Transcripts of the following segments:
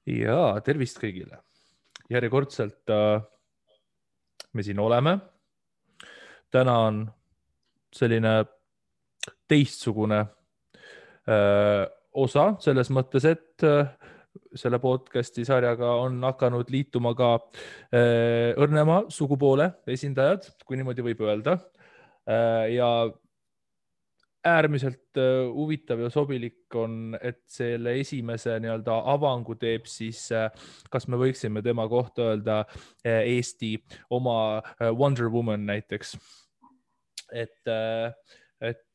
Ja tervist kõigile. Järjekordselt me siin oleme. Täna on selline teistsugune osa selles mõttes, et selle podcasti sarjaga on hakanud liituma ka õrnema sugupoole esindajad, kui niimoodi võib öelda. Ja äärmiselt huvitav ja sobilik on, et selle esimese nii-öelda avangu teeb siis, kas me võiksime tema kohta öelda Eesti oma Wonder Woman näiteks. Et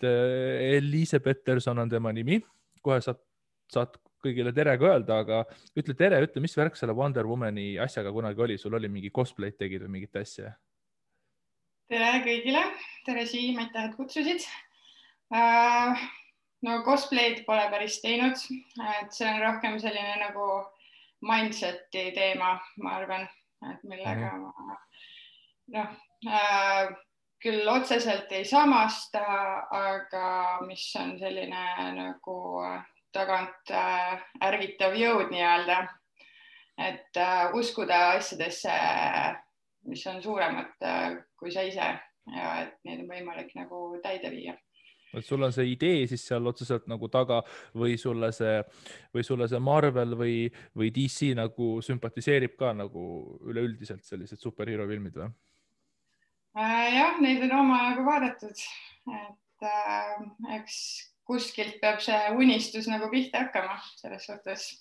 Eliise Peterson on tema nimi. Kohe saad kõigile tere ka öelda, aga ütle tere, ütle, mis värk selle Wonder Womani asjaga kunagi oli? Sul oli mingi cosplay tegid või mingit asja? Tere kõigile, tere Siim, aitäh, et kutsusid. No cosplay'd pole päris teinud, et see on rohkem selline nagu mindseti teema, ma arvan, et millega küll otseselt ei samasta, aga mis on selline nagu tagant ärgitav jõud nii-öelda, et uskuda asjadesse, mis on suuremad kui sa ise ja et neid on võimalik nagu täide viia. Et sul on see idee siis seal otseselt nagu taga või sulle see Marvel või DC nagu sümpatiseerib ka nagu üleüldiselt sellised superhero filmid või? Jah, neid on omajagu vaadatud, et eks kuskilt peab see unistus nagu pihta hakkama selles suhtes,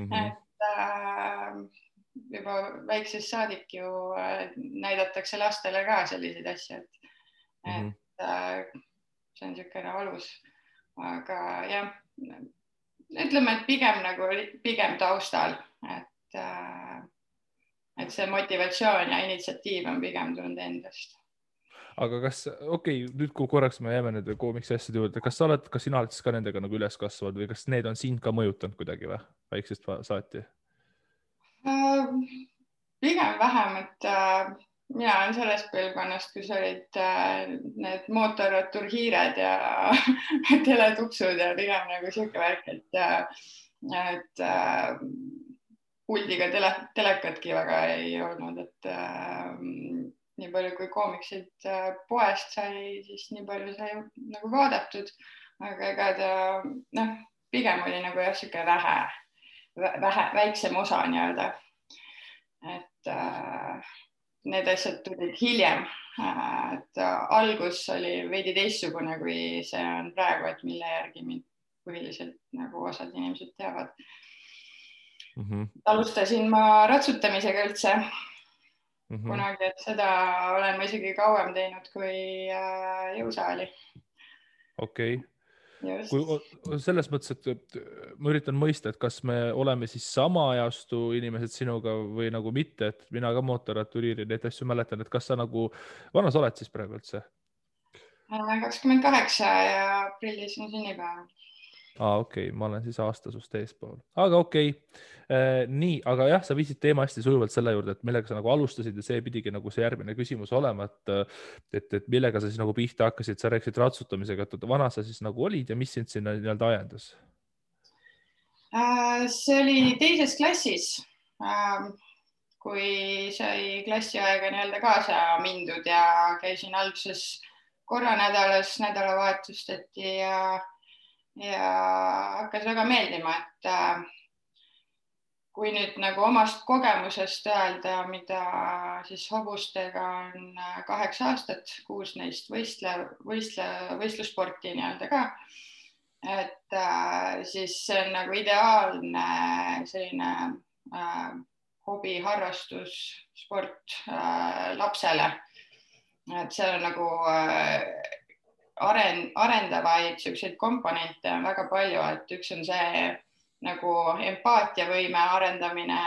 et juba väiksest saadik ju näidatakse lastele ka selliseid asju, et see on niisugune alus, aga jah, ütleme, et pigem taustal, et see motivatsioon ja initsiatiiv on pigem tulnud endast. Aga kas, nüüd kui korraks me jääme nende koomiksi asjade juurde, kas sina oled siis ka nendega nagu üles kasvanud või kas need on sind ka mõjutanud kuidagi või väiksest saati? Pigem vähem, et mina olen sellest põlvkonnast, kus olid need mootorratturhiired ja teletupsud ja pigem nagu siuke värk, et puldiga telekatki väga ei olnud, et nii palju kui koomiksid poest sai, siis nii palju sai nagu vaadatud, aga ega ta pigem oli nagu jah, siuke väiksem osa nii-öelda, et need asjad tulid hiljem, et algus oli veidi teistsugune, kui see on praegu, et mille järgi mind põhiliselt nagu osad inimesed teavad. Alustasin ma ratsutamisega üldse kunagi, et seda olen ma isegi kauem teinud kui jõusaali. Okei. Selles mõttes, et ma üritan mõista, et kas me oleme siis sama ajastu inimesed sinuga või nagu mitte, et mina ka mootorratturiiri neid asju mäletan, et kas sa nagu, vana sa oled siis praegu üldse? 28 ja aprillis on sünnipäev. Okei, ma olen siis aasta sust eespool, aga okei. Nii, aga jah, sa viisid teema hästi sujuvalt selle juurde, et millega sa nagu alustasid ja see pidigi nagu see järgmine küsimus olema, et millega sa siis nagu pihta hakkasid, sa rääkisid ratsutamisega, et vana sa siis nagu olid ja mis sind sinna nii-öelda ajendas? See oli teises klassis, kui sai klassiaega nii-öelda kaasa mindud ja käisin alguses korra nädalas, nädalavahetustati ja hakkas väga meeldima, et kui nüüd nagu omast kogemusest öelda, mida siis hobustega on 8 aastat, 6 neist võistlussporti nii-öelda ka, et siis see on nagu ideaalne selline hobi, harrastus, sport lapsele, et seal on nagu arendavaid selliseid komponente on väga palju, et üks on see nagu empaatiavõime arendamine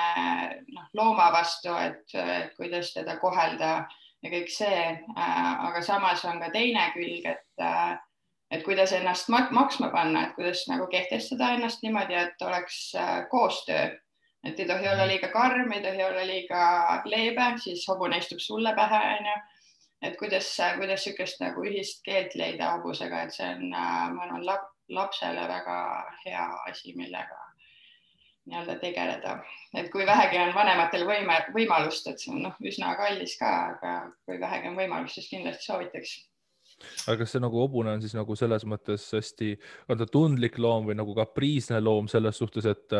looma vastu, et kuidas teda kohelda ja kõik see, aga samas on ka teine külg, et kuidas ennast maksma panna, et kuidas nagu kehtestada ennast niimoodi, et oleks koostöö, et ei tohi olla liiga karm, ei tohi olla liiga leebe, siis hobune istub sulle pähe, et kuidas sükest nagu ühist keelt leida hobusega, et see on, ma arvan, lapsele väga hea asi, millega nii-öelda tegeleda, et kui vähegi on vanematel võimalust, et see on üsna kallis ka, aga kui vähegi on võimalust, siis kindlasti soovitaks. aga kas see nagu hobune on siis nagu selles mõttes hästi, on ta tundlik loom või nagu kapriisne loom selles suhtes, et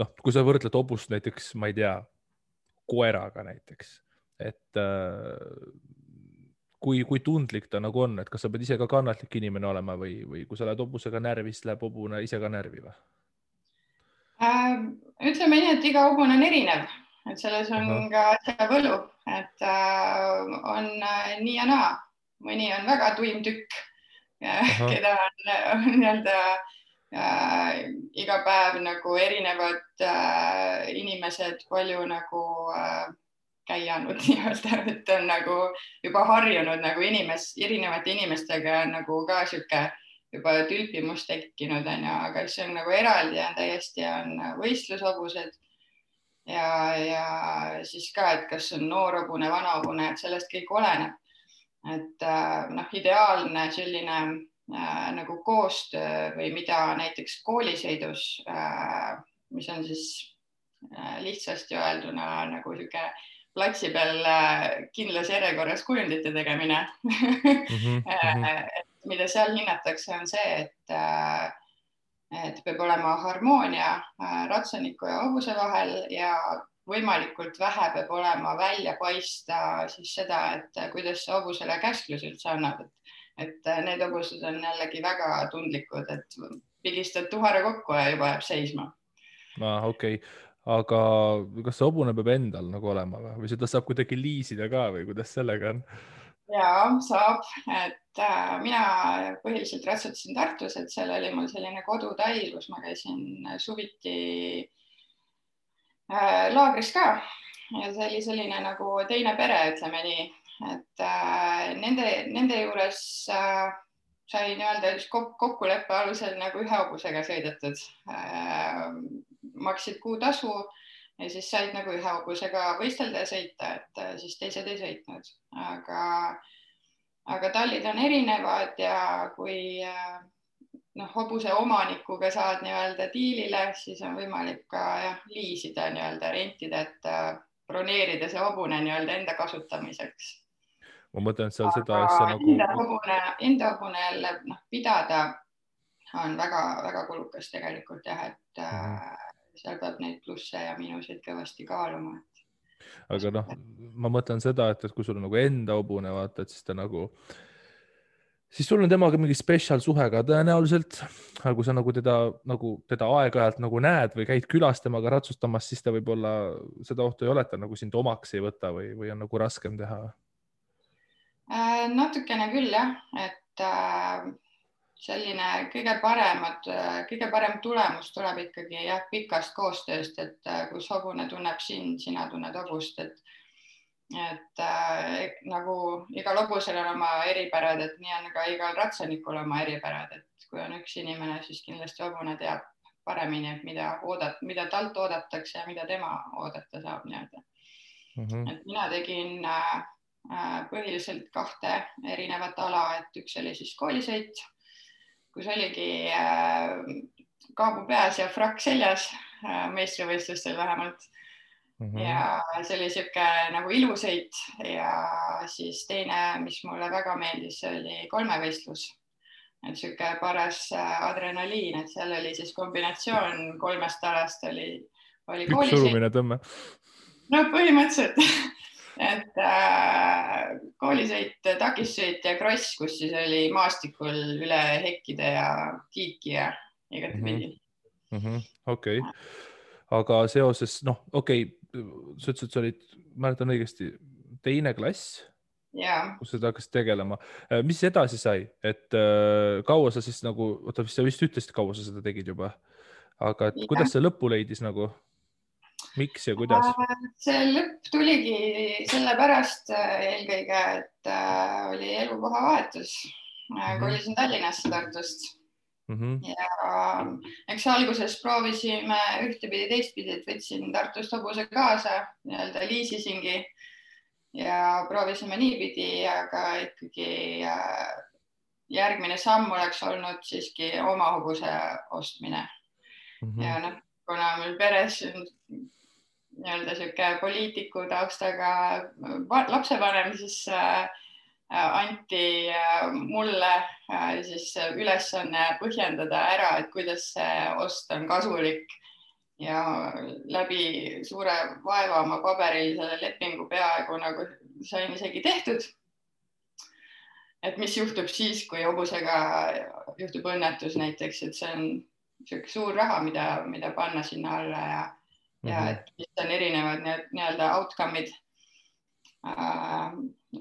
noh, kui sa võrdled hobust näiteks, ma ei tea, koeraga näiteks, et kui tundlik ta nagu on, et kas sa pead ise ka kannatlik inimene olema või kui sa lähed hobusega närvi, siis läheb hobune ise ka närvi või? Ütleme nii, et iga hobune on erinev, et selles on ka asja võlu, et on nii ja naa. Mõni on väga tuim tükk, keda on nii-öelda iga päev nagu erinevad inimesed palju nagu käianud nii-öelda, et on nagu juba harjunud nagu erinevate inimestega nagu ka sihuke juba tülpimus tekkinud, aga see on nagu eraldi ja täiesti on võistlushobused ja siis ka, et kas on noor hobune, vana hobune, et sellest kõik oleneb. Et ideaalne selline nagu koostöö või mida näiteks koolisõidus, mis on siis lihtsasti öelduna nagu sihuke platsi peal kindlas järjekorras kujundite tegemine. Mida seal hinnatakse, on see, et peab olema harmoonia ratsaniku ja hobuse vahel ja võimalikult vähe peab olema välja paista siis seda, et kuidas see hobusele käsklus üldse annab. Et need hobused on jällegi väga tundlikud, et pigistad tuhare kokku ja juba jääb seisma. Okei. Aga kas see hobune peab endal nagu olema või seda saab kuidagi liisida ka või kuidas sellega on? Jaa, saab, et mina põhiliselt ratsutasin Tartus, et seal oli mul selline kodutai, kus ma käisin suviti laagris ka ja see oli selline nagu teine pere, ütleme nii, et nende juures sai nii-öelda kokkuleppe alusel nagu ühe hobusega sõidetud, maksid kuutasu ja siis said nagu ühe hobusega võistelda ja sõita, et siis teised ei sõitnud, aga tallid on erinevad ja kui hobuse omanikuga saad nii-öelda diilile, siis on võimalik ka liisida nii-öelda rentida, et broneerida see hobune nii-öelda enda kasutamiseks. Ma mõtlen seal seda asja nagu... Enda hobune jälle pidada on väga kulukas tegelikult jah, et seal peab neid plusse ja miinuseid kõvasti kaaluma. Aga ma mõtlen seda, et kui sul on nagu enda hobune, vaata, et siis ta nagu, siis sul on temaga mingi spetsial suhe ka tõenäoliselt, aga kui sa nagu teda aeg-ajalt nagu näed või käid külas temaga ratsustamas, siis ta võib-olla seda ohtu ei ole, et ta nagu sind omaks ei võta või on nagu raskem teha? Natukene küll jah, et selline kõige parem tulemus tuleb ikkagi pikast koostööst, et kus hobune tunneb sind, sina tunned hobust, et nagu igal hobusel on oma eripärad, et nii on ka igal ratsanikul oma eripärad, et kui on üks inimene, siis kindlasti hobune teab paremini, et mida talt oodatakse ja mida tema oodata saab nii-öelda. Et mina tegin põhiliselt 2 erinevat ala, et üks oli siis koolisõit, kus oligi kaabu peas ja frakk seljas, meistrivõistlustel vähemalt. Ja see oli siuke nagu ilusõit ja siis teine, mis mulle väga meeldis, oli kolmevõistlus. Et siuke paras adrenaliin, et seal oli siis kombinatsioon 3 alast oli koolisõit. Surumine tõmme. No põhimõtteliselt. Et koolisõit, takissõit ja kross, kus siis oli maastikul üle hekkide ja tiiki ja igatepidi. Okei. Aga seoses, sa ütlesid, et sa olid, mäletan õigesti, 2. klass, kus sa hakkasid tegelema. Mis edasi sai? Et kaua sa siis nagu, sa vist ütlesid, kaua sa seda tegid juba, aga kuidas see lõppu leidis nagu? Miks ja kuidas? See lõpp tuligi sellepärast eelkõige, et oli elukoha vahetus. Kolisin Tallinnasse Tartust. Ja eks alguses proovisime ühtepidi teistpidi, et võtsin Tartust hobuse kaasa, nii-öelda liisisingi ja proovisime niipidi, aga ikkagi järgmine samm oleks olnud siiski oma hobuse ostmine. Ja kuna meil peres nii-öelda sihuke poliitiku taustaga lapsevanem, siis anti mulle siis ülesanne põhjendada ära, et kuidas see ost on kasulik ja läbi suure vaeva oma paberil selle lepingu peaaegu nagu sain isegi tehtud. Et mis juhtub siis, kui hobusega juhtub õnnetus näiteks, et see on sihuke suur raha, mida panna sinna alla ja et mis on erinevad nii-öelda outcome'id.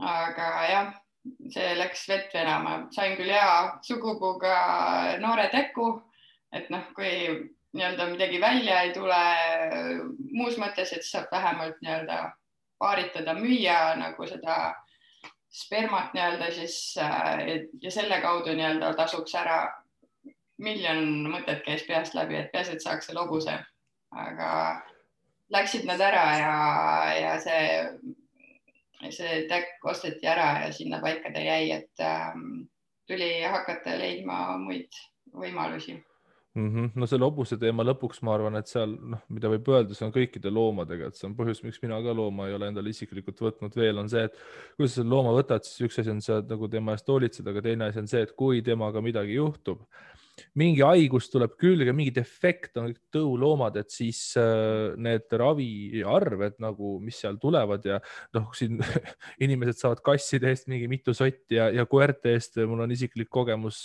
Aga jah, see läks vett venama. Sain küll hea sugupuuga noore teku, et kui nii-öelda midagi välja ei tule muus mõttes, et saab vähemalt nii-öelda paaritada, müüa nagu seda spermat nii-öelda siis ja selle kaudu nii-öelda tasuks ära miljon mõtet käis peast läbi, et peas, et saaks selle hobuse, aga läksid nad ära ja see täkk osteti ära ja sinna paika ta jäi, et tuli hakata leidma muid võimalusi. No selle hobuse teema lõpuks ma arvan, et seal, mida võib öelda, see on kõikide loomadega, et see on põhjus, miks mina ka looma ei ole endale isiklikult võtnud veel, on see, et kui sa selle looma võtad, siis üks asi on see, et nagu tema eest hoolitseda, aga teine asi on see, et kui temaga midagi juhtub, mingi haigus tuleb külge, mingi defekt on kõik tõuloomad, et siis need raviarved nagu, mis seal tulevad ja siin inimesed saavad kasside eest mingi mitu sotti ja koerte eest. Mul on isiklik kogemus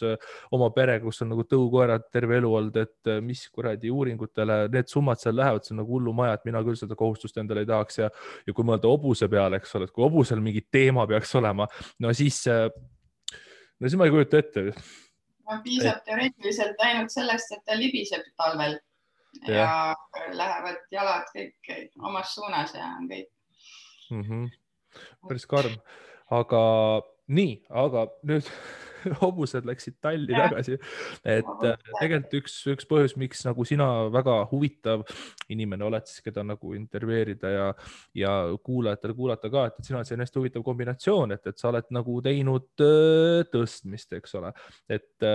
oma pere, kus on nagu tõukoerad terve elu olnud, et mis kuradi uuringutele need summad seal lähevad, see on nagu hullumaja, et mina küll seda kohustust endale ei tahaks ja kui mõelda hobuse peale, eks ole, et kui hobusel mingi teema peaks olema, no siis ma ei kujuta ette. Piisab teoreetiliselt ainult sellest, et ta libiseb talvel ja lähevad jalad kõik omas suunas ja on kõik. Päris karm. Aga nüüd hobused läksid talli tagasi. Et tegelikult üks põhjus, miks nagu sina väga huvitav inimene oled, siis keda nagu intervjueerida ja kuulajatele kuulata ka, et sina oled selline hästi huvitav kombinatsioon, et sa oled nagu teinud tõstmist, eks ole. Et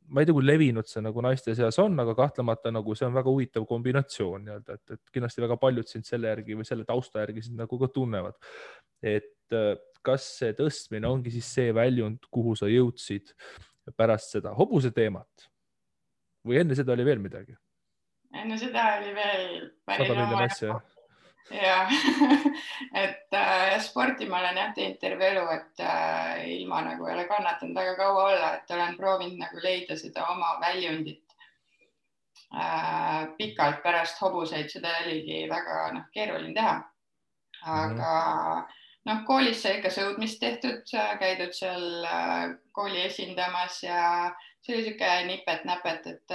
ma ei tea, kui levinud see nagu naiste seas on, aga kahtlemata nagu see on väga huvitav kombinatsioon, et kindlasti väga paljud sind selle järgi või selle tausta järgi sind nagu ka tunnevad. Et kas see tõstmine ongi siis see väljund, kuhu sa jõudsid pärast seda hobuse teemat või enne seda oli veel midagi? Enne seda oli veel päris 100 miljon asja. Ja, et sporti ma olen teinud terve elu, et ilma nagu ei ole kannatanud väga kaua olla, et olen proovinud nagu leida seda oma väljundit pikalt pärast hobuseid, seda oligi väga keeruline teha. Aga koolis sai ikka sõudmist tehtud, käidud seal kooli esindamas ja see oli siuke nipet-näpet, et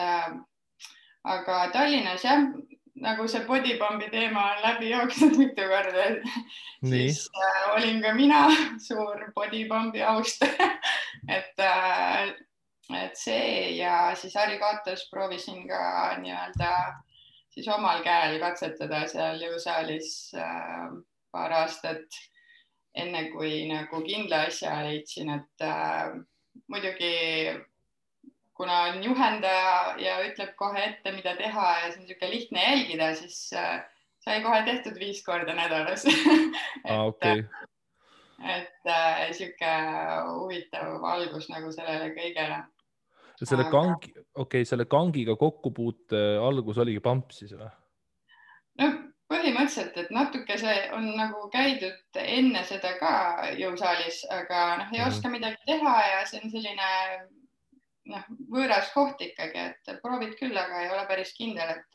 aga Tallinnas jah, nagu see bodypumpi teema on läbi jooksnud mitu korda, siis olin ka mina suur bodypumpi austaja, et see ja siis Harri Kaatos proovisin ka nii-öelda siis omal käel katsetada seal jõusaalis paar aastat, enne kui nagu kindla asja leidsin, et muidugi kuna on juhendaja ja ütleb kohe ette, mida teha ja see on niisugune lihtne jälgida, siis sai kohe tehtud 5 korda nädalas. Et niisugune huvitav algus nagu sellele kõigele. Selle kangiga kokkupuute algus oligi pamp siis või? No põhimõtteliselt, et natuke see on nagu käidud enne seda ka jõusaalis, aga ei oska midagi teha ja see on selline võõras koht ikkagi, et proovid küll, aga ei ole päris kindel, et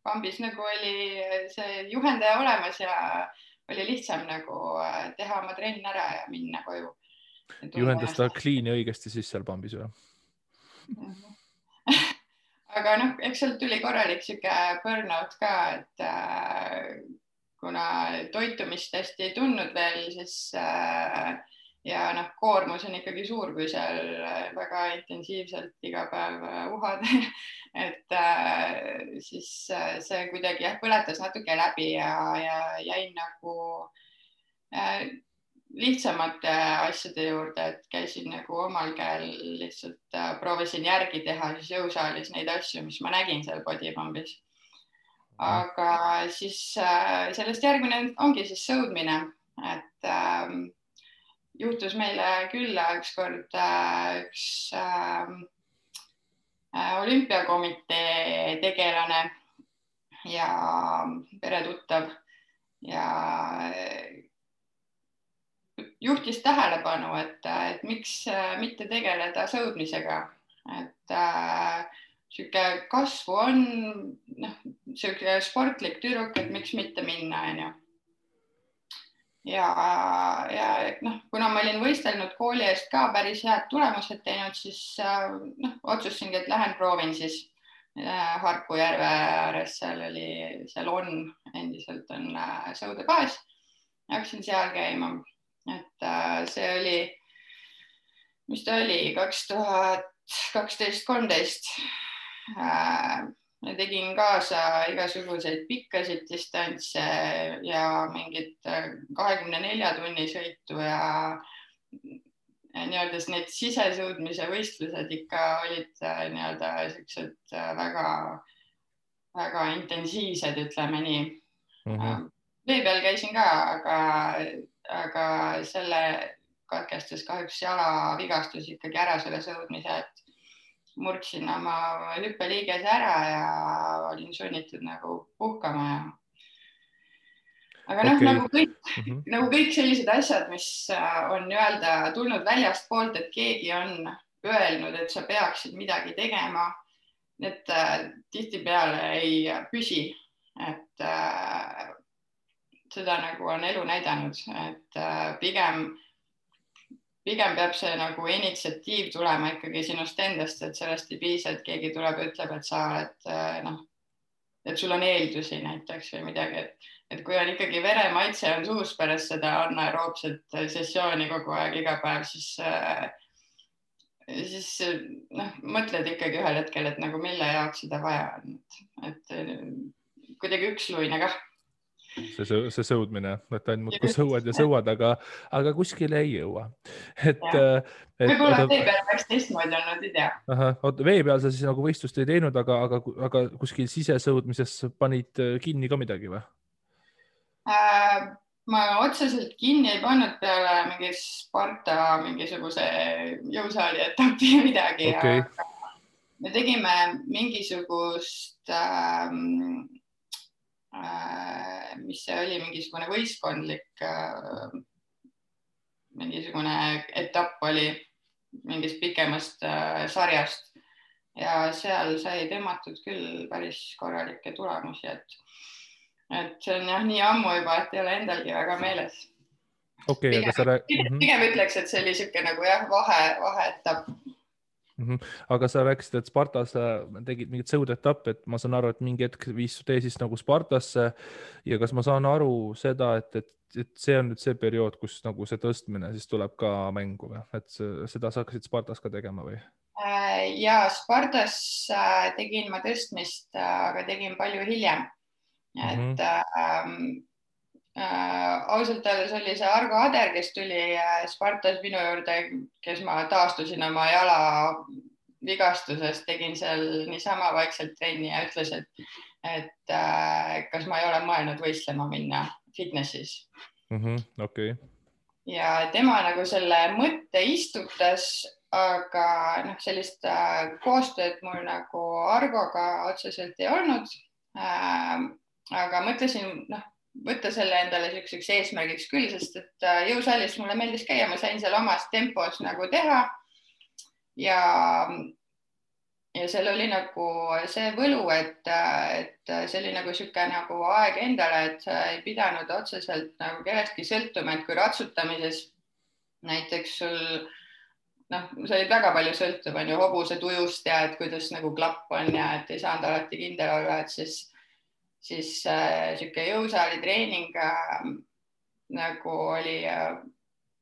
pambis nagu oli see juhendaja olemas ja oli lihtsam nagu teha oma trenn ära ja minna koju. Juhendas ta kliini õigesti siis seal pambis või? Aga eks sealt tuli korralik siuke burnout ka, et kuna toitumist hästi ei tundnud veel, siis ja koormus on ikkagi suur, kui seal väga intensiivselt iga päev uhad, et siis see kuidagi põletas natuke läbi ja jäin nagu lihtsamate asjade juurde, et käisin nagu omal käel lihtsalt proovisin järgi teha siis jõusaalis neid asju, mis ma nägin seal bodypumbis. Aga siis sellest järgmine ongi siis sõudmine, et juhtus meile külla ükskord üks olümpiakomitee tegelane ja peretuttav ja juhtis tähelepanu, et miks mitte tegeleda sõudmisega, et sihuke kasvu on, sihuke sportlik tüdruk, et miks mitte minna, onju. Ja kuna ma olin võistelnud kooli eest ka päris head tulemused teinud, siis otsustasingi, et lähen proovin siis Harku järve ääres, seal on endiselt on sõudebaas. Hakkasin seal käima, et see oli, mis ta oli, 2012-13. Tegin kaasa igasuguseid pikkasid distantse ja mingit 24 tunni sõitu ja nii-öelda need sisesõudmise võistlused ikka olid nii-öelda siuksed väga intensiivsed, ütleme nii. Vee peal käisin ka, aga selle katkestas kahjuks jalavigastus ikkagi ära selle sõudmise, et murdsin oma hüppeliigese ära ja olin sunnitud nagu puhkama. Aga nagu kõik sellised asjad, mis on tulnud väljastpoolt, et keegi on öelnud, et sa peaksid midagi tegema, need tihtipeale ei püsi, et seda nagu on elu näidanud, et pigem peab see nagu initsiatiiv tulema ikkagi sinust endast, et sellest ei piisa, et keegi tuleb ja ütleb, et sa oled, et sul on eeldusi näiteks või midagi, et kui on ikkagi veremaitse on suus pärast seda anaeroobset sessiooni kogu aeg iga päev, siis mõtled ikkagi ühel hetkel, et nagu mille jaoks seda vaja on, et kuidagi üksluine kah. See sõudmine, et ainult muudkui sõuad, aga kuskile ei jõua. Võib-olla vee peal peaks teistmoodi olnud, ei tea. Vee peal sa siis nagu võistlust ei teinud, aga kuskil sisesõudmises panid kinni ka midagi või? Ma otseselt kinni ei pannud peale mingi Sparta mingisuguse jõusaali etapi midagi. Okay. Me tegime mingisugust mis see oli, mingisugune võistkondlik mingisugune etapp oli mingist pikemast sarjast ja seal sai tõmmatud küll päris korralikke tulemusi, et see on jah nii ammu juba, et ei ole endalgi väga meeles. Okay, pigem ütleks, et see oli siuke nagu jah, vaheetapp. Aga sa rääkisid, et Spartas tegid mingit sõudetapp, et ma saan aru, et mingi hetk viis tee siis nagu Spartasse ja kas ma saan aru seda, et see on nüüd see periood, kus nagu see tõstmine siis tuleb ka mängu või, et seda sa hakkasid Spartas ka tegema või? Ja Spartas tegin ma tõstmist, aga tegin palju hiljem, et ausalt öeldes oli see Argo Ader, kes tuli Spartas minu juurde, kes ma taastusin oma jala vigastusest, tegin seal niisama vaikselt trenni ja ütles, et kas ma ei ole mõelnud võistlema minna fitnessis. Okay. Ja tema nagu selle mõtte istutas, aga sellist koostööd mul nagu Argoga otseselt ei olnud, aga mõtlesin, võtta selle endale selliseks eesmärgiks küll, sest et jõusaalis mulle meeldis käia, ma sain seal omas tempos nagu teha ja seal oli nagu see võlu, et see oli nagu sihuke nagu aeg endale, et sa ei pidanud otseselt nagu kellestki sõltuma, et kui ratsutamises näiteks sul, sa olid väga palju sõltuv, on ju, hobuse tujust ja et kuidas nagu klapp on ja et ei saanud alati kindel olla, et siis sihuke jõusaali treening nagu oli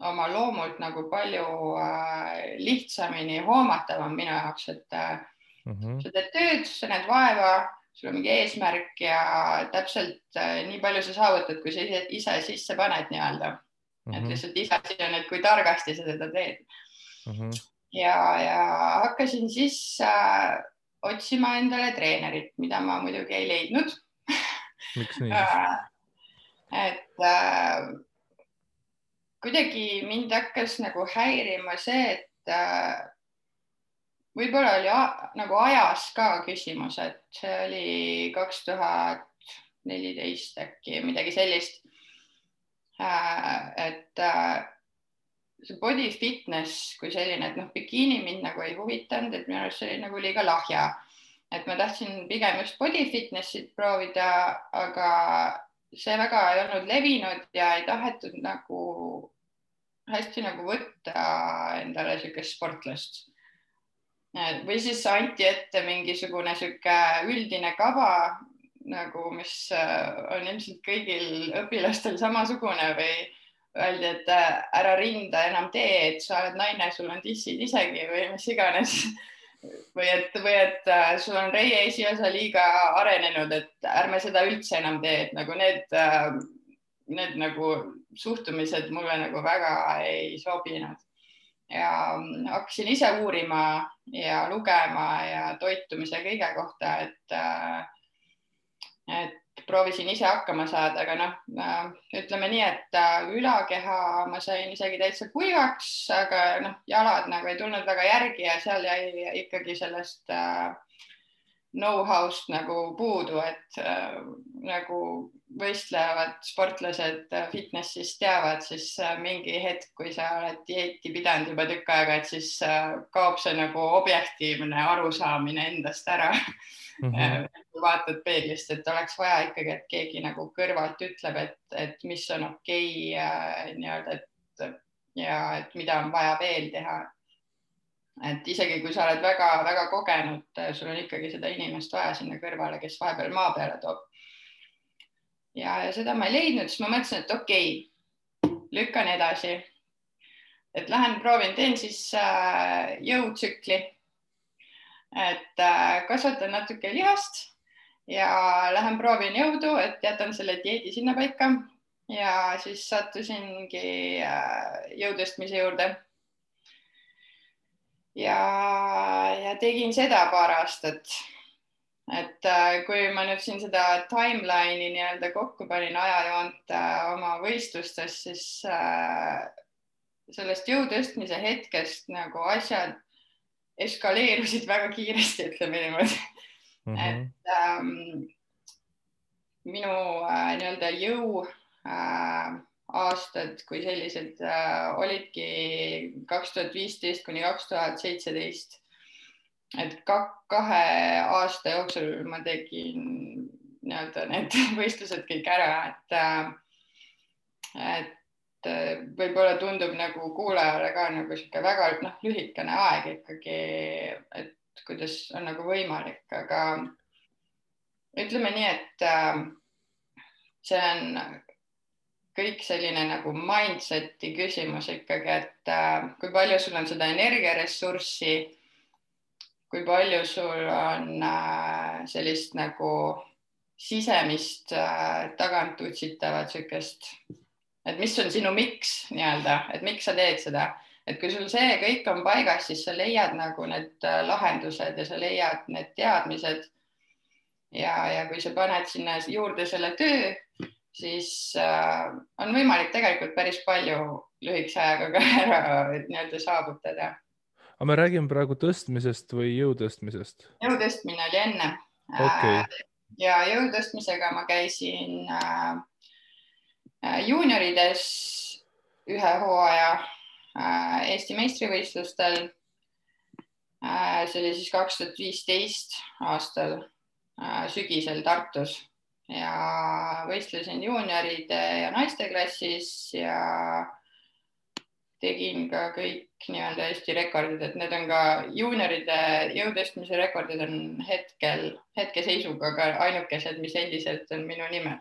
oma loomult nagu palju lihtsamini hoomatavam minu jaoks, et sa teed tööd, sa näed vaeva, sul on mingi eesmärk ja täpselt nii palju sa saavutad, kui sa ise sisse paned nii-öelda. et lihtsalt iseasi on, et kui targasti sa seda teed. ja hakkasin siis otsima endale treenerit, mida ma muidugi ei leidnud. Miks nii siis? et kuidagi mind hakkas nagu häirima see, et võib-olla oli nagu ajas ka küsimus, et see oli 2014 äkki midagi sellist. et see body fitness kui selline, et bikiini mind nagu ei huvitanud, et minu arust see oli nagu liiga lahja. Et ma tahtsin pigem just body fitnessit proovida, aga see väga ei olnud levinud ja ei tahetud nagu hästi nagu võtta endale niisugust sportlast. Või siis anti ette mingisugune niisugune üldine kava, nagu, mis on ilmselt kõigil õpilastel samasugune või öeldi, et ära rinda enam tee, et sa oled naine, sul on tissid isegi või mis iganes. Või et sul on reie esiosa liiga arenenud, et ärme seda üldse enam tee, et nagu need nagu suhtumised mulle nagu väga ei sobinud. Ja hakkasin ise uurima ja lugema ja toitumise kõige kohta, et proovisin ise hakkama saada, aga ütleme nii, et ülakeha ma sain isegi täitsa kuivaks, aga jalad nagu ei tulnud väga järgi ja seal jäi ikkagi sellest know-how'st nagu puudu, et nagu võistlevad sportlased fitnessis teavad, siis mingi hetk, kui sa oled dieeti pidanud juba tükk aega, et siis kaob see nagu objektiivne arusaamine endast ära. Vaatad peeglist, et oleks vaja ikkagi, et keegi nagu kõrvalt ütleb, et mis on okei, nii-öelda, et mida on vaja veel teha. Et isegi kui sa oled väga kogenud, sul on ikkagi seda inimest vaja sinna kõrvale, kes vahepeal maa peale toob. Ja seda ma ei leidnud, siis ma mõtlesin, et okei, lükkan edasi. Et lähen proovin, teen siis jõutsükli. Et kasvatan natuke lihast ja lähen proovin jõudu, et jätan selle dieedi sinna paika ja siis sattusingi jõutõstmise juurde. Ja tegin seda paar aastat. Et kui ma nüüd siin seda timeline'i nii-öelda kokku panin ajajoont oma võistlustes, siis sellest jõutõstmise hetkest nagu asjad eskaleerusid väga kiiresti, ütleme niimoodi. Et minu nii-öelda jõu aastad kui sellised olidki 2015 kuni 2017. Et 2 aasta jooksul ma tegin nii-öelda need võistlused kõik ära, et võib-olla tundub nagu kuulajale ka nagu siuke väga lühikene aeg ikkagi, et kuidas on nagu võimalik, aga ütleme nii, et see on kõik selline nagu mindseti küsimus ikkagi, et kui palju sul on seda energiaressurssi, kui palju sul on sellist nagu sisemist tagant utsitavat siukest, et mis on sinu miks nii-öelda, et miks sa teed seda, et kui sul see kõik on paigas, siis sa leiad nagu need lahendused ja sa leiad need teadmised ja kui sa paned sinna juurde selle töö, siis on võimalik tegelikult päris palju lühikese ajaga ka ära nii-öelda saavutada. Aga me räägime praegu tõstmisest või jõutõstmisest? Jõutõstmine oli enne. Okay. Ja jõutõstmisega ma käisin juuniorides 1 hooaja Eesti meistrivõistlustel. See oli siis 2015 aastal sügisel Tartus ja võistlesin juunioride ja naiste klassis ja tegin ka kõik nii-öelda Eesti rekordid, et need on ka juunioride jõutõstmise rekordid on hetkeseisuga ka ainukesed, mis endiselt on minu nimel.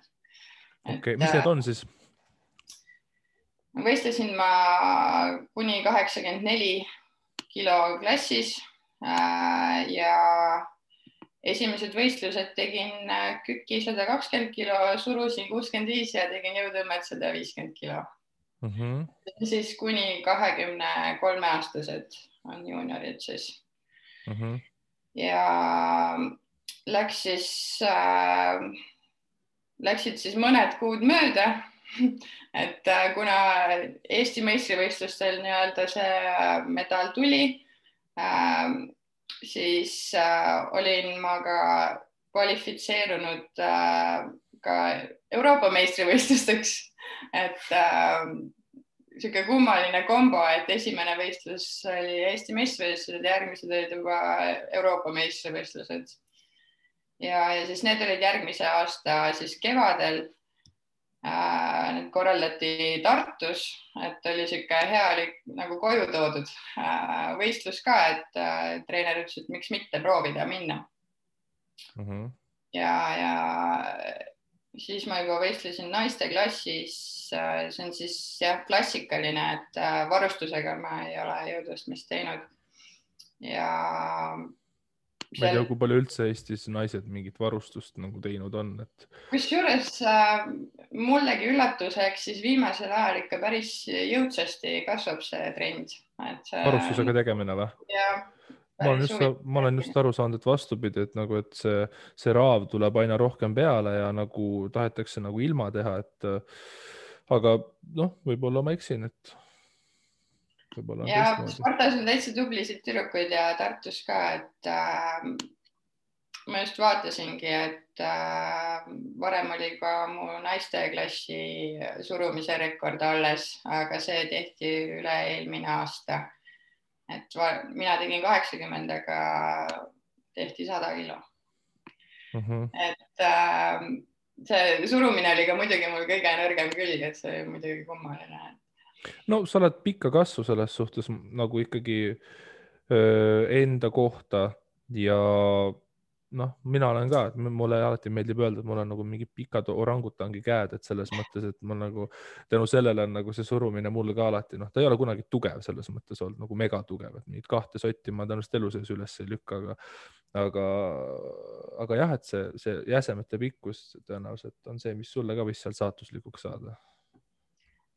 Okay. Mis need on siis? Võistlesin ma kuni 84 kilo klassis ja esimesed võistlused tegin küki 120 kilo, surusin 65 ja tegin jõutõmmet 150 kilo. siis kuni 23-aastased on juuniorid siis. Ja läksid siis mõned kuud mööda, et kuna Eesti meistrivõistlustel nii-öelda see medal tuli, siis olin ma ka kvalifitseerunud ka Euroopa meistrivõistlusteks, et sihuke kummaline kombo, et esimene võistlus oli Eesti meistrivõistlused, järgmised olid juba Euroopa meistrivõistlused. Ja siis need olid järgmise aasta siis kevadel. Need korraldati Tartus, et oli sihuke hea nagu koju toodud võistlus ka, et treener ütles, et miks mitte proovida minna. Ja siis ma juba võistlesin naiste klassis, see on siis jah, klassikaline, et varustusega ma ei ole jõudvõistlemist teinud. Ja ma ei tea, kui palju üldse Eestis naised mingit varustust nagu teinud on. Kusjuures mullegi üllatuseks siis viimasel ajal ikka päris jõudsasti kasvab see trend. Varustusega tegemine või? Jah. Ma olen just aru saanud, et vastupidi, et nagu, et see raav tuleb aina rohkem peale ja nagu tahetakse nagu ilma teha, aga noh, võib-olla ma eksin, et ja Spartas on täitsa tublisid tüdrukuid ja Tartus ka, et ma just vaatasingi, et varem oli ka mu naisteklassi surumise rekord alles, aga see tehti üle eelmine aasta. Et mina tegin 80, aga tehti 100 kilo. Et see surumine oli ka muidugi mul kõige nõrgem külg, et see oli muidugi kummaline. No sa oled pikka kasvu selles suhtes nagu ikkagi enda kohta ja noh, mina olen ka, et mulle alati meeldib öelda, et mul on nagu mingi pikad orangutangi käed, et selles mõttes, et ma nagu tänu sellele on nagu see surumine mul ka alati, noh, ta ei ole kunagi tugev selles mõttes olnud nagu mega tugev, et mingid 2 sotti ma tõenäoliselt elu sees üles ei lükka, aga jah, et see jäsemete pikkus tõenäoliselt on see, mis sulle ka võis seal saatuslikuks saada.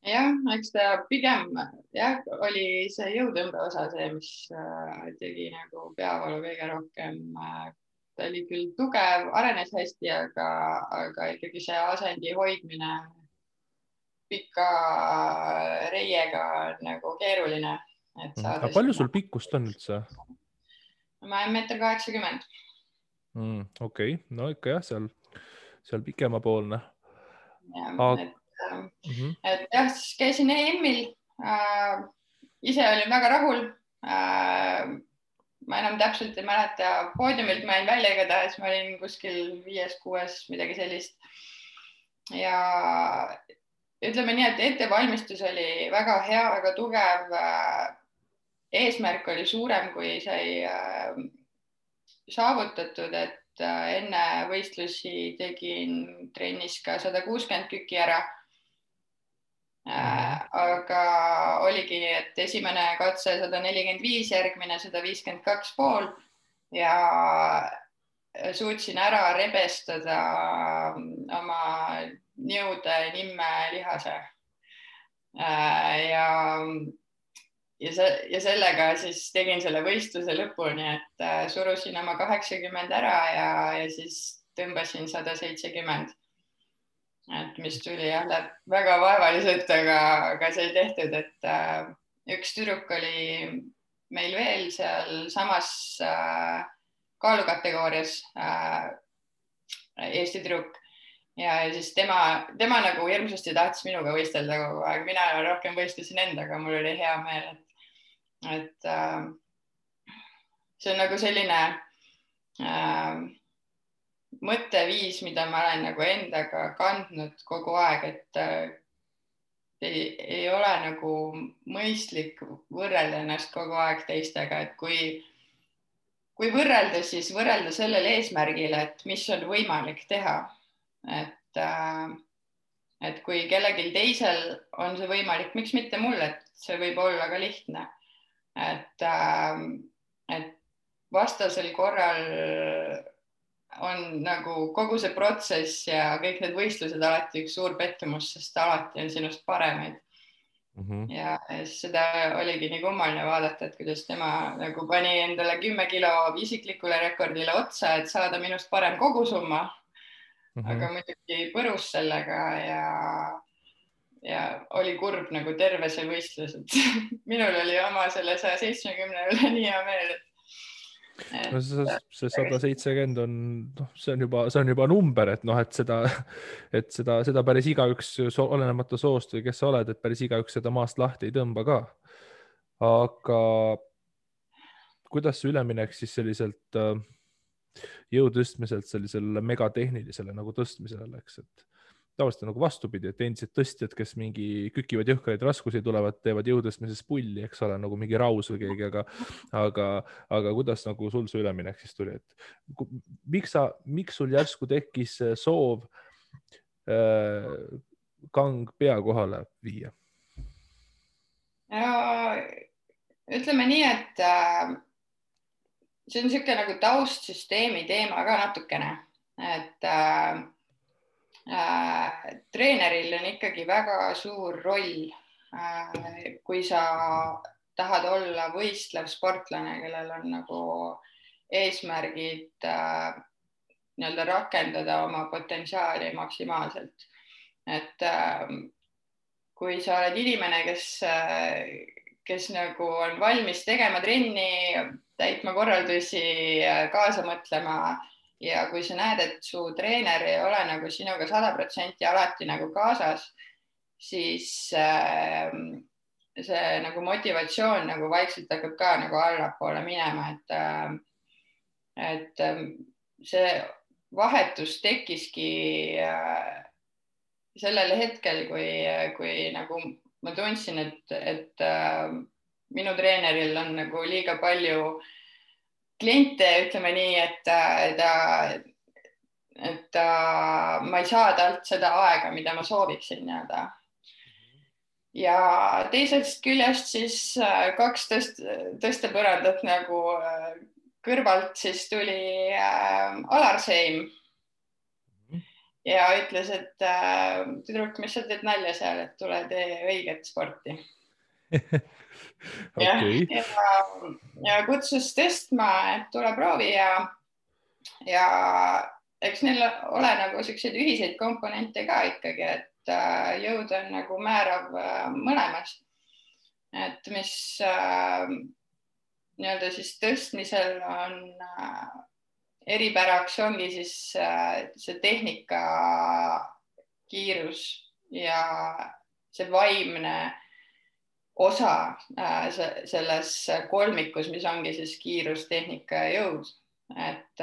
Jah, eks ta pigem oli see jõutõmbe osa see, mis tegi nagu peavalu kõige rohkem. Ta oli küll tugev, arenes hästi, aga ikkagi see asendi hoidmine pika reiega on nagu keeruline. Aga palju sul pikkust on üldse? Ma olen 1,80 m. Okei, no ikka jah, seal pikemapoolne. Et jah, siis käisin EM-il, ise olin väga rahul, ma enam täpselt ei mäleta, poodiumilt ma jäin välja igatahes, ma olin kuskil 5-6, midagi sellist. Ja ütleme nii, et ettevalmistus oli väga hea, väga tugev, eesmärk oli suurem, kui sai saavutatud, et enne võistlusi tegin trennis ka 160 küki ära. Aga oligi, et esimene katse 145, järgmine 152,5 ja suutsin ära rebestada oma niude nimme lihase. Ja sellega siis tegin selle võistluse lõpuni, et surusin oma 80 ära ja siis tõmbasin 170. Et mis tuli väga vaevaliselt, aga sai tehtud, et üks tüdruk oli meil veel seal samas kaalukategoorias, Eesti tüdruk ja siis tema nagu hirmsasti tahtis minuga võistelda kogu aeg, mina rohkem võistlesin endaga, mul oli hea meel, et see on nagu selline mõtteviis, mida ma olen nagu endaga kandnud kogu aeg, et ei ole nagu mõistlik võrrelda ennast kogu aeg teistega, et kui võrrelda, siis võrrelda sellel eesmärgil, et mis on võimalik teha. Et kui kellelgi teisel on see võimalik, miks mitte mul, et see võib olla ka lihtne. Et vastasel korral on nagu kogu see protsess ja kõik need võistlused alati üks suur pettumus, sest alati on sinust paremaid. ja siis seda oligi nii kummaline vaadata, et kuidas tema nagu pani endale 10 kilo isiklikule rekordile otsa, et saada minust parem kogusumma. Aga muidugi põrus sellega ja oli kurb nagu terve see võistlus, et minul oli oma selle 170 üle nii hea meel, no see 170 on, noh, see on juba number, et noh, et seda päris igaüks, olenemata soost või kes sa oled, et päris igaüks seda maast lahti ei tõmba ka. Aga kuidas see üleminek siis selliselt jõu tõstmiselt sellisele megatehnilisele nagu tõstmisele läks, et tavaliselt on nagu vastupidi, et endised tõstjad, kes mingi kükivad jõhkraid raskusi tulevad, teevad jõutõstmises pulli, eks ole, nagu mingi Raus või keegi, aga kuidas nagu sul see üleminek siis tuli, et miks sul järsku tekkis soov kang pea kohale viia? Ja ütleme nii, et see on niisugune nagu taustsüsteemi teema ka natukene, et treeneril on ikkagi väga suur roll, kui sa tahad olla võistlev sportlane, kellel on nagu eesmärgid nii-öelda rakendada oma potentsiaali maksimaalselt. Et kui sa oled inimene, kes nagu on valmis tegema trenni, täitma korraldusi, kaasa mõtlema, ja kui sa näed, et su treener ei ole nagu sinuga 100% alati nagu kaasas, siis see nagu motivatsioon nagu vaikselt hakkab ka nagu allapoole minema, et see vahetus tekkiski sellel hetkel, kui nagu ma tundsin, et minu treeneril on nagu liiga palju kliente, ütleme nii, et ma ei saa talt seda aega, mida ma sooviksin nii-öelda. Ja teisest küljest siis 2 tõstepõrandat nagu kõrvalt siis tuli Alar Seim ja ütles, et tüdruk, mis sa teed nalja seal, et tule tee õiget sporti. Okay. Ja kutsus tõstma, et tule proovi ja eks neil ole nagu selliseid ühiseid komponente ka ikkagi, et jõud on nagu määrav mõlemas. Et mis nii-öelda siis tõstmisel on eripäraks ongi siis see tehnika kiirus ja see vaimne osa selles kolmikus, mis ongi siis kiirus, tehnika ja jõud. Et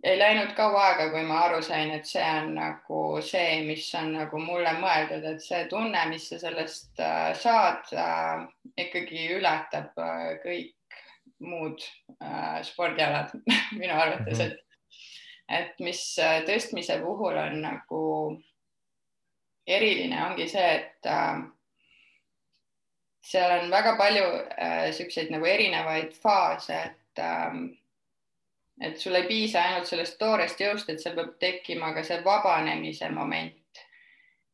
ei läinud kaua aega, kui ma aru sain, et see on nagu see, mis on nagu mulle mõeldud, et see tunne, mis sa sellest saad, ikkagi ületab kõik muud spordialad minu arvates, et mis tõstmise puhul on nagu eriline, ongi see, et seal on väga palju selliseid nagu erinevaid faase, et sul ei piisa ainult sellest toorest jõust, et seal peab tekkima ka see vabanemise moment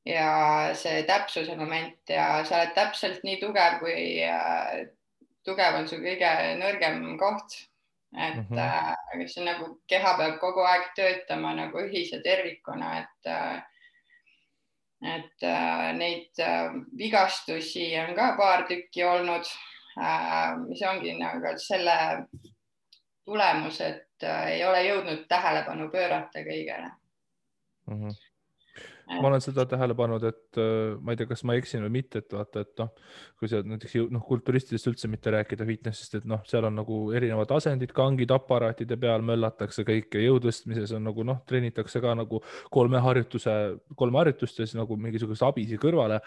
ja see täpsuse moment ja sa oled täpselt nii tugev, kui tugev on su kõige nõrgem koht. Et see nagu keha peab kogu aeg töötama nagu ühise tervikuna, et neid vigastusi on ka paar tükki olnud, mis ongi nagu selle tulemus, et ei ole jõudnud tähelepanu pöörata kõigele. Ma olen seda tähele pannud, et ma ei tea, kas ma eksin või mitte, et vaata, et kui sa näiteks kulturistidest üldse mitte rääkida fitnessist, et seal on nagu erinevad asendid, kangid, aparaatide peal möllatakse kõik ja jõutõstmises on nagu treenitakse ka nagu 3 harjutust ja siis nagu mingisuguse abisi kõrvale.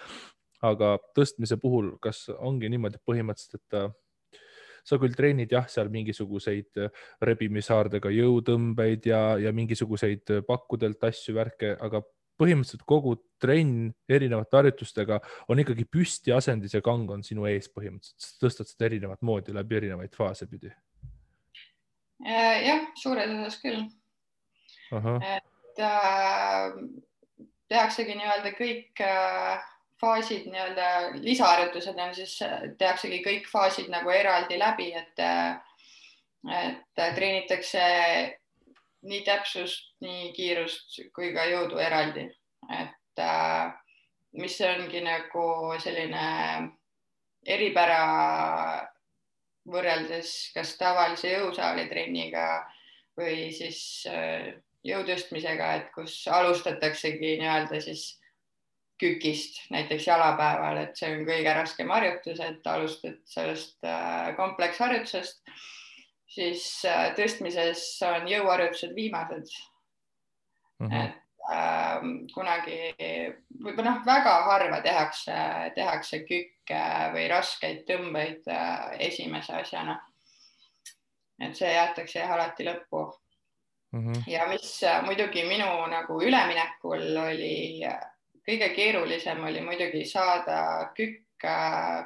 Aga tõstmise puhul, kas ongi niimoodi põhimõtteliselt, et sa küll treenid jah, seal mingisuguseid rebimishaardega jõutõmbeid ja mingisuguseid pakkudelt asju, värke, aga põhimõtteliselt kogu trenn erinevate harjutustega on ikkagi püsti asendis ja kang on sinu ees põhimõtteliselt. Tõstad seda erinevat moodi läbi erinevaid faase pidi. Jah, suures osas küll. Et tehaksegi nii-öelda kõik faasid, nii-öelda lisaharjutused on siis, tehaksegi kõik faasid nagu eraldi läbi, et treenitakse nii täpsust, nii kiirust kui ka jõudu eraldi, et mis ongi nagu selline eripära võrreldes kas tavalise jõusaali trenniga või siis jõutõstmisega, et kus alustataksegi nii-öelda siis kükist, näiteks jalapäeval, et see on kõige raskem harjutus, et alustad sellest kompleksharjutusest, siis tõstmises on jõuharjutused viimased. Et kunagi võib-olla väga harva tehakse kükke või raskeid tõmbeid esimese asjana. Et see jäetakse alati lõppu. Ja mis muidugi minu nagu üleminekul oli kõige keerulisem oli muidugi saada kükk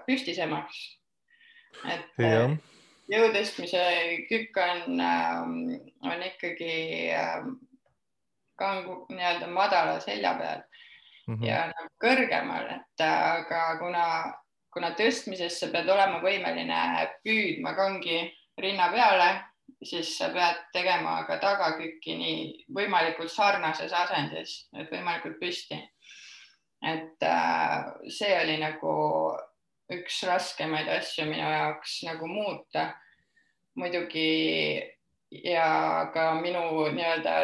püstisemaks. Et jõutõstmise kükk on ikkagi kangu nii-öelda madala selja peal ja nagu kõrgemal, et aga kuna tõstmises sa pead olema võimeline püüdma kangi rinna peale, siis sa pead tegema ka tagakükki nii võimalikult sarnases asendis, et võimalikult püsti. Et see oli nagu üks raskemaid asju minu jaoks nagu muuta muidugi ja ka minu nii-öelda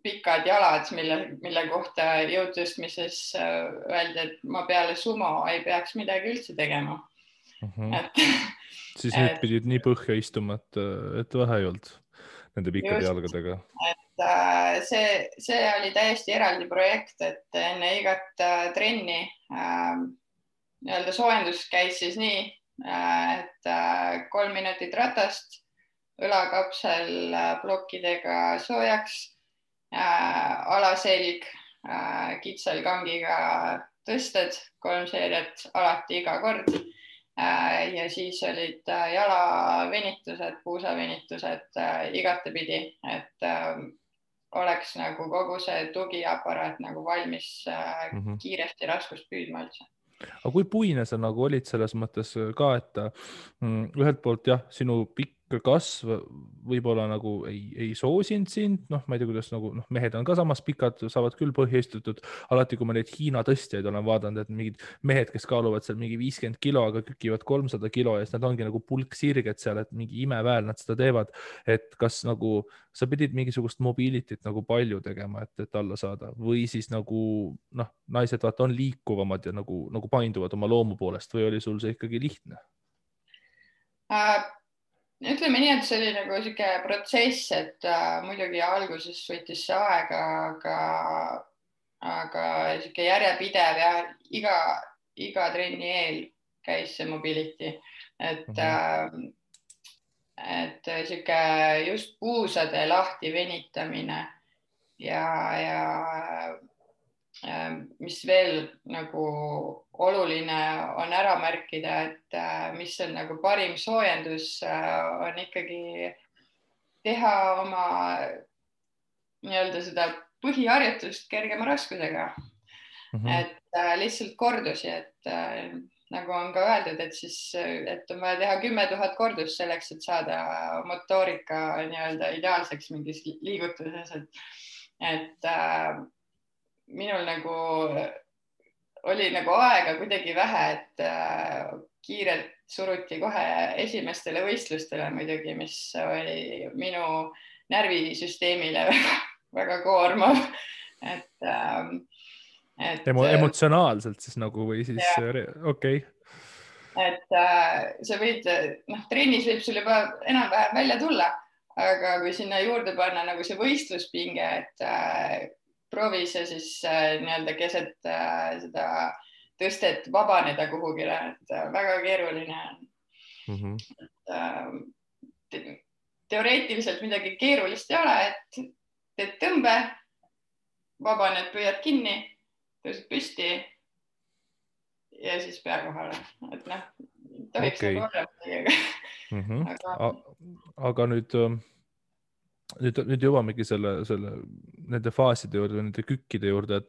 pikad jalad, mille kohta jõutõstmises öeldi, et ma peale sumo ei peaks midagi üldse tegema. Siis nüüd pidid nii põhja istuma, et vähe ei olnud nende pikkade jalgadega. Et see oli täiesti eraldi projekt, et enne igat trenni nii-öelda soojendus käis siis nii, et 3 minutit ratast, õlakapsel plokkidega soojaks, alaselg kitsal kangiga tõsted, 3 seeriat alati iga kord. Ja siis olid jalavenitused, puusavenitused igatepidi, et oleks nagu kogu see tugiaparaat nagu valmis kiiresti raskust püüdma üldse. Aga kui puine sa nagu olid selles mõttes ka, et ühelt poolt jah, sinu pikk kasv võib-olla nagu ei soosinud sind, ma ei tea, kuidas nagu mehed on ka samas pikad, saavad küll põhja istutud. Alati, kui ma neid Hiina tõstjaid olen vaadanud, et mingid mehed, kes kaaluvad seal mingi 50 kilo, aga kükivad 300 kilo ja siis nad ongi nagu pulksirged seal, et mingi imeväel nad seda teevad. Et kas nagu sa pidid mingisugust mobilityt nagu palju tegema, et alla saada või siis nagu naised vaata on liikuvamad ja nagu painduvad oma loomu poolest või oli sul see ikkagi lihtne? Ütleme nii, et see oli nagu siuke protsess, et muidugi alguses võttis see aega, aga siuke järjepidev ja iga trenni eel käis see mobility, et siuke just puusade lahti venitamine ja mis veel nagu oluline on ära märkida, et mis on nagu parim soojendus, on ikkagi teha oma nii-öelda seda põhiharjutust kergema raskusega. Et lihtsalt kordusi, et nagu on ka öeldud, et on vaja teha 10 000 kordust selleks, et saada motoorika nii-öelda ideaalseks mingis liigutuses, et minul nagu oli nagu aega kuidagi vähe, et kiirelt suruti kohe esimestele võistlustele muidugi, mis oli minu närvisüsteemile väga koormav. Emotsionaalselt siis nagu või siis okei. Et sa võid, trennis võib sul juba enam-vähem välja tulla, aga kui sinna juurde panna nagu see võistluspinge, et proovi see siis nii-öelda keset seda tõstet vabaneda kuhugile, et väga keeruline on. Teoreetiliselt midagi keerulist ei ole, et teed tõmbe, vabaned, püüad kinni, tõused püsti ja siis pea kohale. Et tohiks nagu olla. Aga nüüd nüüd jõuamegi nende faaside juurde, nende kükkide juurde,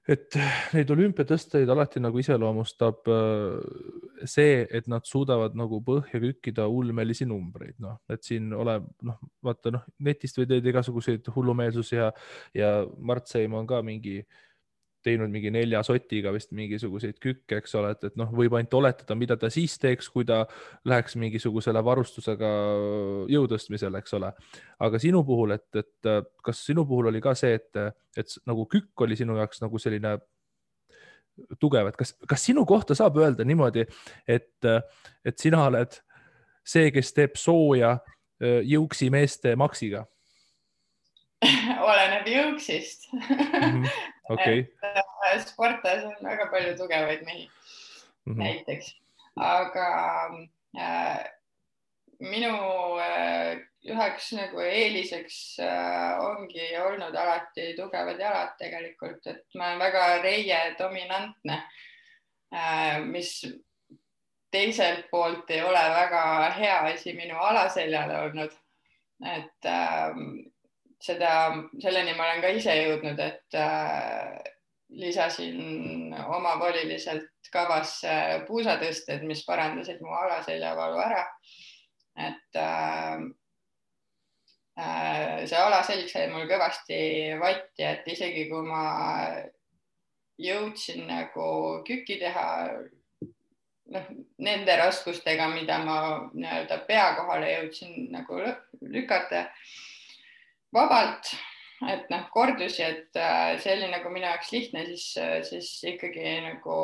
et neid olümpiatõsteid alati nagu iseloomustab see, et nad suudavad nagu põhja kükkida ulmelisi numbreid, noh, et siin vaata, netist või teed igasuguseid hullumeelsusi ja Mart Seim on ka teinud mingi 4 sotiga vist mingisuguseid kükke, eks ole, et võib ainult oletada, mida ta siis teeks, kui ta läheks mingisugusele varustusega jõutõstmisele, eks ole. Aga sinu puhul, et kas sinu puhul oli ka see, et nagu kükk oli sinu jaoks nagu selline tugev, et kas sinu kohta saab öelda niimoodi, et sina oled see, kes teeb sooja jõuksi meeste maksiga? Oleneb jõuksist. Okay. Sportas on väga palju tugevaid mehi näiteks, aga minu üheks nagu eeliseks ongi olnud alati tugevad jalad tegelikult, et ma olen väga reie dominantne, mis teiselt poolt ei ole väga hea asi minu alaseljale olnud, et selleni ma olen ka ise jõudnud, et lisasin omavoliliselt kavasse puusatõsted, mis parandasid mu alaseljavalu ära. Et see alaselg sai mul kõvasti vatti, et isegi kui ma jõudsin nagu kükki teha nende raskustega, mida ma nii-öelda pea kohale jõudsin nagu lükata vabalt, et kordusi, et see oli nagu minu jaoks lihtne, siis ikkagi nagu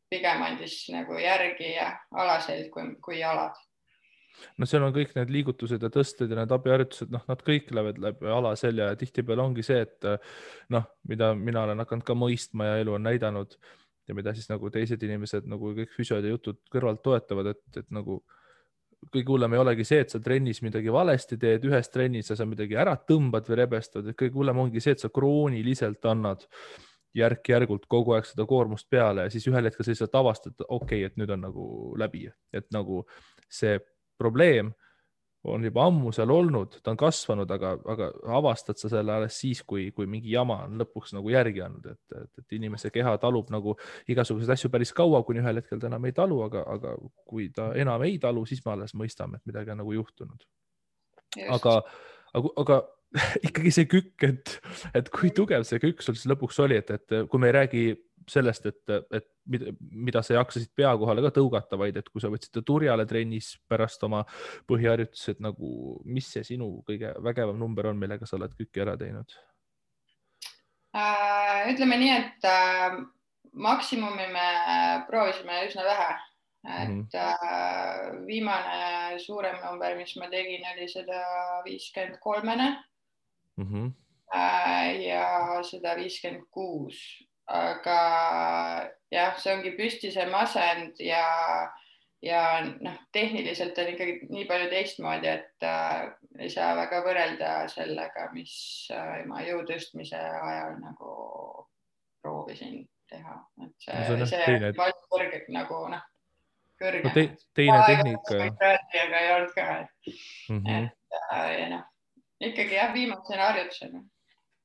pigem andis nagu järgi ja alaselg kui jalad. No seal on kõik need liigutused ja tõsted ja need abiharjutused, nad kõik lähevad läbi alaselja ja tihtipeale ongi see, et mida mina olen hakanud ka mõistma ja elu on näidanud ja mida siis nagu teised inimesed nagu kõik füsiod ja jutud kõrvalt toetavad, et nagu kõige hullem ei olegi see, et sa trennis midagi valesti teed, ühes trennis sa midagi ära tõmbad või rebestad, et kõige hullem ongi see, et sa krooniliselt annad järk-järgult kogu aeg seda koormust peale ja siis ühel hetkel sa lihtsalt avastad, okei, et nüüd on nagu läbi, et nagu see probleem on juba ammu seal olnud, ta on kasvanud, aga avastad sa selle alles siis, kui mingi jama on lõpuks nagu järgi andnud, et inimese keha talub nagu igasuguseid asju päris kaua, kuni ühel hetkel ta enam ei talu, aga kui ta enam ei talu, siis me alles mõistame, et midagi on nagu juhtunud. Aga ikkagi see kükk, et kui tugev see kükk sul siis lõpuks oli, et kui me ei räägi sellest, et mida sa jaksasid pea kohale ka tõugata, vaid et kui sa võtsid turjale trennis pärast oma põhiharjutused, nagu mis see sinu kõige vägevam number on, millega sa oled kükki ära teinud? Ütleme nii, et maksimumi me proovisime üsna vähe, et viimane suurem number, mis ma tegin, oli 153-ne ja 156. Aga jah, see ongi püstise masend ja tehniliselt on ikkagi nii palju teistmoodi, et ei saa väga võrrelda sellega, mis ma jõutõstmise ajal nagu proovisin teha. Et see palju kõrge nagu kõrge. Teine tehnika. Aga ei olnud ka. Et ikkagi jah, viimasena harjutusena.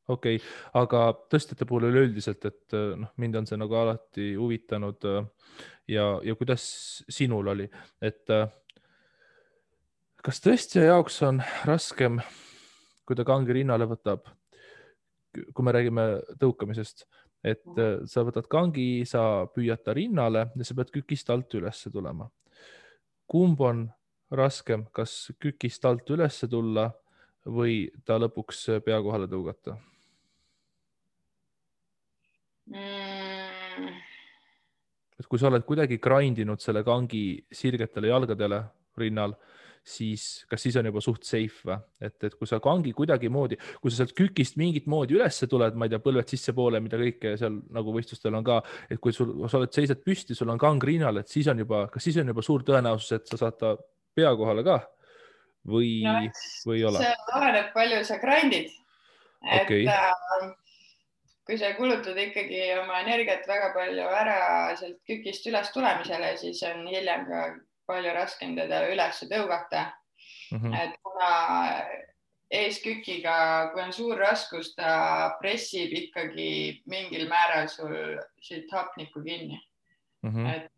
Okei, aga tõstjate puhul üleüldiselt, et mind on see nagu alati huvitanud ja kuidas sinul oli, et kas tõstja jaoks on raskem, kui ta kangi rinnale võtab, kui me räägime tõukamisest, et sa võtad kangi, sa püüad ta rinnale ja sa pead kükist alt üles tulema. Kumb on raskem, kas kükist alt üles tulla või ta lõpuks pea kohale tõugata? Et kui sa oled kuidagi grindinud selle kangi sirgetele jalgadele rinnal, siis kas siis on juba suht safe või? Et kui sa kangi kuidagi moodi, kui sa sealt kükist mingit moodi üles tuled, ma ei tea, põlved sisse poole, mida kõike seal nagu võistlustel on ka, et kui sa seisad püsti, sul on kang rinnal, et siis on kas siis on juba suur tõenäosus, et sa saad ta pea kohale ka või ei ole? See oleneb palju sa grindid. Okay. Kui sa kulutad ikkagi oma energiat väga palju ära sealt kükist üles tulemisele, siis on hiljem ka palju raskem teda üles tõugata. Et kuna eeskükiga, kui on suur raskus, ta pressib ikkagi mingil määral sul siit hapnikku kinni. Et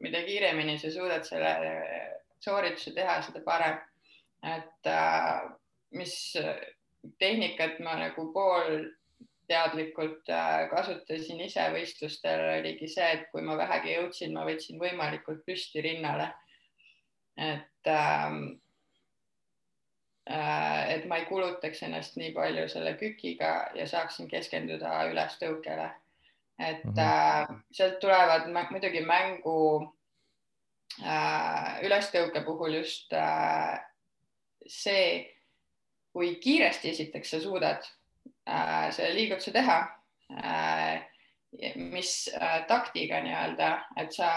mida kiiremini sa suudad selle soorituse teha, seda parem. Et mis tehnikat ma nagu poolteadlikult kasutasin ise võistlustel, oligi see, et kui ma vähegi jõudsin, ma võtsin võimalikult püsti rinnale. Et ma ei kulutaks ennast nii palju selle kükiga ja saaksin keskenduda ülestõukele. Et sealt tulevad muidugi mängu ülestõuke puhul just see, kui kiiresti esiteks sa suudad selle liigutuse teha, mis taktiga nii-öelda, et sa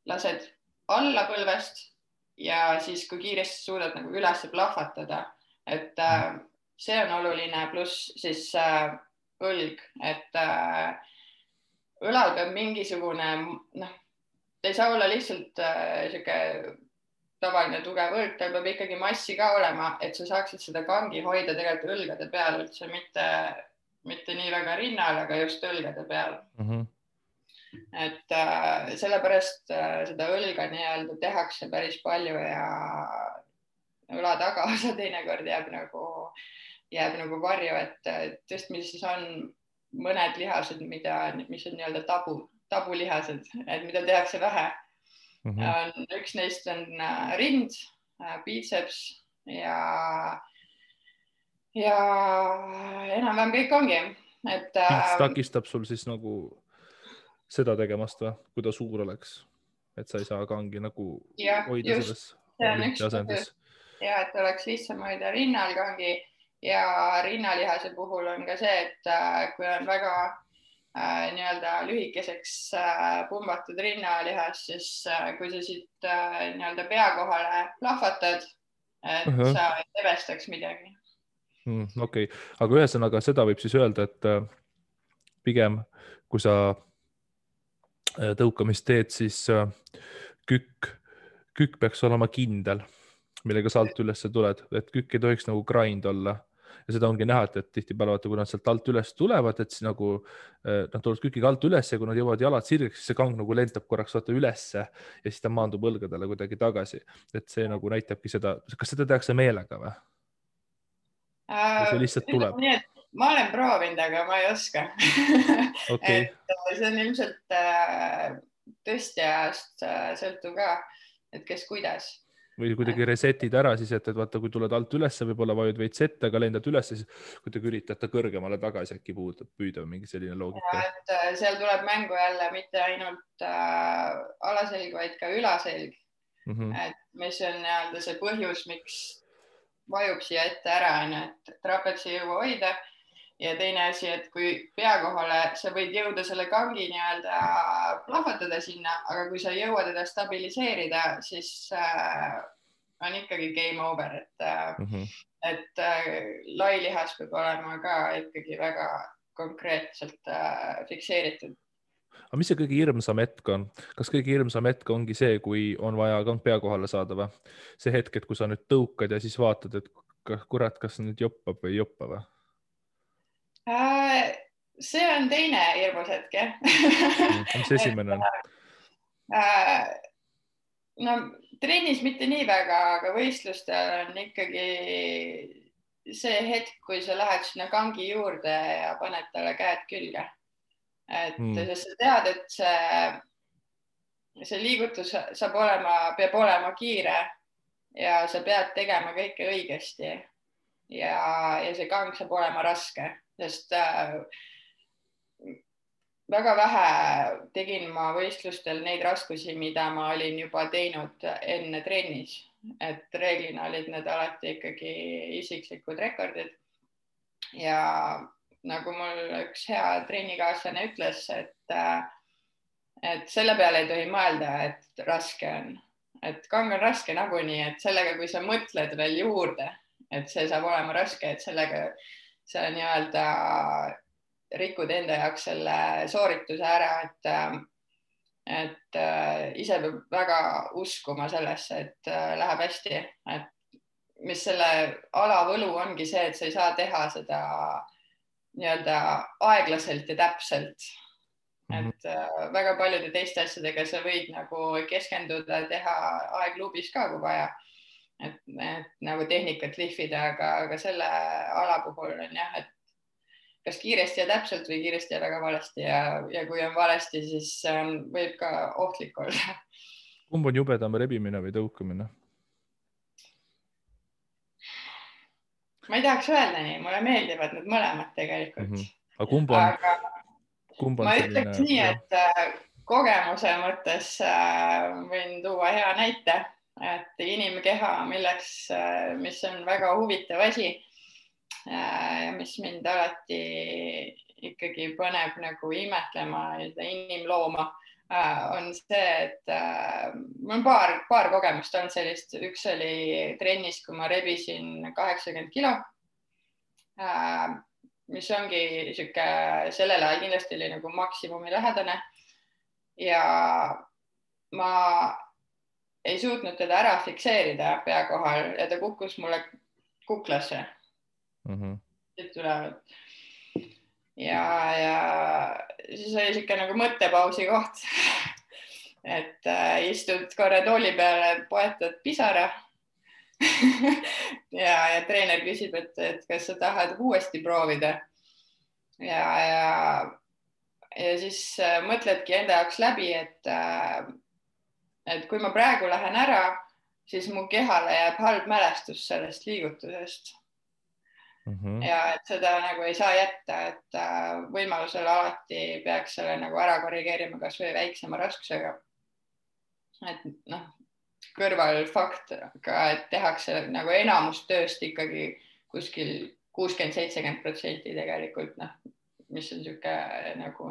lased alla põlvest ja siis kui kiiresti suudad nagu üles plahvatada, et see on oluline, pluss siis õlg, et õlal peab mingisugune, ta ei saa olla lihtsalt siuke tavaline tugev õlg, tal peab ikkagi massi ka olema, et sa saaksid seda kangi hoida tegelikult õlgade peal üldse, mitte nii väga rinnal, aga just õlgade peal. Et sellepärast seda õlga nii-öelda tehakse päris palju ja õla tagaosa teinekord jääb nagu varju, et tõstmises on mõned lihased, mis on nii-öelda tabulihased, et mida tehakse vähe. Üks neist on rind, biitseps ja enam-vähem kõik ongi. Mis takistab sul siis nagu seda tegemast või, kui ta suur oleks, et sa ei saa kangi nagu hoida selles olümpiasendis? Ja, et oleks lihtsam hoida rinnal kangi ja rinnalihase puhul on ka see, et kui on väga nii-öelda lühikeseks pumbatud rinnalihas, siis kui sa siit nii-öelda pea kohale plahvatad, et sa ei tevestaks midagi. Okei, aga ühesõnaga seda võib siis öelda, et pigem kui sa tõukamist teed, siis kükk peaks olema kindel, millega sa alt üles tuled, et kükk ei tohiks nagu grind olla. Ja seda ongi näha, et tihtipeale, kui nad sealt alt üles tulevad, et siis nagu nad tulevad kükiga alt üles ja kui nad jõuavad jalad sirgeks, siis see kang nagu lendab korraks ülesse ja siis ta maandub õlgadele kuidagi tagasi. Et see nagu näitabki seda, kas seda tehakse meelega või? See lihtsalt tuleb? Ma olen proovinud, aga ma ei oska. Okay. See on ilmselt tõstjast sõltub ka, et kes kuidas. Või kuidagi resetid ära siis, et vaata, kui tuled alt ülesse, võib-olla vajud veits ette, aga lendad üles, siis kuidagi üritad kõrgemale tagasi äkki püüda mingi selline loogika. Ja, et seal tuleb mängu jälle mitte ainult alaselg, vaid ka ülaselg. Et mis on nii-öelda see põhjus, miks vajub siia ette ära, et trapets ei jõua hoida. Ja teine asi, et kui pea kohale sa võid jõuda selle kangi nii-öelda plahvatada sinna, aga kui sa jõuad teda stabiliseerida, siis on ikkagi game over, et lailihas peab olema ka ikkagi väga konkreetselt fikseeritud. Aga mis see kõige hirmsam hetk on? Kas kõige hirmsam hetk ongi see, kui on vaja kang pea kohale saada või? See hetk, et kui sa nüüd tõukad ja siis vaatad, et kurat, kas nüüd joppab või ei joppa või? See on teine hirmus hetk, jah. Mis esimene on? No trennis mitte nii väga, aga võistlustel on ikkagi see hetk, kui sa lähed sinna kangi juurde ja paned talle käed külge. Et sest sa tead, et see liigutus peab olema kiire ja sa pead tegema kõike õigesti ja see kang saab olema raske, sest väga vähe tegin ma võistlustel neid raskusi, mida ma olin juba teinud enne trennis, et reeglina olid need alati ikkagi isiklikud rekordid ja nagu mul üks hea trennikaaslane ütles, et selle peale ei tohi mõelda, et raske on, et kang on raske nagunii, et sellega, kui sa mõtled veel juurde, et see saab olema raske, et sellega sa nii-öelda rikud enda jaoks selle soorituse ära, et ise peab väga uskuma sellesse, et läheb hästi, et mis selle ala võlu ongi see, et sa ei saa teha seda nii-öelda aeglaselt ja täpselt. Et väga paljude teiste asjadega sa võid nagu keskenduda, teha aegluubis ka, kui vaja, et nagu tehnikat lihvida, aga selle ala puhul on jah, et kas kiiresti ja täpselt või kiiresti ja väga valesti ja kui on valesti, siis võib ka ohtlik olla. Kumb on jubedam, rebimine või tõukamine? Ma ei tahaks öelda nii, mulle meeldivad need mõlemad tegelikult. Aga kumb on ma selline... ütleks nii, et kogemuse mõttes võin tuua hea näite, et inimkeha, mis on väga huvitav asi, mis mind alati ikkagi paneb nagu imetlema inimlooma, on see, et mul on paar kogemust on sellist. Üks oli trennis, kui ma rebisin 80 kilo, mis ongi sihuke, sellel ajal kindlasti oli nagu maksimumi lähedane ja ma ei suutnud teda ära fikseerida pea kohal ja ta kukkus mulle kuklasse. Ja siis oli siuke nagu mõttepausi koht, et istud korra tooli peale, poetad pisara ja treener küsib, et kas sa tahad uuesti proovida ja siis mõtledki enda jaoks läbi, et kui ma praegu lähen ära, siis mu kehale jääb halb mälestus sellest liigutusest. Ja et seda nagu ei saa jätta, et võimalusel alati peaks selle nagu ära korrigeerima kas või väiksema raskusega. Et kõrval fakt ka, et tehakse nagu enamus tööst ikkagi kuskil 60-70% tegelikult, mis on siuke nagu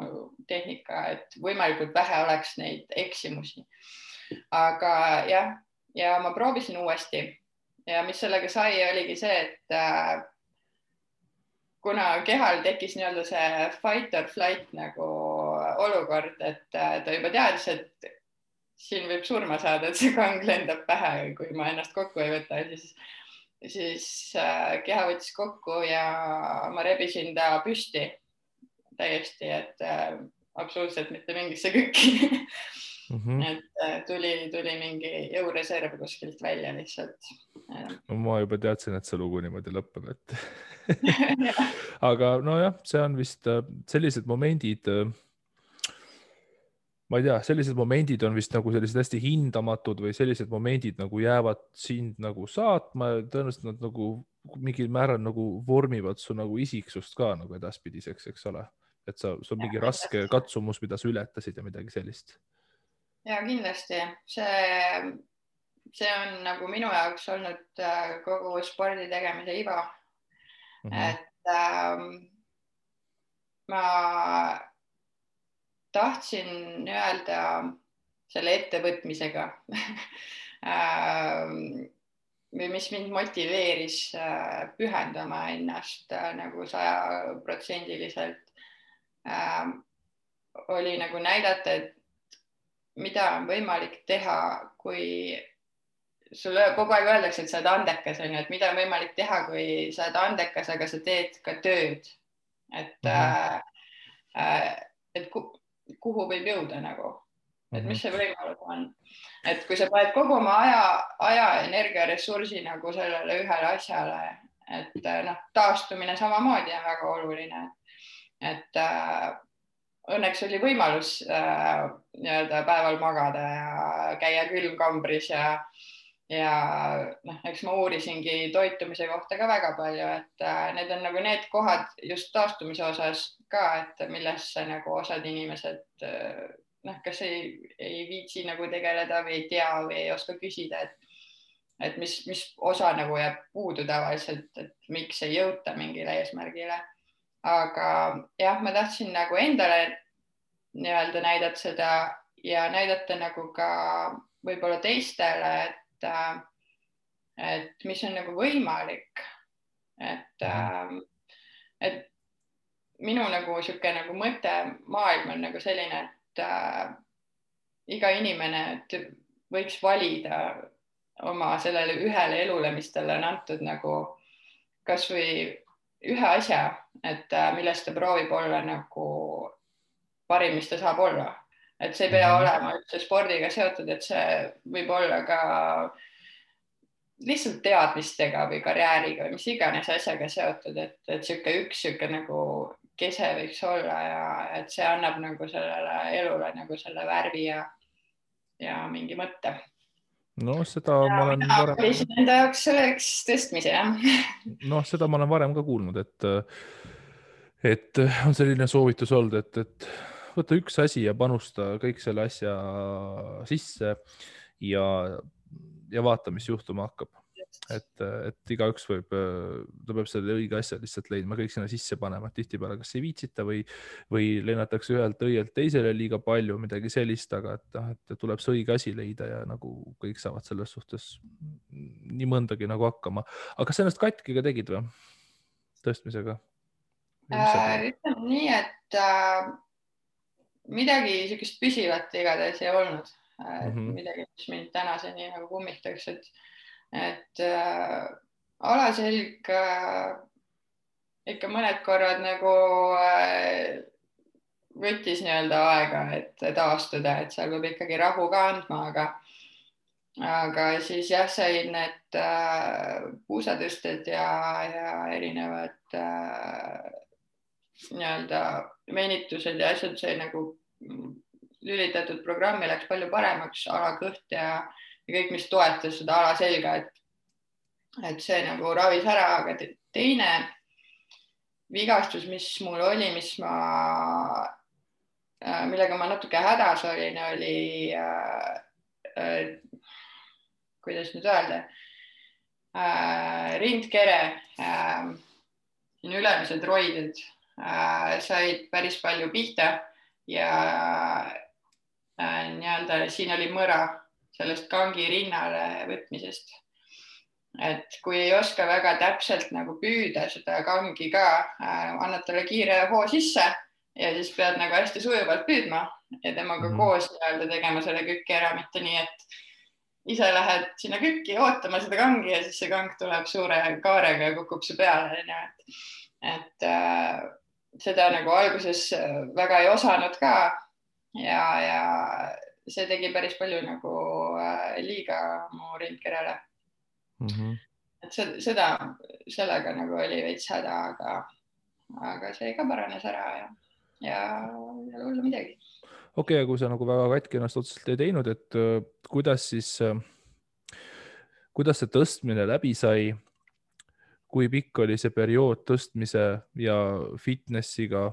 tehnika, et võimalikult vähe oleks neid eksimusi. Aga jah, ja ma proovisin uuesti ja mis sellega sai, oligi see, et kuna kehal tekkis nii-öelda see fight or flight nagu olukord, et ta juba teadis, et siin võib surma saada, et see kang lendab pähe, kui ma ennast kokku ei võta, siis keha võttis kokku ja ma rebisin ta püsti täiesti, et absoluutselt mitte mingisse kükki. Et tuli mingi jõureserv kuskilt välja lihtsalt. No, ma juba teadsin, et see lugu niimoodi lõpeb, et aga nojah, see on vist sellised momendid, ma ei tea, sellised momendid on vist nagu sellised hästi hindamatud või sellised momendid nagu jäävad sind nagu saatma, tõenäoliselt nad nagu mingil määral nagu vormivad su nagu isiksust ka nagu edaspidiseks, eks ole, et sul on mingi raske katsumus, mida sa ületasid ja midagi sellist. Ja kindlasti, see on nagu minu jaoks olnud kogu spordi tegemise iva. Et ma tahtsin öelda selle ettevõtmisega või mis mind motiveeris pühendama ennast nagu 100%, oli nagu näidata, et mida on võimalik teha, kui sulle kogu aeg öeldakse, et sa oled andekas, et mida on võimalik teha, kui sa oled andekas, aga sa teed ka tööd. Et kuhu võib jõuda nagu, et mis see võimalus on. Et kui sa paned kogu oma aja, energia, ressursi nagu sellele ühele asjale, et taastumine samamoodi on väga oluline. Et õnneks oli võimalus nii-öelda päeval magada ja käia külmkambris ja eks ma uurisingi toitumise kohta ka väga palju, et need on nagu need kohad just taastumise osas ka, et millesse nagu osad inimesed kas ei viitsi nagu tegeleda või ei tea või ei oska küsida, et mis osa nagu jääb puudu tavaliselt, et miks ei jõuta mingile eesmärgile. Aga jah, ma tahtsin nagu endale nii-öelda näidata seda ja näidata nagu ka võib-olla teistele, et mis on nagu võimalik. Et minu nagu sihuke nagu mõte maailm on nagu selline, et iga inimene võiks valida oma sellele ühele elule, mis talle on antud nagu kasvõi ühe asja, et millest ta proovib olla nagu parim, mis ta saab olla. Et see ei pea olema üldse spordiga seotud, et see võib olla ka lihtsalt teadmistega või karjääriga või mis iganes asjaga seotud, et sihuke nagu kese võiks olla ja et see annab nagu sellele elule nagu selle värvi ja mingi mõtte. No seda ma olen varem... valisin enda jaoks selleks tõstmise, jah. No seda ma olen varem ka kuulnud, et on selline soovitus olnud, et võta üks asi ja panusta kõik selle asja sisse ja vaata, mis juhtuma hakkab. Et igaüks võib, ta peab selle õige asja lihtsalt leidma, kõik sinna sisse panema, et tihtipeale kas ei viitsita või lennatakse ühelt õielt teisele liiga palju, midagi sellist, aga et tuleb see õige asi leida ja nagu kõik saavad selles suhtes nii mõndagi nagu hakkama. Aga kas ennast katki ka tegid või? Tõstmisega? Ütleme nii, et midagi sellist püsivat igatahes ei olnud. Midagi, mis mind tänaseni nagu kummitaks, et alaselg ikka mõned korrad nagu võttis nii-öelda aega, et taastuda, et seal peab ikkagi rahu ka andma, aga siis jah, said need puusatõsted ja erinevad nii-öelda venitused ja asjad sai nagu lülitatud programmi, läks palju paremaks, alakõht ja kõik, mis toetas seda alaselga, et see nagu ravis ära, aga teine vigastus, mis mul oli, millega ma natuke hädas olin, oli kuidas nüüd öelda, rindkere, ülemised roided said päris palju pihta ja nii-öelda siin oli mõra sellest kangi rinnale võtmisest. Et kui ei oska väga täpselt nagu püüda seda kangi ka, annad talle kiire hoo sisse ja siis pead nagu hästi sujuvalt püüdma ja temaga koos nii-öelda tegema selle kükki ära, mitte nii, et ise lähed sinna kükki ootama seda kangi ja siis see kang tuleb suure kaarega ja kukub su peale. Et seda nagu alguses väga ei osanud ka ja see tegi päris palju nagu liiga mu rindkerele. Et sellega nagu oli veits häda, aga see ka paranes ära ja hullu midagi. Okei, kui sa nagu väga katki ennast otseselt ei teinud, et kuidas see tõstmine läbi sai, kui pikk oli see periood tõstmise ja fitnessiga,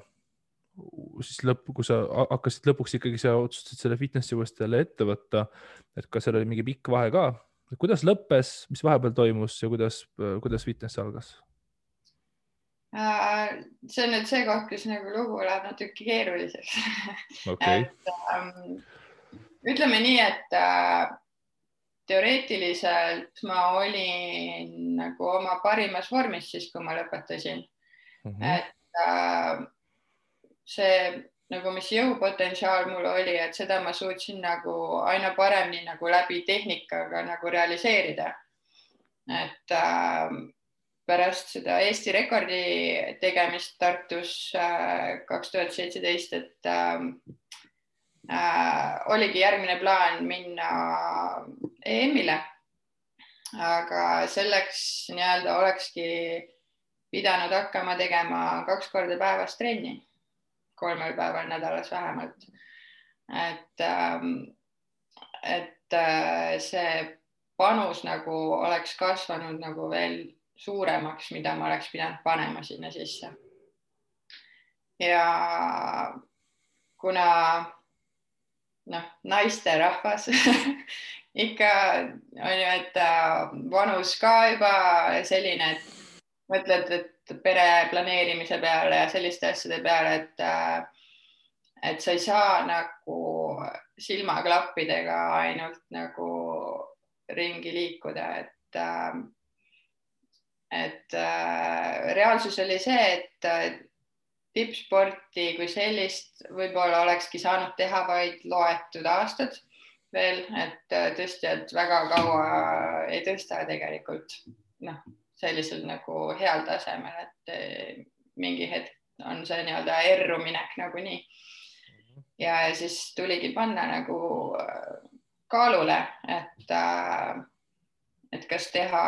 siis kui sa hakkasid lõpuks ikkagi sa otsustasid selle fitnessi uuesti jälle ette võtta, et kas seal oli mingi pikk vahe ka? Kuidas lõppes, mis vahepeal toimus ja kuidas fitness algas? See on nüüd see koht, kus nagu lugu läheb natuke keeruliseks. Okay. Ütleme nii, et teoreetiliselt ma olin nagu oma parimas vormis siis, kui ma lõpetasin. Et see nagu, mis jõupotentsiaal mul oli, et seda ma suutsin nagu aina paremini nagu läbi tehnikaga nagu realiseerida. Et pärast seda Eesti rekordi tegemist Tartus 2017, et oligi järgmine plaan minna EM-ile, aga selleks nii-öelda olekski pidanud hakkama tegema 2 korda päevas trenni, 3 päeval nädalas vähemalt. Et see panus nagu oleks kasvanud nagu veel suuremaks, mida ma oleks pidanud panema sinna sisse. Ja kuna naisterahvas ikka on ju, et vanus ka juba selline, et mõtled, et pere planeerimise peale ja selliste asjade peale, et sa ei saa nagu silmaklappidega ainult nagu ringi liikuda, et reaalsus oli see, et tippsporti kui sellist võib-olla olekski saanud teha vaid loetud aastad, veel, et tõstjad väga kaua ei tõsta tegelikult sellisel nagu heal tasemel, et mingi hetk on see nii-öelda erruminek nagunii. Ja siis tuligi panna nagu kaalule, et kas teha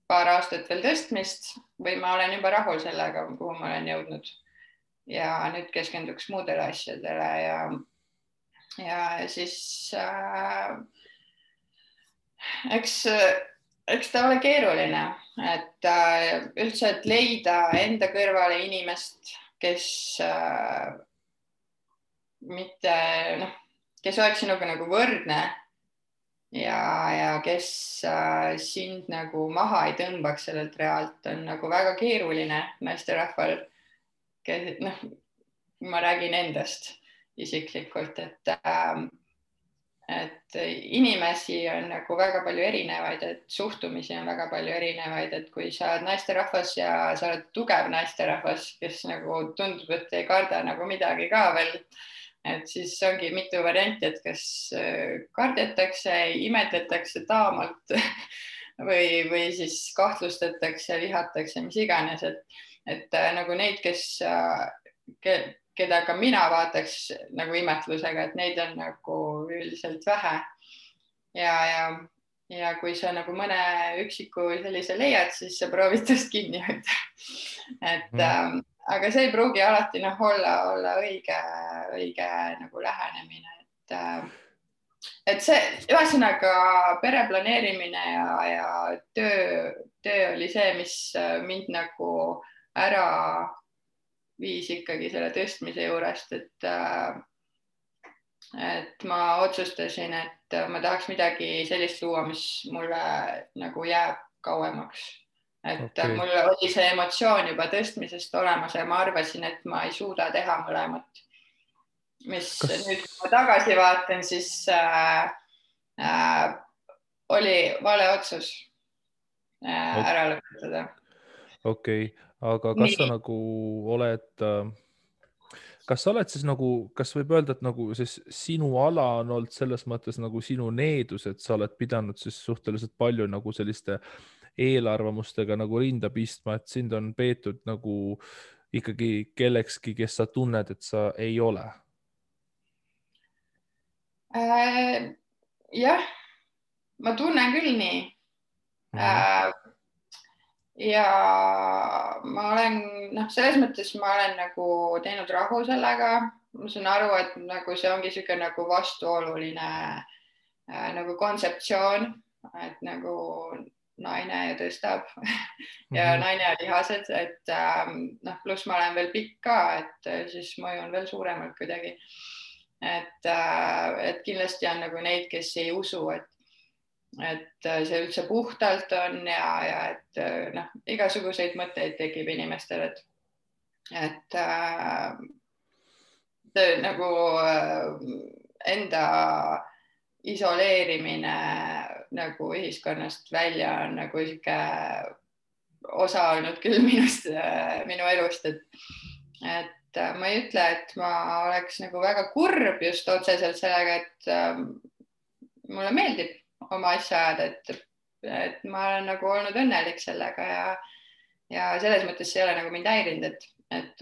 paar aastat veel tõstmist või ma olen juba rahul sellega, kuhu ma olen jõudnud. Ja nüüd keskenduks muudele asjadele ja siis eks ta ole keeruline, et üldse, et leida enda kõrvale inimest, kes kes oleks sinuga nagu võrdne ja kes sind nagu maha ei tõmbaks sellelt realt, on nagu väga keeruline naisterahval. Ma räägin endast isiklikult, et inimesi on nagu väga palju erinevaid, et suhtumisi on väga palju erinevaid, et kui sa oled naisterahvas ja sa oled tugev naisterahvas, kes nagu tundub, et ei karda nagu midagi ka veel, et siis ongi mitu varianti, et kas kardetakse, imetletakse taamalt või siis kahtlustatakse, vihatakse, mis iganes, et nagu neid, keda ka mina vaataks nagu imetlusega, et neid on nagu üldiselt vähe. Ja kui sa nagu mõne üksiku sellise leiad, siis sa proovid tast kinni hoida. Aga see ei pruugi alati olla õige nagu lähenemine. Et see ühesõnaga pere planeerimine ja töö oli see, mis mind nagu ära viis ikkagi selle tõstmise juurest, et ma otsustasin, et ma tahaks midagi sellist luua, mis mulle nagu jääb kauemaks. Et mul oli see emotsioon juba tõstmisest olemas ja ma arvasin, et ma ei suuda teha mõlemat. Mis nüüd, kui ma tagasi vaatan, siis oli vale otsus ära lõpetada. Okei. Aga kas sa nagu oled, kas sa oled siis nagu, kas võib öelda, et nagu siis sinu ala on olnud selles mõttes nagu sinu needus, et sa oled pidanud siis suhteliselt palju nagu selliste eelarvamustega nagu rinda pistma, et sind on peetud nagu ikkagi kellekski, kes sa tunned, et sa ei ole? Jah, ma tunnen küll nii. Ja ma olen, selles mõttes ma olen nagu teinud rahu sellega. Ma saan aru, et nagu see ongi siuke nagu vastuoluline nagu kontseptsioon, et nagu naine ja tõstab ja naine ja lihased, et pluss ma olen veel pikk ka, et siis mõju on veel suuremalt kuidagi. Et kindlasti on nagu neid, kes ei usu, et see üldse puhtalt on ja et igasuguseid mõtteid tekib inimestel, et nagu enda isoleerimine nagu ühiskonnast välja on nagu siuke osa olnud küll minu elust, et ma ei ütle, et ma oleks nagu väga kurb just otseselt sellega, et mulle meeldib oma asja ajada, et ma olen nagu olnud õnnelik sellega ja selles mõttes see ei ole nagu mind häirinud, et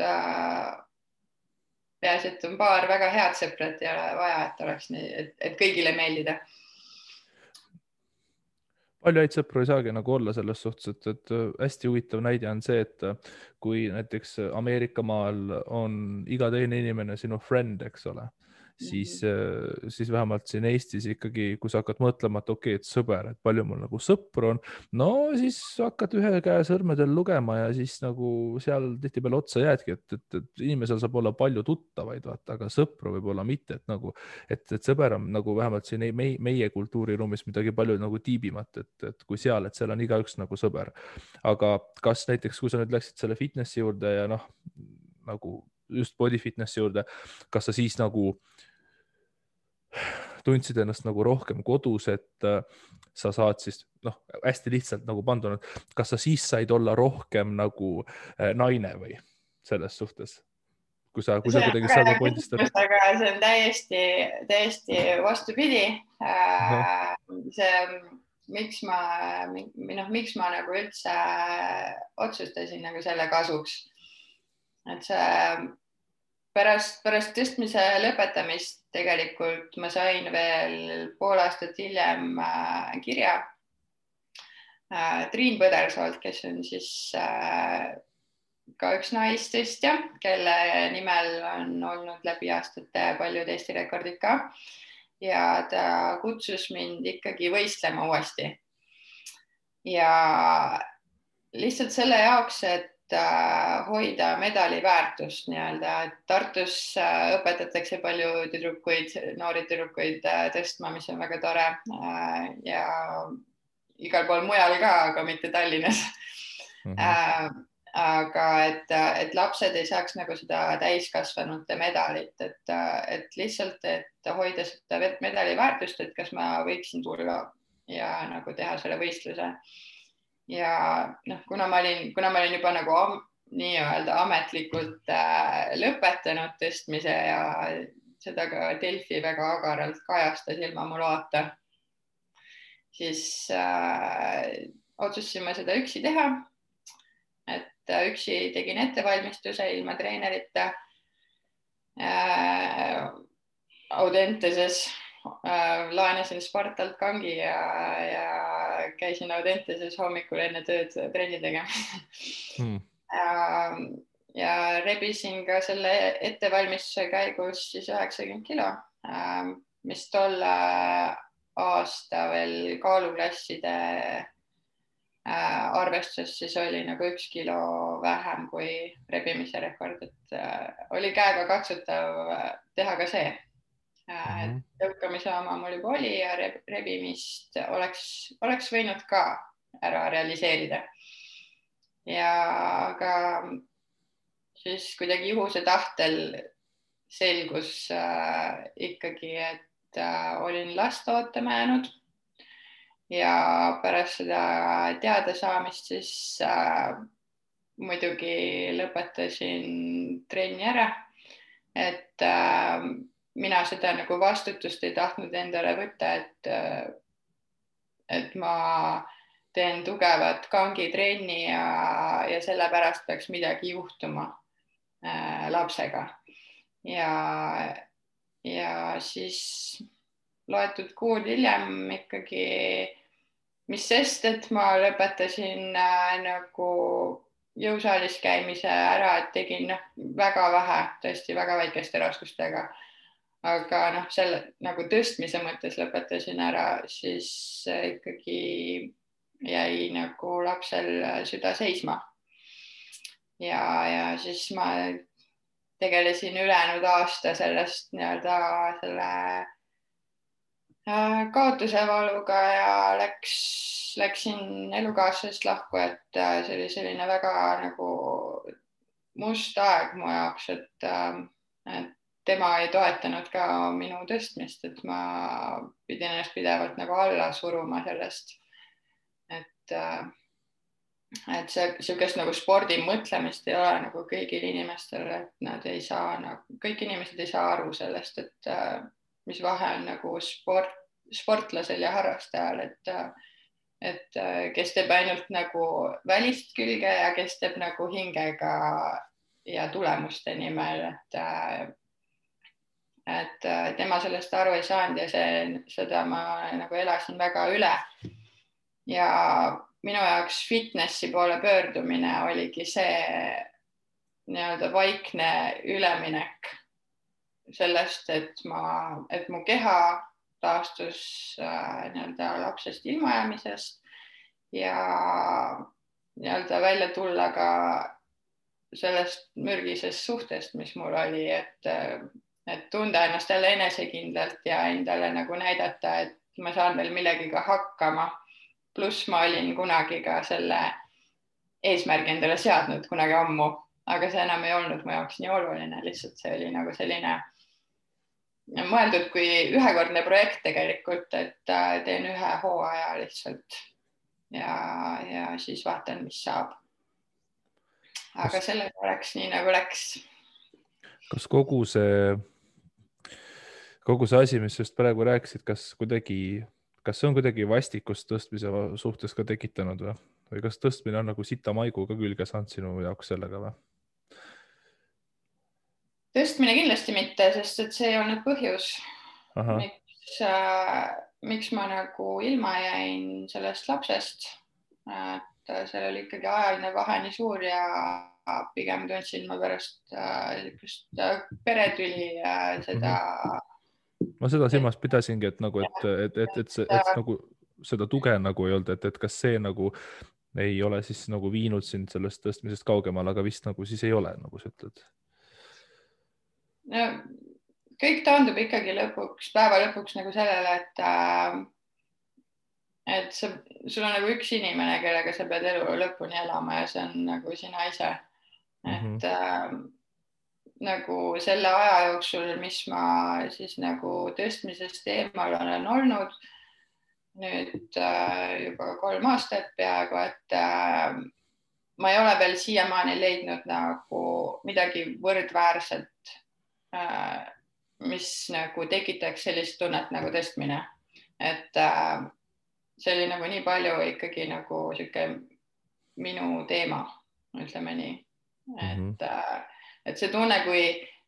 peaasi, et on paar väga head sõprat ja ei ole vaja, et oleks nii, et kõigile meeldida. Palju häid sõpru ei saagi nagu olla selles suhtes, et hästi huvitav näide on see, et kui näiteks Ameerika maal on iga teine inimene sinu friend, eks ole, siis vähemalt siin Eestis ikkagi, kui sa hakkad mõtlema, et okei, et sõber, et palju mul nagu sõpru on, no siis hakkad ühe käe sõrmedel lugema ja siis nagu seal tihtipeale otsa jäädki, et inimesel saab olla palju tuttavaid, vaata, aga sõpru võib olla mitte, et nagu, et sõber on nagu vähemalt siin meie kultuuriruumis midagi palju nagu tiibimat, et kui seal, et seal on igaüks nagu sõber. Aga kas näiteks, kui sa nüüd läksid selle fitnessi juurde ja nagu just body fitnessi juurde, kas sa siis nagu tundsid ennast nagu rohkem kodus, et sa saad siis, hästi lihtsalt nagu panduna, kas sa siis said olla rohkem nagu naine või selles suhtes? kui sa kuidagi sealt pointist aga see on täiesti vastupidi. See, miks ma nagu üldse otsustasin nagu selle kasuks, et see pärast tõstmise lõpetamist tegelikult ma sain veel pool aastat hiljem kirja Triin Põdersoolt, kes on siis ka üks naistõstja, kelle nimel on olnud läbi aastate paljud Eesti rekordid ka. Ja ta kutsus mind ikkagi võistlema uuesti. Ja lihtsalt selle jaoks, et hoida medali väärtust nii-öelda, et Tartus õpetatakse palju noori tüdrukuid tõstma, mis on väga tore ja igal pool mujal ka, aga mitte Tallinnas. Aga et lapsed ei saaks nagu seda täiskasvanute medalit, et lihtsalt, et hoida seda medali väärtust, et kas ma võiksin tulla ja nagu teha selle võistluse. Ja kuna ma olin juba nagu nii-öelda ametlikult lõpetanud tõstmise ja seda ka Delfi väga agaralt kajastas ilma mu loata, siis otsustasime seda üksi teha. Et üksi tegin ettevalmistuse ilma treenerita Audenteses, laenasin Spartalt kangi ja käisin Audenteses hommikul enne tööd trenni tegema. Ja rebisin ka selle ettevalmistuse käigus siis 90 kilo, mis tolle aasta veel kaaluklasside arvestuses siis oli nagu 1 kilo vähem kui rebimise rekord, et oli käega katsutav teha ka see. Tõukamise oma mul juba oli ja rebimist oleks võinud ka ära realiseerida. Ja aga siis kuidagi juhuse tahtel selgus ikkagi, et olin last ootama jäänud. Ja pärast seda teada saamist siis muidugi lõpetasin trenni ära, et mina seda nagu vastutust ei tahtnud endale võtta, et ma teen tugevat kangitrenni ja sellepärast peaks midagi juhtuma lapsega. Ja siis loetud kuud hiljem ikkagi, mis sest, et ma lõpetasin nagu jõusaalis käimise ära, et tegin väga vähe, tõesti väga väikeste raskustega. Aga selle nagu tõstmise mõttes lõpetasin ära, siis ikkagi jäi nagu lapsel süda seisma. Ja siis ma tegelesin ülejäänud aasta sellest nii-öelda selle kaotuse valuga ja läksin elukaaslasest lahku, et see oli selline väga nagu must aeg mu jaoks, et tema ei toetanud ka minu tõstmist, et ma pidin ennast pidevalt nagu alla suruma sellest, et siukest nagu spordi mõtlemist ei ole nagu kõigil inimestel, et nad ei saa, kõik inimesed ei saa aru sellest, et mis vahe on nagu sportlasel ja harrastajal, et kes teeb ainult nagu välist külge ja kes teeb nagu hingega ja tulemuste nimel, et tema sellest aru ei saanud ja seda ma nagu elasin väga üle. Ja minu jaoks fitnessi poole pöördumine oligi see nii-öelda vaikne üleminek sellest, et mu keha taastus nii-öelda lapsest ilmajäämisest ja nii-öelda välja tulla ka sellest mürgisest suhtest, mis mul oli, et tunda ennast jälle enesekindlalt ja endale nagu näidata, et ma saan veel millegiga hakkama. Pluss ma olin kunagi ka selle eesmärgi endale seadnud kunagi ammu, aga see enam ei olnud mu jaoks nii oluline, lihtsalt see oli nagu selline mõeldud kui ühekordne projekt tegelikult, et teen ühe hooaja lihtsalt ja siis vaatan, mis saab. Aga sellega läks nii nagu läks. kas kogu see asi, mis just praegu rääkisid, kas see on kuidagi vastikust tõstmise suhtes ka tekitanud või kas tõstmine on nagu sita maigu ka külge saanud sinu jaoks sellega või? Tõstmine kindlasti mitte, sest et see ei olnud põhjus, miks ma nagu ilma jäin sellest lapsest. Et seal oli ikkagi ajaline vahe nii suur ja pigem tundsin ma pärast peretüli seda. Ma seda silmas pidasingi, et nagu, et nagu seda tuge nagu ei olnud, et kas see nagu ei ole siis nagu viinud sind sellest tõstmisest kaugemale, aga vist nagu siis ei ole, nagu sa ütled. No, kõik taandub ikkagi päeva lõpuks nagu sellele, et sul on nagu üks inimene, kellega sa pead elu lõpuni elama ja see on nagu sina ise. Et nagu selle aja jooksul, mis ma siis nagu tõstmisest eemal olen olnud, nüüd juba 3 aastat peaaegu, et ma ei ole veel siiamaani leidnud nagu midagi võrdväärselt, mis nagu tekitaks sellist tunnet nagu tõstmine. Et see oli nagu nii palju ikkagi nagu siuke minu teema, ütleme nii. Et see tunne,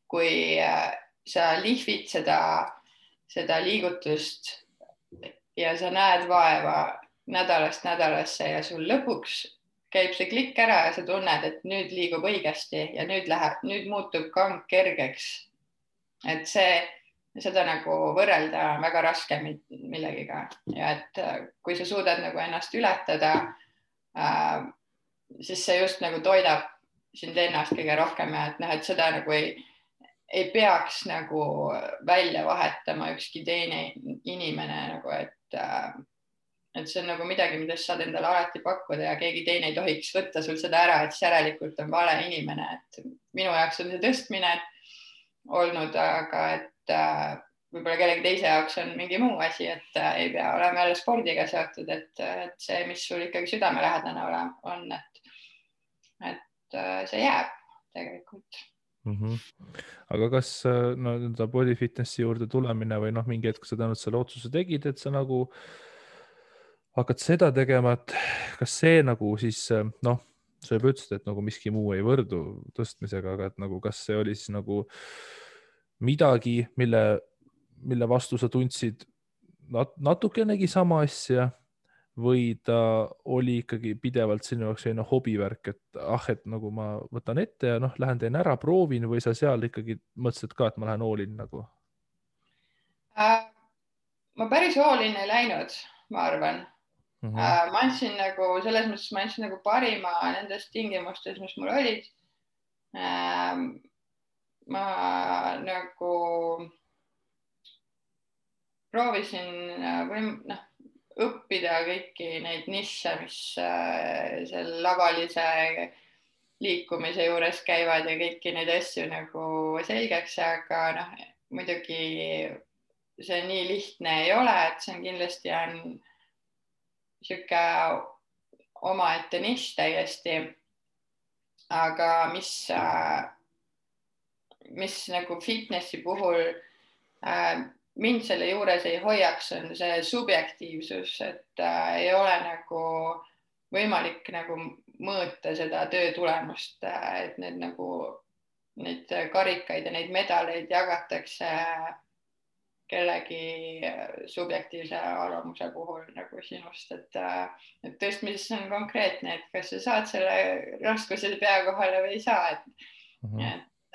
kui sa lihvid seda liigutust ja sa näed vaeva nädalast nädalasse ja sul lõpuks käib see klikk ära ja sa tunned, et nüüd liigub õigesti ja nüüd muutub kang kergeks. Et seda nagu võrrelda väga raske millegiga ja et kui sa suudad nagu ennast ületada, siis see just nagu toidab sind ennast kõige rohkem ja et seda nagu ei peaks nagu välja vahetama ükski teine inimene nagu, et see on nagu midagi, mida sa saad endale alati pakkuda ja keegi teine ei tohiks võtta sul seda ära, et järelikult on vale inimene, et minu jaoks on see tõstmine olnud, aga et võib-olla kellegi teise jaoks on mingi muu asi, et ei pea olema jälle spordiga seotud, et see, mis sul ikkagi südamelähedane on, et see jääb tegelikult. Aga kas body fitnessi juurde tulemine või mingi hetk sa tänud selle otsuse tegid, et sa nagu hakkad seda tegema, et kas see nagu siis sa juba ütlesid, et nagu miski muu ei võrdu tõstmisega, aga et nagu kas see oli siis nagu midagi, mille vastu sa tundsid natukenegi sama asja või ta oli ikkagi pidevalt sinu jaoks selline hobivärk, et nagu ma võtan ette ja lähen teen ära, proovin või sa seal ikkagi mõtlesid ka, et ma lähen all in nagu? Ma päris all in ei läinud, ma arvan. Ma andsin nagu selles mõttes, ma andsin nagu parima nendest tingimustest, mis mul olid. Ma nagu proovisin õppida kõiki neid nišše, mis seal lavalise liikumise juures käivad ja kõiki neid asju nagu selgeks, aga muidugi see nii lihtne ei ole, et see on kindlasti siuke omaette nišš täiesti. Aga mis nagu fitnessi puhul mind selle juures ei hoiaks, on see subjektiivsus, et ei ole nagu võimalik nagu mõõta seda töö tulemust, et neid karikaid ja neid medaleid jagatakse kellegi subjektiivse arvamuse puhul nagu sinust, et tõstmises on konkreetne, et kas sa saad selle raskuse pea kohale või ei saa,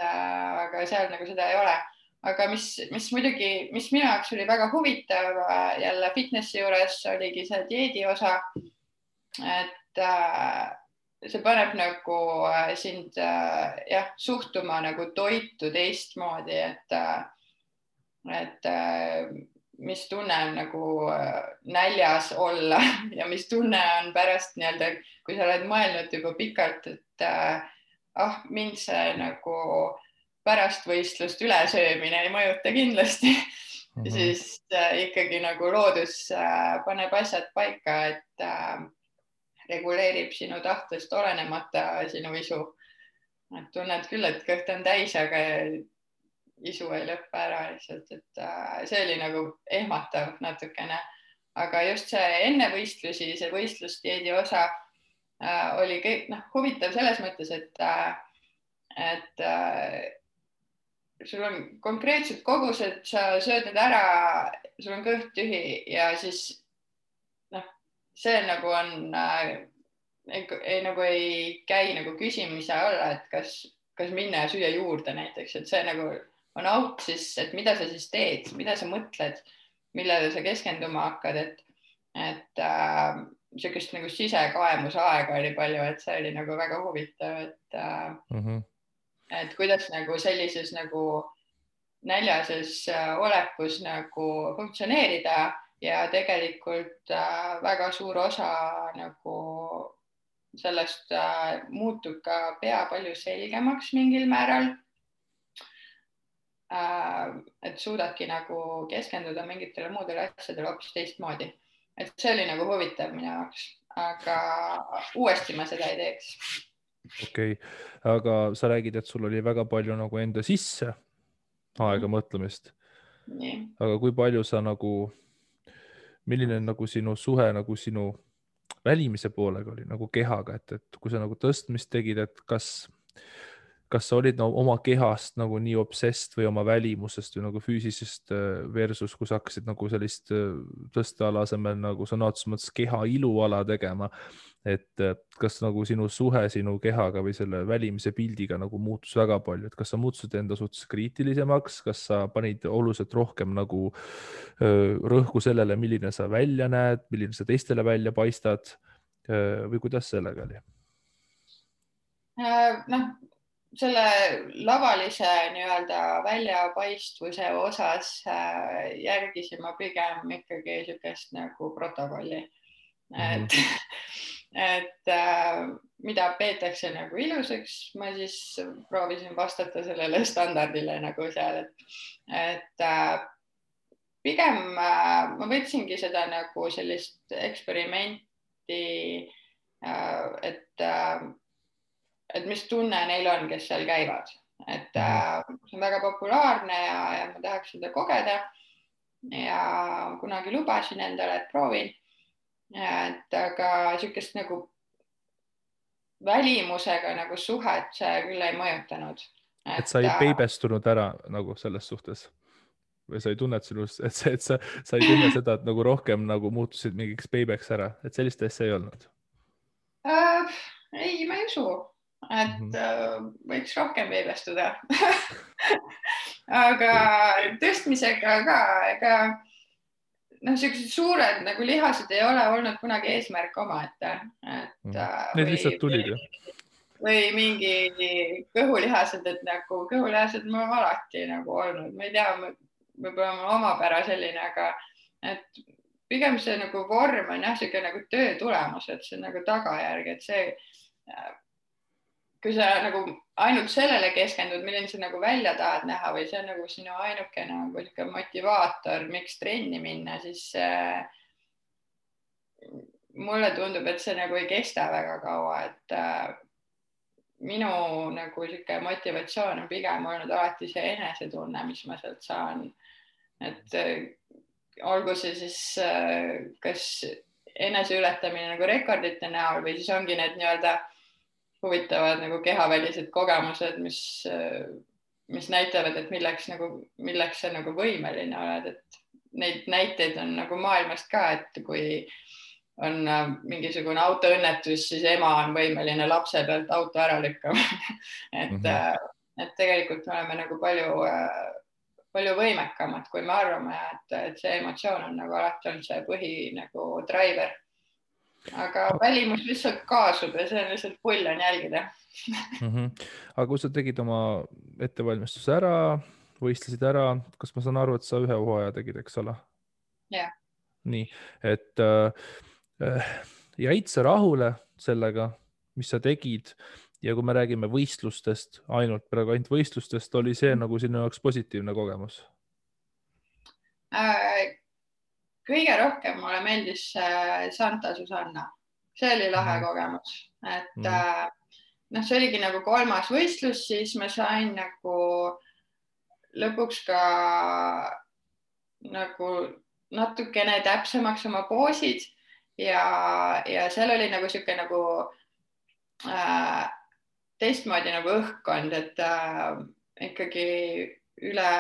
aga seal nagu seda ei ole. Aga mis minu jaoks oli väga huvitav jälle fitnessi juures oligi see dieedi osa, et see paneb nagu sind suhtuma nagu toitu teistmoodi, et mis tunne on nagu näljas olla ja mis tunne on pärast nii-öelda, kui sa oled mõelnud juba pikalt, et mind see nagu pärast võistlust ülesöömine ei mõjuta kindlasti, siis ikkagi nagu loodus paneb asjad paika, et reguleerib sinu tahtest olenemata sinu isu. Et tunned küll, et kõht on täis, aga isu ei lõppe ära lihtsalt, et see oli nagu ehmatav natukene, aga just see enne võistlusi, see võistlusdieedi osa oli huvitav selles mõttes, et sul on konkreetsed kogused, sa sööd need ära, sul on kõht tühi ja siis see nagu on nagu ei käi nagu küsimise alla, et kas minna ja süüa juurde näiteks, et see nagu on auk siis, et mida sa siis teed, mida sa mõtled, millele sa keskenduma hakkad, et niisugust nagu sisekaemusaega oli palju, et see oli nagu väga huvitav, et kuidas nagu sellises nagu näljases olekus nagu funktsioneerida ja tegelikult väga suur osa nagu sellest muutub ka pea palju selgemaks mingil määral. Et suudadki nagu keskenduda mingitele muudele asjadele hoopis teistmoodi. Et see oli nagu huvitav minu jaoks, aga uuesti ma seda ei teeks. Okei, aga sa räägid, et sul oli väga palju nagu enda sisse aega mõtlemist. Nii. Aga kui palju sa nagu, milline nagu sinu suhe nagu sinu välimise poolega oli nagu kehaga, et kui sa nagu tõstmist tegid, et kas sa olid oma kehast nagu nii obsessed või oma välimusest või nagu füüsisest versus, kui sa hakkasid nagu sellist tõsteala asemel nagu sõna otseses mõttes keha iluala tegema, et kas nagu sinu suhe sinu kehaga või selle välimise pildiga nagu muutus väga palju, et kas sa muutusid enda suhtes kriitilisemaks, kas sa panid oluliselt rohkem nagu rõhku sellele, milline sa välja näed, milline sa teistele välja paistad või kuidas sellega oli? Selle lavalise nii-öelda väljapaistvuse osas järgisin ma pigem ikkagi niisugust nagu protokolli. Et mida peetakse nagu ilusaks, ma siis proovisin vastata sellele standardile nagu seal, et pigem ma võtsingi seda nagu sellist eksperimenti, et mis tunne neil on, kes seal käivad, et see on väga populaarne ja ma tahaks seda kogeda ja kunagi lubasin endale, et proovin, et aga niisugust nagu välimusega nagu suhet see küll ei mõjutanud. Et sa ei peibestunud ära nagu selles suhtes või sa ei tunne, et sa ei tunne seda, et nagu rohkem nagu muutusid mingiks peibeks ära, et sellist asja ei olnud? Ei, ma ei usu. Et võiks rohkem peibestuda. Aga tõstmisega ka, ega sellised suured nagu lihased ei ole olnud kunagi eesmärk omaette. Need lihtsalt tulid ju. Või mingi kõhulihased, et nagu kõhulihased ma alati nagu olnud. Ma ei tea, võib-olla omapära selline, aga et pigem see nagu vorm on jah, nagu töö tulemus, et see on nagu tagajärg, et see kui sa nagu ainult sellele keskendud, milline sa nagu välja tahad näha või see on nagu sinu ainuke nagu motivaator, miks trenni minna, siis mulle tundub, et see nagu ei kesta väga kaua, et minu nagu motivatsioon on pigem olnud alati see enesetunne, mis ma sealt saan. Et olgu see siis kas eneseületamine nagu rekordite näol või siis ongi need nii-öelda huvitavad nagu kehavälised kogemused, mis näitavad, et milleks sa nagu võimeline oled, et neid näiteid on nagu maailmast ka, et kui on mingisugune autoõnnetus, siis ema on võimeline lapse pealt auto ära lükkama. et tegelikult me oleme nagu palju võimekamad, kui me arvame, et see emotsioon on nagu alati olnud see põhi nagu driver. Aga välimus lihtsalt kaasub ja see on lihtsalt pull on jälgida. Aga kui sa tegid oma ettevalmistuse ära, võistlesid ära, kas ma saan aru, et sa ühe hooaja tegid, eks ole? Jah. Nii, et jäid sa rahule sellega, mis sa tegid ja kui me räägime võistlustest, praegu ainult võistlustest, oli see nagu sinu jaoks positiivne kogemus? Kõige rohkem mulle meeldis Santa Susanna. See oli lahe kogemus. Et see oligi nagu 3. võistlus, siis ma sain nagu lõpuks ka nagu natukene täpsemaks oma poosid ja seal oli nagu sihuke nagu teistmoodi nagu õhkkond, et ikkagi üle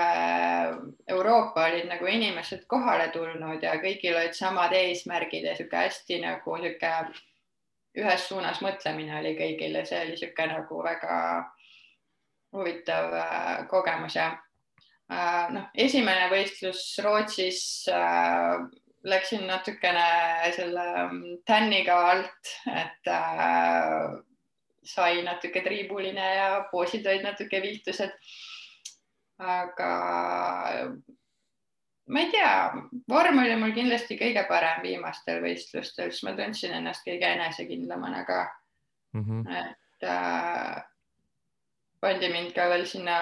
Euroopa olid nagu inimesed kohale tulnud ja kõigil olid samad eesmärgid ja sihuke hästi nagu sihuke ühes suunas mõtlemine oli kõigil ja see oli sihuke nagu väga huvitav kogemus ja esimene võistlus Rootsis läksin natukene selle tänniga alt, et sai natuke triibuline ja poosid olid natuke viltused. Aga ma ei tea, vorm oli mul kindlasti kõige parem viimastel võistlustel, siis ma tundsin ennast kõige enesekindlamana ka. Et pandi mind ka veel sinna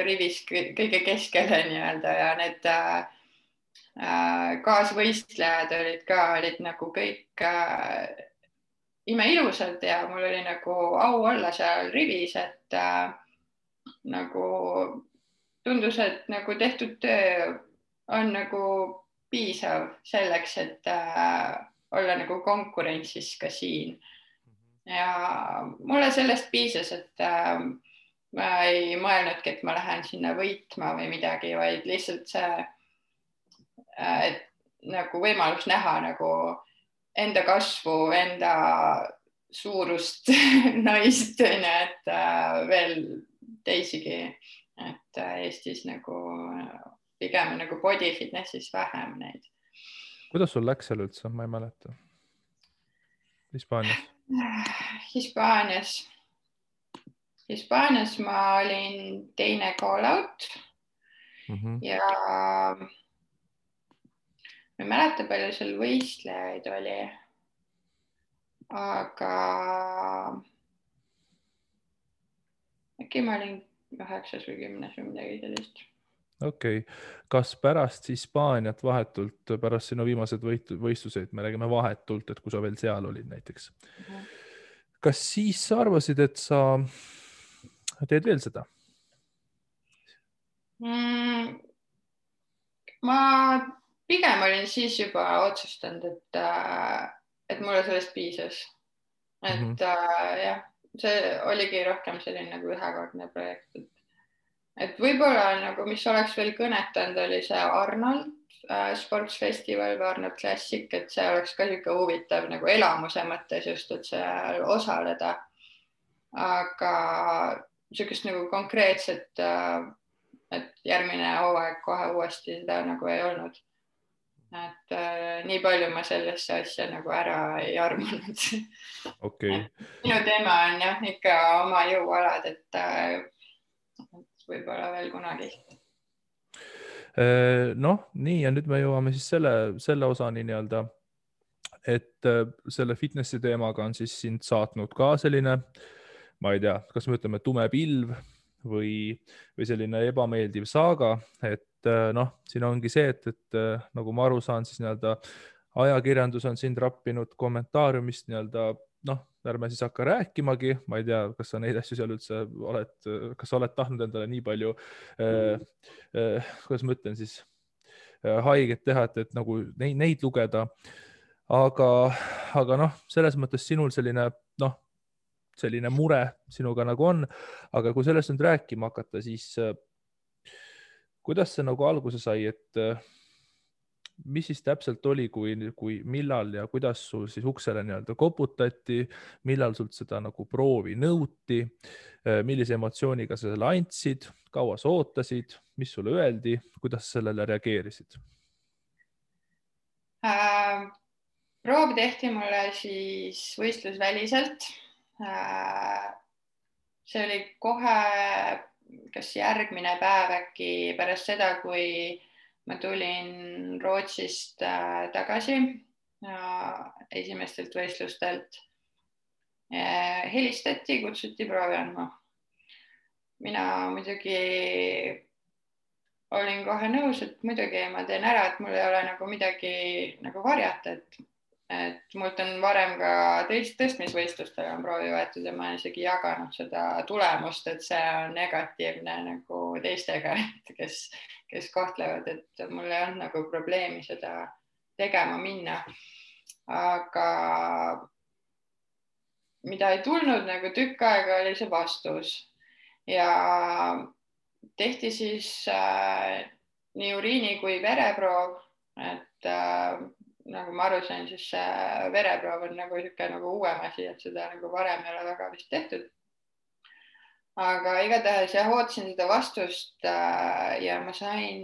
rivis kõige keskele nii-öelda ja need kaasvõistlejad olid nagu kõik imeilusad ja mul oli nagu au olla seal rivis, et nagu tundus, et nagu tehtud töö on nagu piisav selleks, et olla nagu konkurentsis ka siin. Ja mulle sellest piisas, et ma ei mõelnudki, et ma lähen sinna võitma või midagi, vaid lihtsalt see, et nagu võimalus näha nagu enda kasvu, enda suurust naist, et veel teisigi, et Eestis nagu pigem nagu body fitnessis vähem neid. Kuidas sul läks seal üldse? Ma ei mäleta. Hispaanias ma olin teine call out ja ma ei mäleta, palju seal võistlejaid oli, aga äkki ma olin 9 või 10 või midagi sellist. Okei. Kas pärast Hispaaniat vahetult, pärast sinu viimased võistluseid, me räägime vahetult, et kui sa veel seal olid näiteks, kas siis sa arvasid, et sa teed veel seda? Ma pigem olin siis juba otsustanud, et mulle sellest piisas. Et jah, see oligi rohkem selline nagu ühekordne projekt. Et võib-olla nagu, mis oleks veel kõnetanud, oli see Arnold Sports Festival või Arnold Classic, et see oleks ka niisugune huvitav nagu elamuse mõttes just, et seal osaleda. Aga niisugust nagu konkreetset, et järgmine hooaeg kohe uuesti seda nagu ei olnud. Et nii palju ma sellesse asja nagu ära ei armunud. Okay. Minu teema on jah ikka oma jõualad, et võib-olla veel kunagi. Noh, nii ja nüüd me jõuame siis selle osani nii-öelda, et selle fitnessi teemaga on siis sind saatnud ka selline, ma ei tea, kas me ütleme tume pilv või selline ebameeldiv saaga, et noh, siin ongi see, et nagu ma aru saan, siis nii-öelda ajakirjandus on sind rappinud kommentaariumist nii-öelda, noh, ärme siis hakka rääkimagi, ma ei tea, kas sa neid asju seal üldse kas sa oled tahtnud endale nii palju, kuidas ma ütlen siis, haiget teha, et nagu neid lugeda, aga noh, selles mõttes sinul selline mure sinuga nagu on, aga kui sellest nüüd rääkima hakata, siis kuidas see nagu alguse sai, et mis siis täpselt oli, kui millal ja kuidas sul siis uksele nii-öelda koputati, millal sult seda nagu proovi nõuti, millise emotsiooniga sa selle andsid, kaua sa ootasid, mis sulle öeldi, kuidas sellele reageerisid? Proov tehti mulle siis võistlusväliselt. See oli kohe kas järgmine päev äkki pärast seda, kui ma tulin Rootsist tagasi esimestelt võistlustelt. Helistati, kutsuti proovi andma. Mina muidugi olin kohe nõus, et muidugi ma teen ära, et mul ei ole nagu midagi nagu varjata, et et mult on varem ka tõstmisvõistlustel on proovi võetud ja ma olen isegi jaganud seda tulemust, et see on negatiivne nagu teistega, kes kohtlevad, et mul ei olnud nagu probleemi seda tegema minna. Aga mida ei tulnud nagu tükk aega, oli see vastus ja tehti siis nii uriini kui vereproov, et nagu ma aru sain, siis vereproov on nagu niisugune nagu uuem asi, et seda nagu varem ei ole väga vist tehtud. Aga igatahes jah, ootasin seda vastust ja ma sain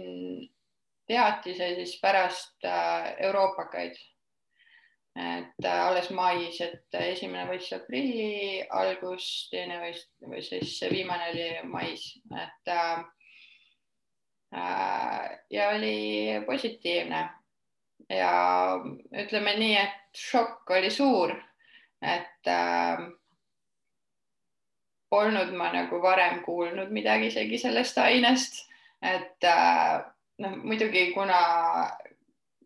teatise siis pärast euroopakaid. Et alles mais, et esimene võistlus aprilli algus, teine või siis viimane oli mais, et ja oli positiivne ja ütleme nii, et šokk oli suur, et polnud ma nagu varem kuulnud midagi isegi sellest ainest, et noh, muidugi kuna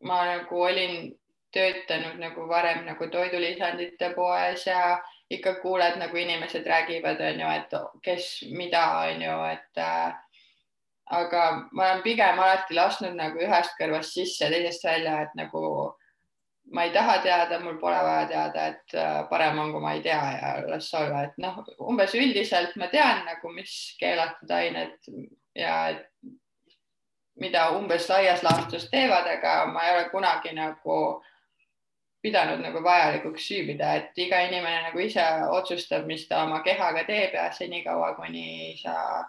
ma nagu olin töötanud nagu varem nagu toidulisandite poes ja ikka kuuled nagu inimesed räägivad, on ju, et kes mida, on ju, et aga ma olen pigem alati lasknud nagu ühest kõrvast sisse, teisest välja, et nagu ma ei taha teada, mul pole vaja teada, et parem on, kui ma ei tea ja las olla, et noh, umbes üldiselt ma tean nagu, mis keelatud ained ja mida umbes laias laastus teevad, aga ma ei ole kunagi nagu pidanud nagu vajalikuks süübida, et iga inimene nagu ise otsustab, mis ta oma kehaga teeb ja senikaua, kuni sa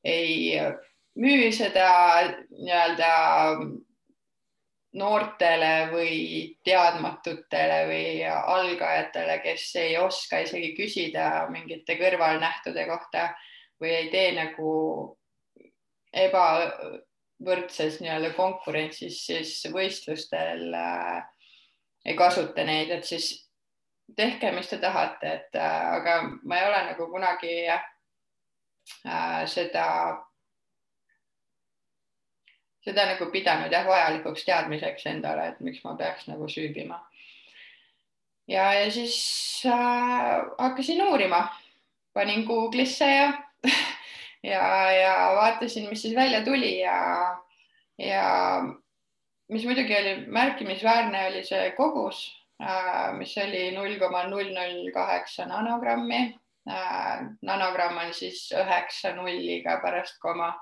ei müü seda nii-öelda noortele või teadmatutele või algajatele, kes ei oska isegi küsida mingite kõrvalnähtude kohta või ei tee nagu ebavõrdses nii-öelda konkurentsis, siis võistlustel ei kasuta neid, et siis tehke, mis te tahate, et aga ma ei ole nagu kunagi seda nagu pidanud jah vajalikuks teadmiseks endale, et miks ma peaks nagu süübima. Ja siis hakkasin uurima, panin Google'isse ja vaatasin, mis siis välja tuli ja mis muidugi oli märkimisväärne, oli see kogus, mis oli 0,008 nanogrammi. Nanogramm on siis 9 nulliga pärast koma.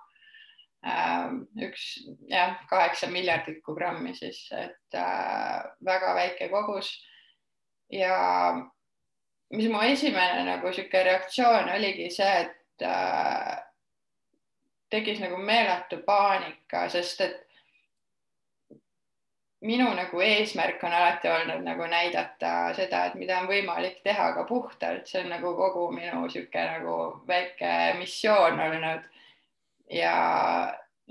8 miljardikku grammi siis, et väga väike kogus. Ja mis mu esimene nagu sihuke reaktsioon oligi see, et tekkis nagu meeletu paanika, sest et minu nagu eesmärk on alati olnud nagu näidata seda, et mida on võimalik teha ka puhtalt, see on nagu kogu minu sihuke nagu väike missioon olnud ja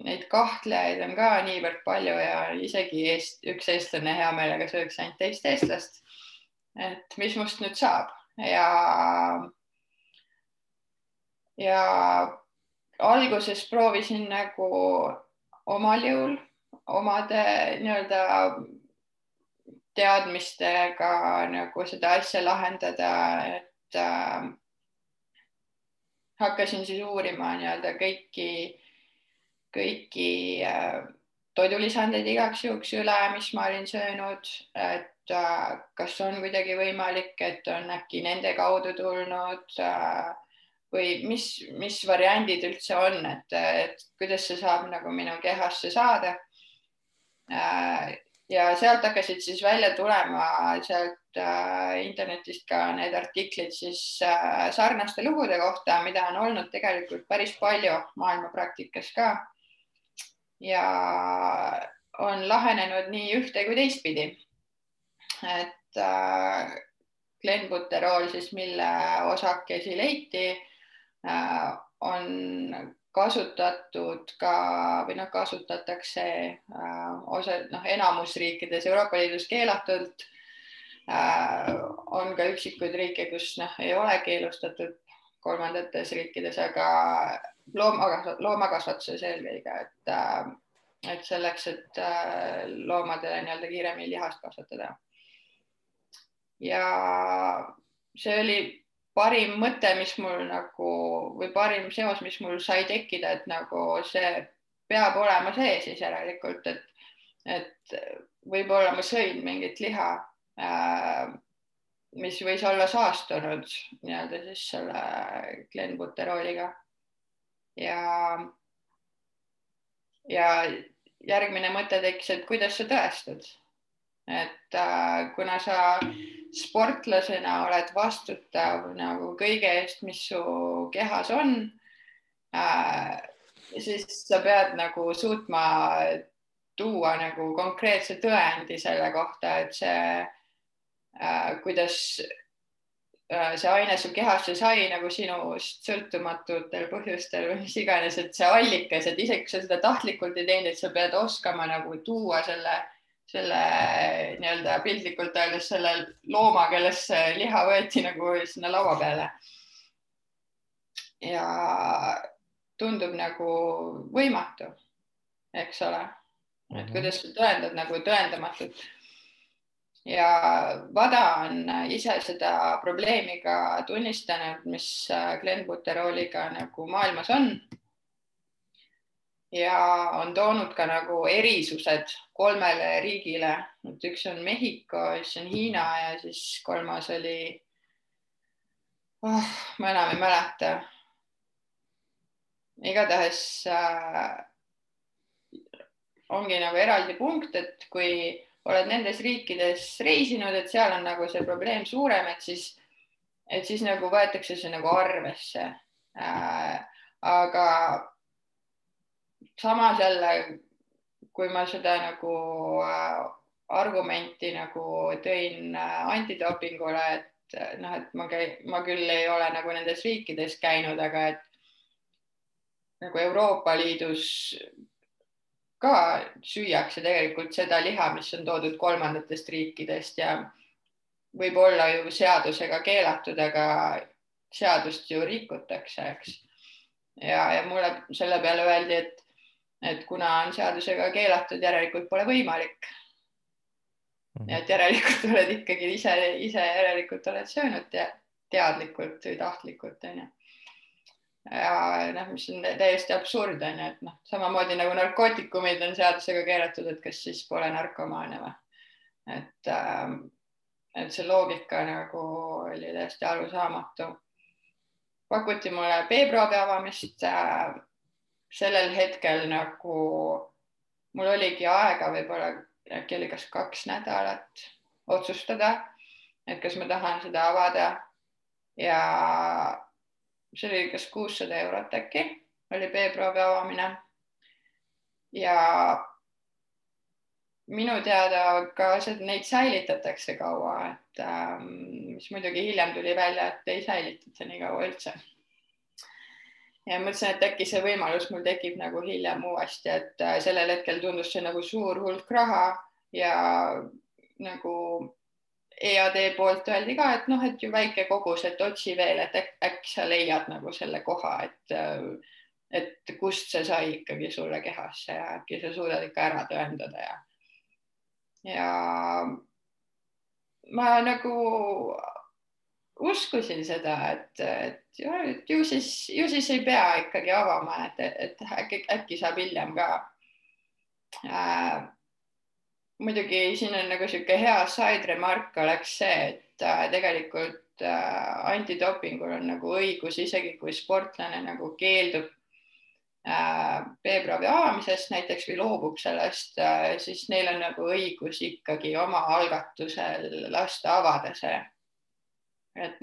neid kahtlejaid on ka niivõrd palju ja isegi üks eestlane hea meelega sööks ainult teist eestlast, et mis must nüüd saab ja alguses proovisin nagu omal jõul omade nii-öelda teadmistega nagu seda asja lahendada, et hakkasin siis uurima nii-öelda kõiki toidulisandeid igaks juhuks üle, mis ma olin söönud, et kas on kuidagi võimalik, et on äkki nende kaudu tulnud või mis variandid üldse on, et kuidas see saab nagu minu kehasse saada. Ja sealt hakkasid siis välja tulema sealt internetist ka need artiklid siis sarnaste lugude kohta, mida on olnud tegelikult päris palju maailma praktikas ka. Ja on lahenenud nii ühte kui teistpidi. Et Glenbuterol siis, mille osakesi leiti, on kasutatud ka või kasutatakse enamus riikides Euroopa Liidus keelatult. On ka üksikuid riike, kus ei ole keelustatud kolmandates riikides, aga loomakasvatuses eelkõige, et selleks, et loomadele nii-öelda kiiremini lihast kasvatada. ja see oli parim mõte, mis mul nagu või parim seos, mis mul sai tekkida, et nagu see peab olema sees siis järelikult, et võib-olla ma sõin mingit liha, mis võis olla saastunud nii-öelda siis selle klenbuterooliga ja järgmine mõte tekkis, et kuidas sa tõestad, et kuna sa sportlasena oled vastutav nagu kõige eest, mis su kehas on, siis sa pead nagu suutma tuua nagu konkreetse tõendi selle kohta, et see, kuidas see aine su kehasse sai nagu sinust sõltumatutel põhjustel või mis iganes, et see allikas, et isegi kui sa seda tahtlikult ei teinud, et sa pead oskama nagu tuua selle nii-öelda piltlikult öeldes selle looma, kellest see liha võeti nagu sinna laua peale. Ja tundub nagu võimatu, eks ole, et kuidas sa tõendad nagu tõendamatut. Ja Vada on ise seda probleemi ka tunnistanud, mis klenbuterooliga nagu maailmas on. Ja on toonud ka nagu erisused 3 riigile. Üks on Mehhiko, siis on Hiina ja siis 3. oli, ma enam ei mäleta. Igatahes ongi nagu eraldi punkt, et kui oled nendes riikides reisinud, et seal on nagu see probleem suurem, et siis nagu võetakse see nagu arvesse. Aga samas jälle, kui ma seda nagu argumenti nagu tõin antidopingule, et noh, et ma küll ei ole nagu nendes riikides käinud, aga et nagu Euroopa Liidus ka süüakse tegelikult seda liha, mis on toodud 3. riikidest ja võib olla ju seadusega keelatud, aga seadust ju rikutakse, eks. Ja mulle selle peale öeldi, et kuna on seadusega keelatud, järelikult pole võimalik. Et järelikult oled ikkagi ise järelikult oled söönud teadlikult või tahtlikult. Ja mis on täiesti absurd, et samamoodi nagu narkootikumid on seadusega keelatud, et kas siis pole narkomaane või. Et see loogika nagu oli täiesti arusaamatu. Pakuti mulle B-proovi avamist. Sellel hetkel nagu mul oligi aega võib-olla äkki oli kas 2 nädalat otsustada, et kas ma tahan seda avada ja see oli kas 600 eurot äkki, oli B-proovi avamine ja minu teada ka neid säilitatakse kaua, et mis muidugi hiljem tuli välja, et ei säilitata nii kaua üldse. Ja mõtlesin, et äkki see võimalus mul tekib nagu hiljem uuesti, et sellel hetkel tundus see nagu suur hulk raha ja nagu EAD poolt öeldi ka, et et ju väike kogus, et otsi veel, et äkki sa leiad nagu selle koha, et kust see sai ikkagi sulle kehasse ja äkki sa suudad ikka ära tõendada ja ma nagu uskusin seda, et ju siis ei pea ikkagi avama, et äkki saab hiljem ka. Muidugi siin on nagu siuke hea side remark oleks see, et tegelikult antidopingul on nagu õigus, isegi kui sportlane nagu keeldub B-proovi avamisest näiteks või loobub sellest, siis neil on nagu õigus ikkagi oma algatusel lasta avada see. Et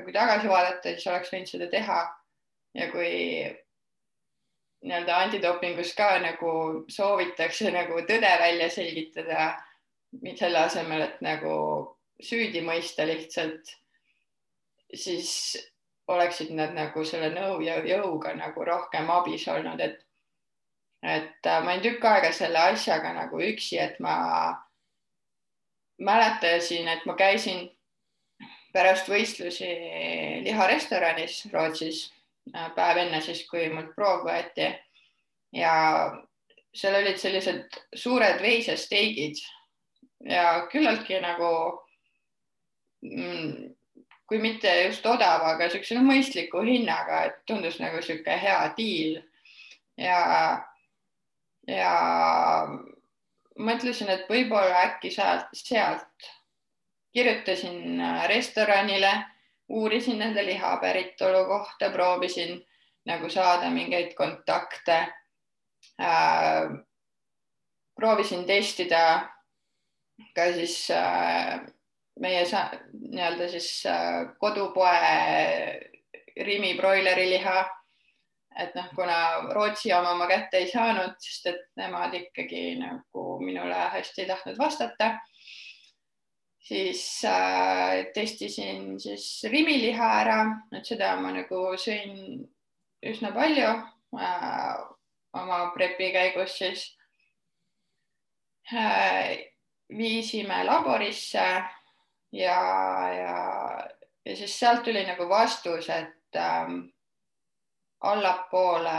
kui tagasi vaadata, siis oleks võinud seda teha ja kui nii-öelda antidopingus ka nagu soovitakse nagu tõde välja selgitada, selle asemel, et nagu süüdi mõista lihtsalt, siis oleksid nad nagu selle nõu ja jõuga nagu rohkem abis olnud, et ma olin tükk aega selle asjaga nagu üksi, et ma mäletasin, et ma käisin pärast võistlusi liharestoranis Rootsis päev enne siis, kui mult proov võeti ja seal olid sellised suured veisesteigid ja küllaltki nagu kui mitte just odav, aga niisuguse mõistliku hinnaga, et tundus nagu niisugune hea diil ja mõtlesin, et võib-olla äkki sealt kirjutasin restoranile, uurisin nende liha päritolu kohta, proovisin nagu saada mingeid kontakte, proovisin testida ka siis meie nii-öelda siis kodupoe Rimi broileriliha, et noh, kuna Rootsi oma ma kätte ei saanud, sest et nemad ikkagi nagu minule hästi ei tahtnud vastata, siis testisin siis Rimi liha ära, et seda ma nagu sõin üsna palju oma prepi käigus siis. Viisime laborisse ja siis sealt tuli nagu vastus, et allapoole,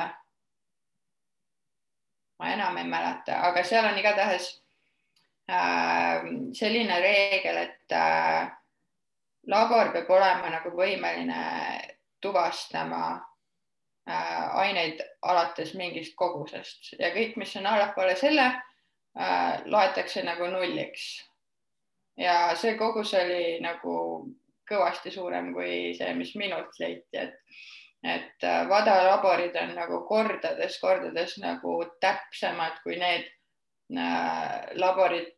ma enam ei mäleta, aga seal on igatahes selline reegel, et labor peab olema nagu võimeline tuvastama aineid alates mingist kogusest ja kõik, mis on allapoole selle, loetakse nagu nulliks. Ja see kogus oli nagu kõvasti suurem kui see, mis minult leiti, et vadalaborid on nagu kordades nagu täpsemad kui need laborid,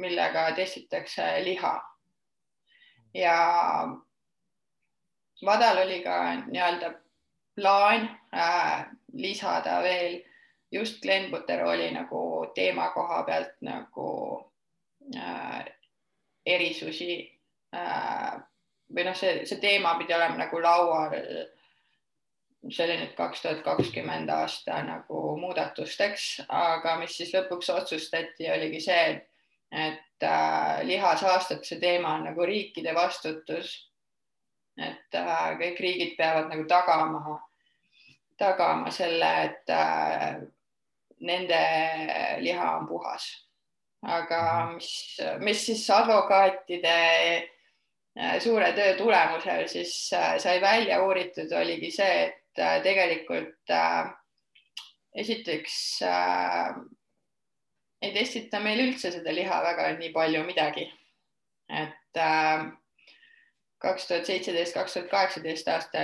millega testitakse liha. Ja vadal oli ka nii-öelda plaan lisada veel just Glenbuteroli nagu teema koha pealt nagu erisusi või noh, see teema pidi olema nagu laual, see oli nüüd 2020 aasta nagu muudatusteks, aga mis siis lõpuks otsustati, oligi see, et lihasaastuse teema on nagu riikide vastutus, et kõik riigid peavad nagu tagama selle, et nende liha on puhas. Aga mis siis advokaatide suure töö tulemusel siis sai välja uuritud, oligi see, et tegelikult esiteks ei testita meil üldse seda liha väga nii palju midagi. Et 2017-2018 aasta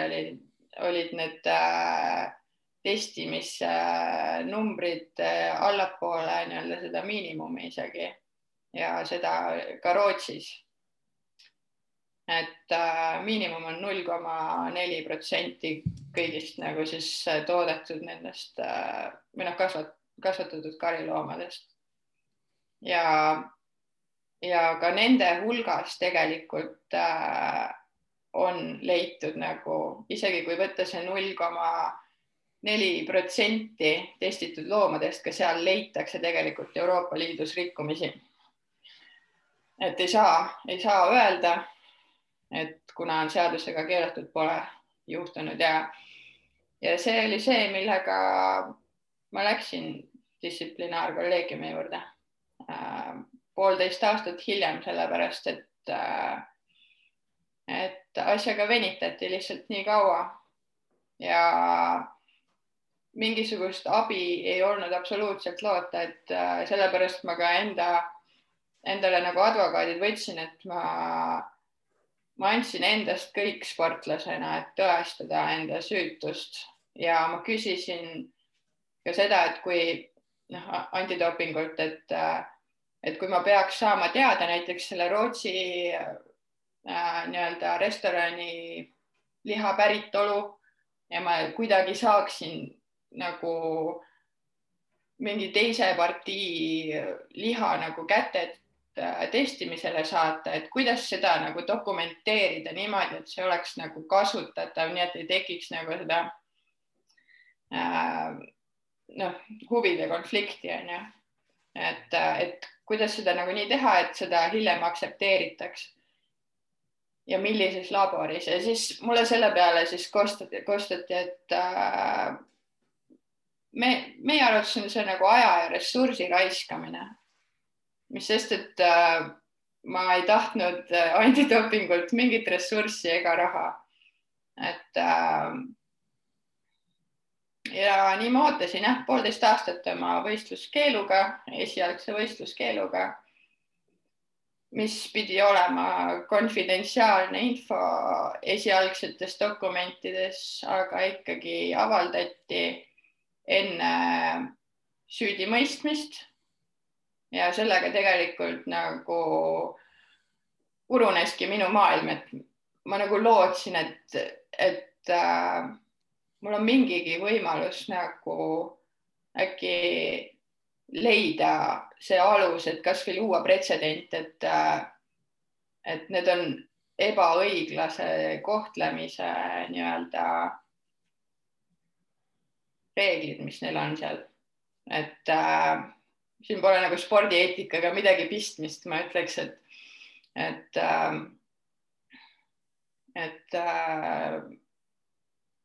olid need testimisnumbrid allapoole nii-öelda seda miinimumi isegi ja seda ka Rootsis. Et miinimum on 0,4% kõigist nagu siis toodetud nendest või noh, kasvatatud kariloomadest. Ja ka nende hulgas tegelikult on leitud nagu, isegi kui võtta see 0,4% testitud loomadest, ka seal leitakse tegelikult Euroopa Liidus rikkumisi. Et ei saa öelda, et kuna on seadusega keelatud, pole juhtunud ja see oli see, millega ma läksin distsiplinaarkolleegiumi juurde 1,5 aastat hiljem, sellepärast et asjaga venitati lihtsalt nii kaua ja mingisugust abi ei olnud absoluutselt loota, et sellepärast ma ka endale nagu advokaadid võtsin, et ma andsin endast kõik sportlasena, et tõestada enda süütust ja ma küsisin ka seda, et kui antidopingult, et kui ma peaks saama teada näiteks selle Rootsi nii-öelda restorani liha päritolu ja ma kuidagi saaksin nagu mingi teise partii liha nagu kätte testimisele saata, et kuidas seda nagu dokumenteerida niimoodi, et see oleks nagu kasutatav, nii et ei tekiks nagu seda huvide konflikti on ju, et kuidas seda nagu nii teha, et seda hiljem aktsepteeritaks ja millises laboris ja siis mulle selle peale siis kostati, et meie arvates on see nagu aja ja ressursi raiskamine, mis sest, et ma ei tahtnud antidopingult mingit ressurssi ega raha. Et ja nii ma ootasin 1,5 aastat oma võistluskeeluga, esialgse võistluskeeluga, mis pidi olema konfidentsiaalne info esialgsetes dokumentides, aga ikkagi avaldati enne süüdimõistmist ja sellega tegelikult nagu puruneski minu maailm, et ma nagu lootsin, et mul on mingigi võimalus nagu äkki leida see alus, et kas või luua pretsedent, et need on ebaõiglase kohtlemise nii-öelda reeglid, mis neil on seal. Et siin pole nagu spordieetikaga midagi pistmist, ma ütleks, et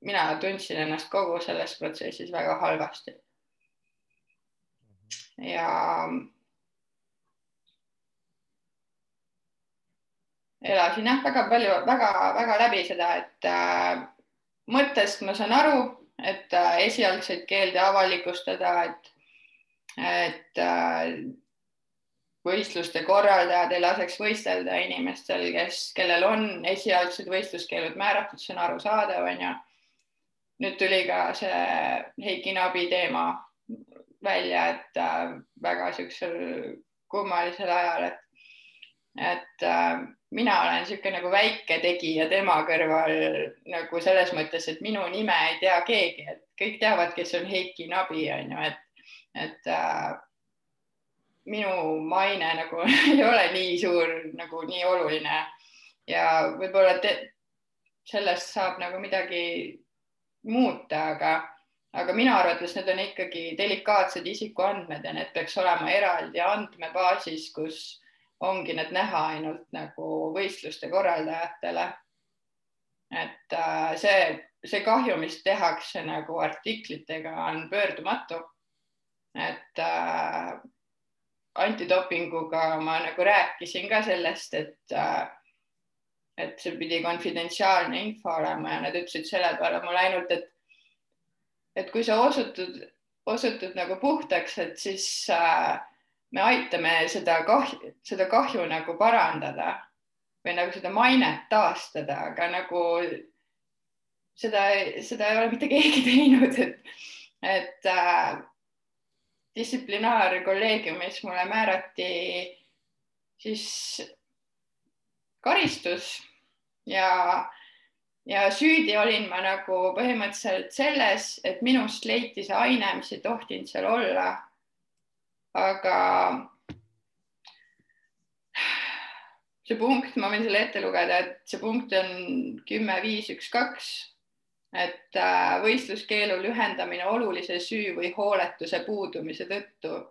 mina tundsin ennast kogu selles protsessis väga halvasti. Ja elasin väga läbi seda, et mõttest ma saan aru, et esialgseid keelde avalikustada, et võistluste korraldajad ei laseks võistelda inimestel, kellel on esialgsed võistluskeelud määratud, see on arusaadav, on ju. Nüüd tuli ka see Heiki Nabi teema välja, et väga siuksel kummalisel ajal, et mina olen siuke nagu väike tegija tema kõrval nagu selles mõttes, et minu nime ei tea keegi, et kõik teavad, kes on Heiki Nabi, on ju, et minu maine nagu ei ole nii suur, nagu nii oluline ja võib-olla sellest saab nagu midagi muuta, aga minu arvates need on ikkagi delikaatsed isikuandmed ja need peaks olema eraldi andmebaasis, kus ongi need näha ainult nagu võistluste korraldajatele. Et see kahju, mis tehakse nagu artiklitega, on pöördumatu. Et antidopinguga ma nagu rääkisin ka sellest, et see pidi konfidentsiaalne info olema ja nad ütlesid selle peale mulle ainult, et kui sa osutud nagu puhtaks, et siis me aitame seda kahju nagu parandada või nagu seda mainet taastada, aga nagu seda ei ole mitte keegi teinud, et distsiplinaarkolleegiumis mulle määrati siis karistus ja süüdi olin ma nagu põhimõtteliselt selles, et minust leiti see aine, mis ei tohtinud seal olla. Aga see punkt, ma võin selle ette lugeda, et see punkt on 10.5.1.2, et võistluskeelu lühendamine olulise süü või hooletuse puudumise tõttu,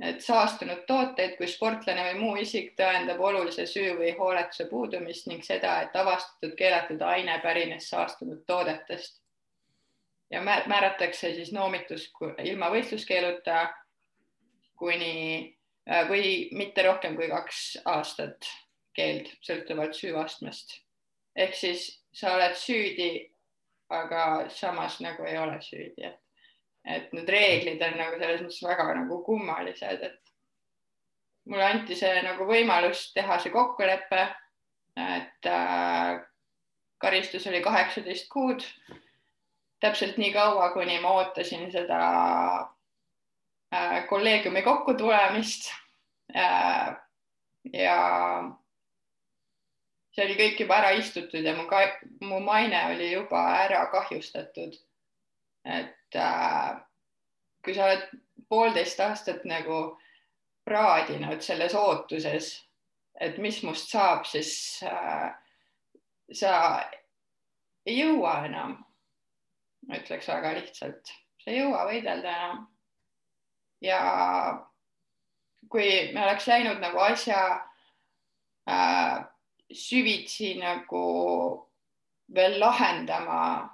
et saastunud tooteid, kui sportlane või muu isik tõendab olulise süü või hooletuse puudumist ning seda, et avastatud keelatud aine pärines saastunud toodetest ja määratakse siis noomitus ilma võistluskeeluta või mitte rohkem kui 2 aastat keeld sõltuvalt süüastmest. Ehk siis sa oled süüdi, aga samas nagu ei ole süüdi. Et need reeglid on nagu selles mõttes väga nagu kummalised, et mulle anti see nagu võimalus teha see kokkulepe, et karistus oli 18 kuud, täpselt nii kaua, kuni ma ootasin seda kolleegiumi kokkutulemist ja see oli kõik juba ära istutud ja mu maine oli juba ära kahjustatud. Et kui sa oled 1,5 aastat nagu praadinud selles ootuses, et mis must saab, siis sa ei jõua enam, ma ütleks väga lihtsalt, sa ei jõua võidelda enam. Ja kui me oleks läinud nagu asja süvitsi nagu veel lahendama,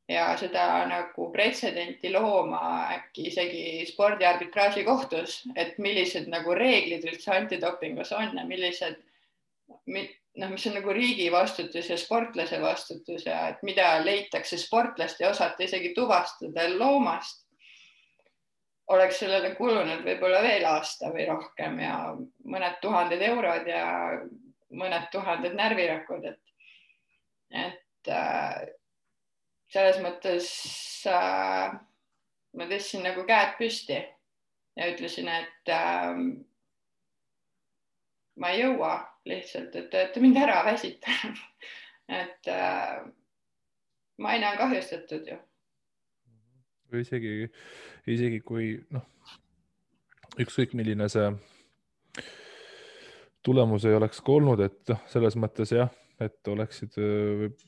ja seda nagu pretsedenti looma äkki isegi spordiarbitraaži kohtus, et millised nagu reeglid üldse antidopingus on ja millised, mis on nagu riigi vastutus ja sportlase vastutus ja et mida leitakse sportlast ja osata isegi tuvastada loomast, oleks sellele kulunud võib-olla veel aasta või rohkem ja mõned tuhanded eurod ja mõned tuhanded närvirakud, et selles mõttes ma tõstsin nagu käed püsti ja ütlesin, et ma ei jõua lihtsalt, et te olete mind ära väsitanud. et maine on kahjustatud ju. Või isegi kui ükskõik milline see tulemus ei oleks ka olnud, et selles mõttes jah, et oleksid,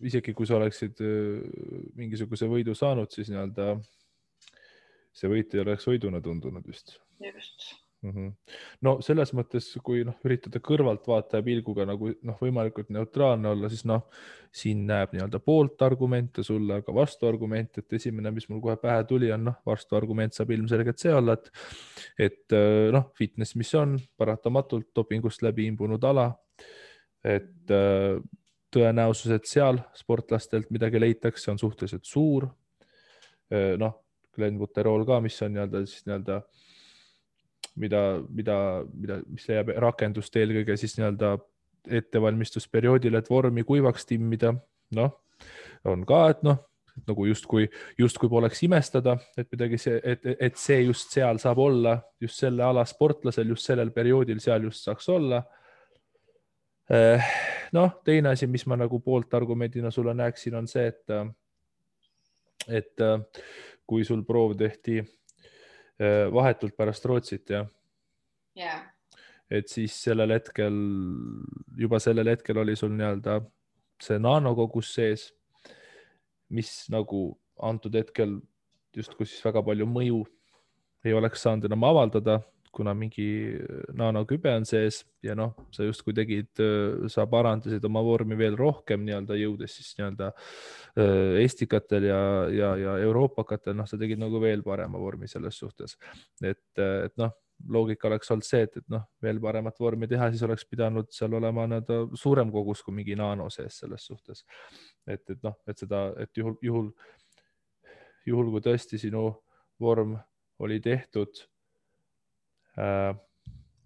isegi kui sa oleksid mingisuguse võidu saanud, siis nii-öelda see võit ei oleks võiduna tundunud vist. Just. No selles mõttes, kui üritada kõrvaltvaataja pilguga nagu võimalikult neutraalne olla, siis siin näeb nii-öelda poolt argumente sulle, aga vastuargument, et esimene, mis mul kohe pähe tuli, on vastuargument saab ilmselgelt see olla, et fitness, mis on paratamatult dopingust läbi imbunud ala, et tõenäosus, et seal sportlastelt midagi leitakse, on suhteliselt suur. Glenbuterol ka, mis on nii-öelda mis leiab rakendust eelkõige siis nii-öelda ettevalmistusperioodil, et vormi kuivaks timmida. On ka, et nagu justkui poleks imestada, et midagi et see just seal saab olla, just selle ala sportlasel, just sellel perioodil seal just saaks olla. Teine asi, mis ma nagu poolt argumendina sulle näeksin, on see, et kui sul proov tehti vahetult pärast Rootsit, et siis sellel hetkel oli sul nii-öelda see nanokogus sees, mis nagu antud hetkel justkui siis väga palju mõju ei oleks saanud enam avaldada, kuna mingi nanokübe on sees ja sa justkui sa parandasid oma vormi veel rohkem nii-öelda jõudes siis nii-öelda estikatel ja euroopakatel, sa tegid nagu veel parema vormi selles suhtes, et loogika oleks olnud see, et veel paremat vormi teha, siis oleks pidanud seal olema suurem kogus kui mingi nano sees selles suhtes, et juhul kui tõesti sinu vorm oli tehtud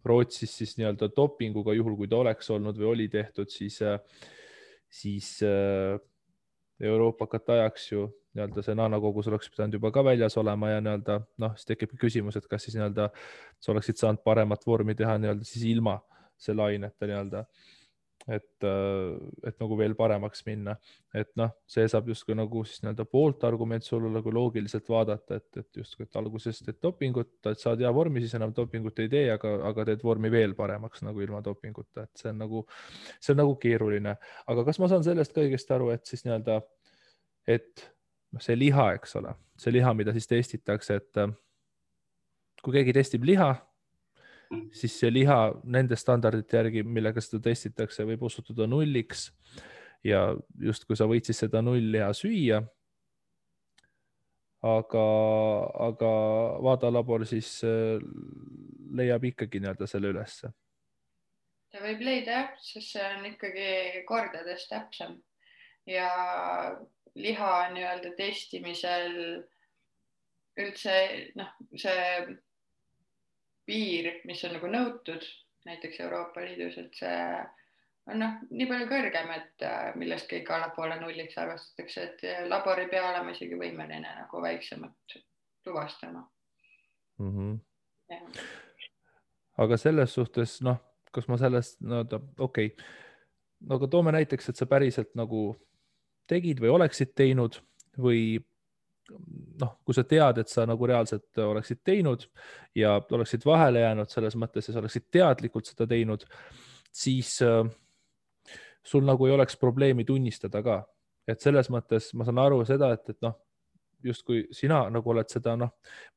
Rootsis siis nii-öelda dopinguga, juhul kui ta oleks olnud või oli tehtud, siis Euroopakat ajaks ju nii-öelda see nanokogus oleks pidanud juba ka väljas olema ja nii-öelda siis tekib küsimus, et kas siis nii-öelda sa oleksid saanud paremat vormi teha nii-öelda siis ilma selle aineta nii-öelda, et nagu veel paremaks minna, et see saab justkui nagu siis nii-öelda poolt argument sulle nagu loogiliselt vaadata, et justkui et algusest teed dopingut, et saad hea vormi, siis enam dopingut ei tee, aga teed vormi veel paremaks nagu ilma dopinguta, et see on nagu keeruline, aga kas ma saan sellest ka õigesti aru, et siis nii-öelda, et see liha, eks ole, see liha, mida siis testitakse, et kui keegi testib liha, siis see liha nende standardite järgi, millega seda testitakse, võib osutuda nulliks ja justkui sa võid siis seda nullliha süüa, aga vaadalabor siis leiab ikkagi nii-öelda selle ülesse. Ta võib leida jah, sest see on ikkagi kordades täpsem ja liha nii-öelda testimisel üldse see piir, mis on nagu nõutud näiteks Euroopa Liidus, et see on nii palju kõrgem, et millest kõik allapoole nulliks arvestatakse, et labor ei pea olema isegi võimeline nagu väiksemat tuvastama. Aga selles suhtes, kas ma sellest, okei, aga toome näiteks, et sa päriselt nagu tegid või oleksid teinud või kui sa tead, et sa nagu reaalselt oleksid teinud ja oleksid vahele jäänud selles mõttes ja sa oleksid teadlikult seda teinud, siis sul nagu ei oleks probleemi tunnistada ka. Et selles mõttes ma saan aru seda, et justkui sina nagu oled seda, ma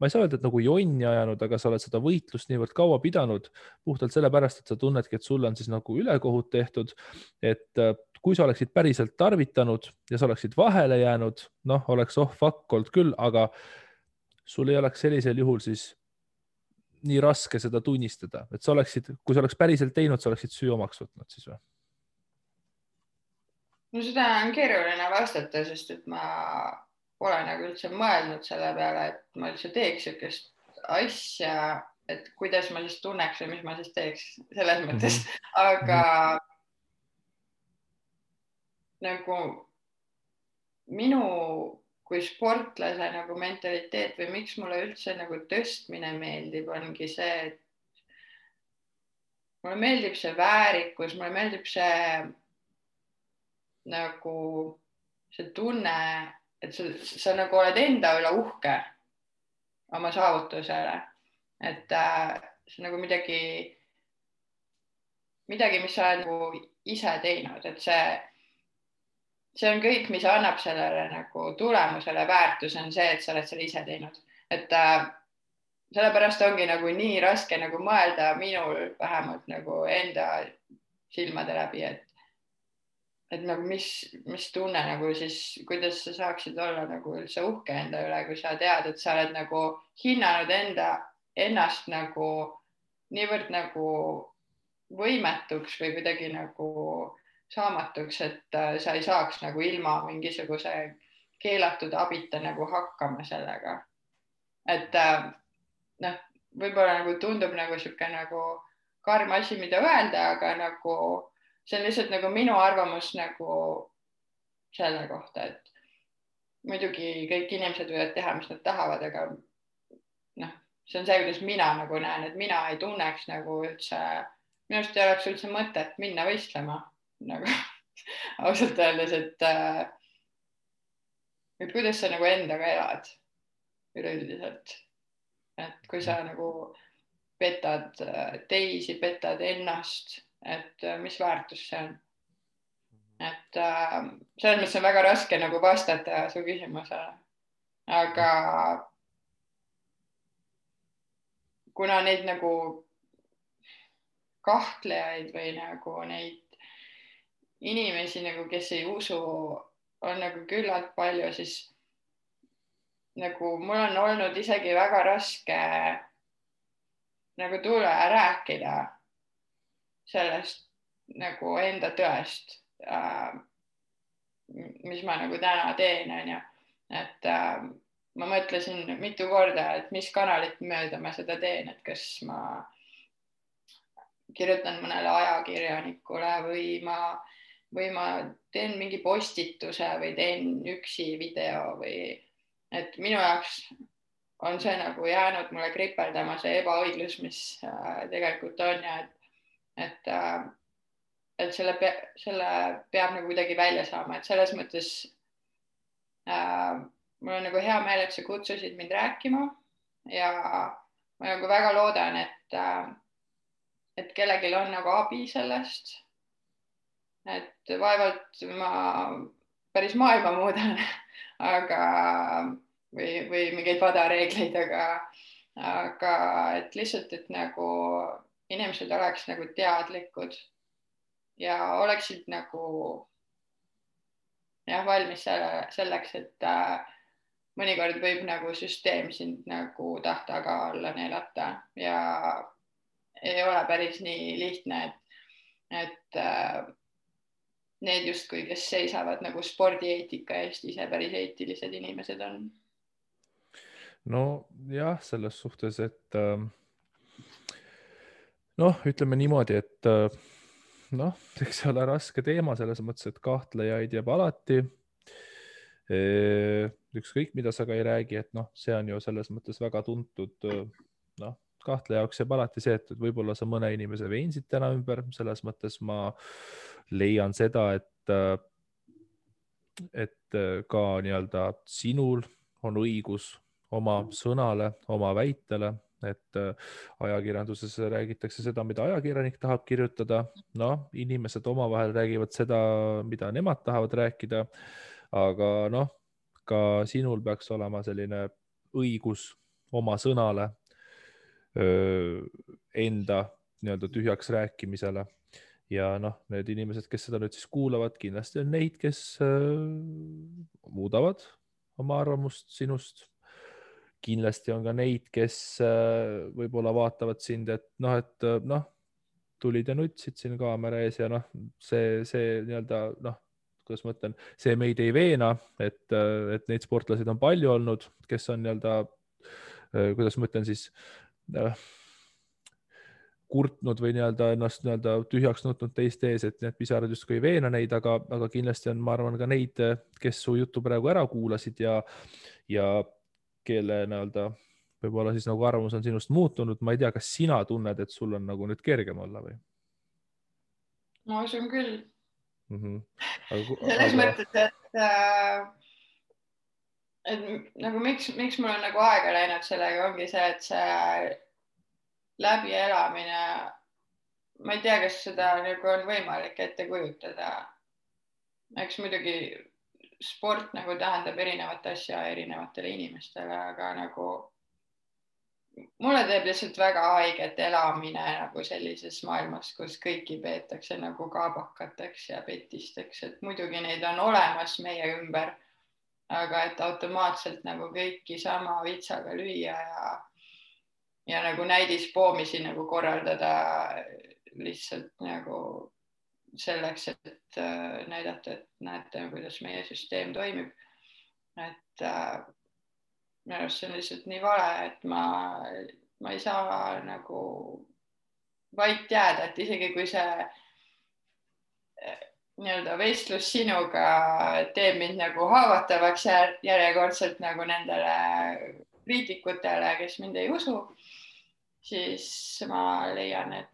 ei saa öelda, et nagu jonni ajanud, aga sa oled seda võitlust niivõrd kaua pidanud puhtalt sellepärast, et sa tunnedki, et sul on siis nagu ülekohut tehtud, et kui sa oleksid päriselt tarvitanud ja sa oleksid vahele jäänud, noh, oleks fuck olnud küll, aga sul ei oleks sellisel juhul siis nii raske seda tunnistada, et sa oleksid, kui sa oleks päriselt teinud, sa oleksid süü omaks võtnud siis või? No seda on keeruline vastata, sest et ma pole nagu üldse mõelnud selle peale, et ma üldse teeks sellist asja, et kuidas ma siis tunneks või mis ma siis teeks selles mõttes, aga nagu minu kui sportlase nagu mentaliteet või miks mulle üldse nagu tõstmine meeldib, ongi see, et mulle meeldib see väärikus, mulle meeldib see nagu see tunne, et sa nagu oled enda üle uhke oma saavutusele, et see nagu midagi, mis sa oled nagu ise teinud, et see on kõik, mis annab sellele nagu tulemusele väärtus, on see, et sa oled selle ise teinud, et sellepärast ongi nagu nii raske nagu mõelda minul vähemalt nagu enda silmade läbi, et nagu mis tunne nagu siis, kuidas sa saaksid olla nagu üldse uhke enda üle, kui sa tead, et sa oled nagu hinnanud ennast nagu niivõrd nagu võimetuks või kuidagi nagu saamatuks, et sa ei saaks nagu ilma mingisuguse keelatud abita nagu hakkama sellega. Et noh, võib-olla nagu tundub nagu sihuke nagu karm asi, mida öelda, aga nagu see on lihtsalt nagu minu arvamus nagu selle kohta, et muidugi kõik inimesed võivad teha, mis nad tahavad, aga noh, see on see, kuidas mina nagu näen, et mina ei tunneks nagu üldse, minust ei oleks üldse mõtet minna võistlema nagu ausalt öeldes, et kuidas sa nagu endaga elad üleüldiselt, et kui sa nagu petad teisi, petad ennast, et mis väärtus see on. Et selles mõttes on väga raske nagu vastata su küsimusele, aga kuna neid nagu kahtlejaid või nagu neid inimesi nagu, kes ei usu, on nagu küllalt palju, siis nagu mul on olnud isegi väga raske nagu tulla ja rääkida sellest nagu enda tõest, mis ma nagu täna teen, onju. Et ma mõtlesin mitu korda, et mis kanalit mööda ma seda teen, et kas ma kirjutan mõnele ajakirjanikule või ma teen mingi postituse või teen üksi video või et minu jaoks on see nagu jäänud mulle kripeldama see ebaõiglus, mis tegelikult on ja et selle peab nagu kuidagi välja saama, et selles mõttes mul on nagu hea meel, et sa kutsusid mind rääkima ja ma nagu väga loodan, et kellelgi on nagu abi sellest, et vaevalt ma päris maailma muudan, aga või mingeid vadareegleid, aga et lihtsalt, et nagu inimesed oleks nagu teadlikud ja oleksid nagu jah, valmis selleks, et mõnikord võib nagu süsteem sind nagu tahtaga alla neelata ja ei ole päris nii lihtne, et need justkui, kes seisavad nagu spordieetika eest, ise päris eetilised inimesed on. No jah, selles suhtes, et noh, ütleme niimoodi, et noh, eks see ole raske teema selles mõttes, et kahtlejaid jääb alati. Ükskõik, mida sa ka ei räägi, et noh, see on ju selles mõttes väga tuntud, noh, kahtleja jaoks jääb alati see, et võib-olla sa mõne inimese veensid täna ümber, selles mõttes ma leian seda, et ka nii-öelda sinul on õigus oma sõnale, oma väitele, et ajakirjanduses räägitakse seda, mida ajakirjanik tahab kirjutada. Noh, inimesed omavahel räägivad seda, mida nemad tahavad rääkida, aga noh, ka sinul peaks olema selline õigus oma sõnale, enda nii-öelda tühjaks rääkimisele ja noh, need inimesed, kes seda nüüd siis kuulavad, kindlasti on neid, kes muudavad oma arvamust sinust. Kindlasti on ka neid, kes võib-olla vaatavad sind, et noh, tulid ja nutsid siin kaamera ees ja noh, see nii-öelda noh, kuidas ma ütlen, see meid ei veena, et neid sportlaseid on palju olnud, kes on nii-öelda, kuidas ma ütlen siis, kurtnud või nii-öelda ennast nii-öelda tühjaks nutnud teiste ees, et need pisarad justkui ei veena neid, aga kindlasti on, ma arvan, ka neid, kes su juttu praegu ära kuulasid ja kelle nii-öelda võib-olla siis nagu arvamus on sinust muutunud. Ma ei tea, kas sina tunned, et sul on nagu nüüd kergem olla või? Ma usun küll. Selles mõttes, et nagu miks mul on nagu aega läinud sellega, ongi see, et see läbielamine, ma ei tea, kas seda nagu on võimalik ette kujutada. Eks muidugi sport nagu tähendab erinevat asja erinevatele inimestele, aga nagu mulle teeb lihtsalt väga haiget elamine nagu sellises maailmas, kus kõiki peetakse nagu kaabakateks ja petisteks, et muidugi neid on olemas meie ümber, aga et automaatselt nagu kõiki sama vitsaga lüüa ja nagu näidispoomisi nagu korraldada lihtsalt nagu selleks, et näidata, et näete, kuidas meie süsteem toimib. Et minu arust see on lihtsalt nii vale, et ma ei saa nagu vait jääda, et isegi kui see nii-öelda vestlus sinuga teeb mind nagu haavatavaks järjekordselt nagu nendele kriitikutele, kes mind ei usu, siis ma leian, et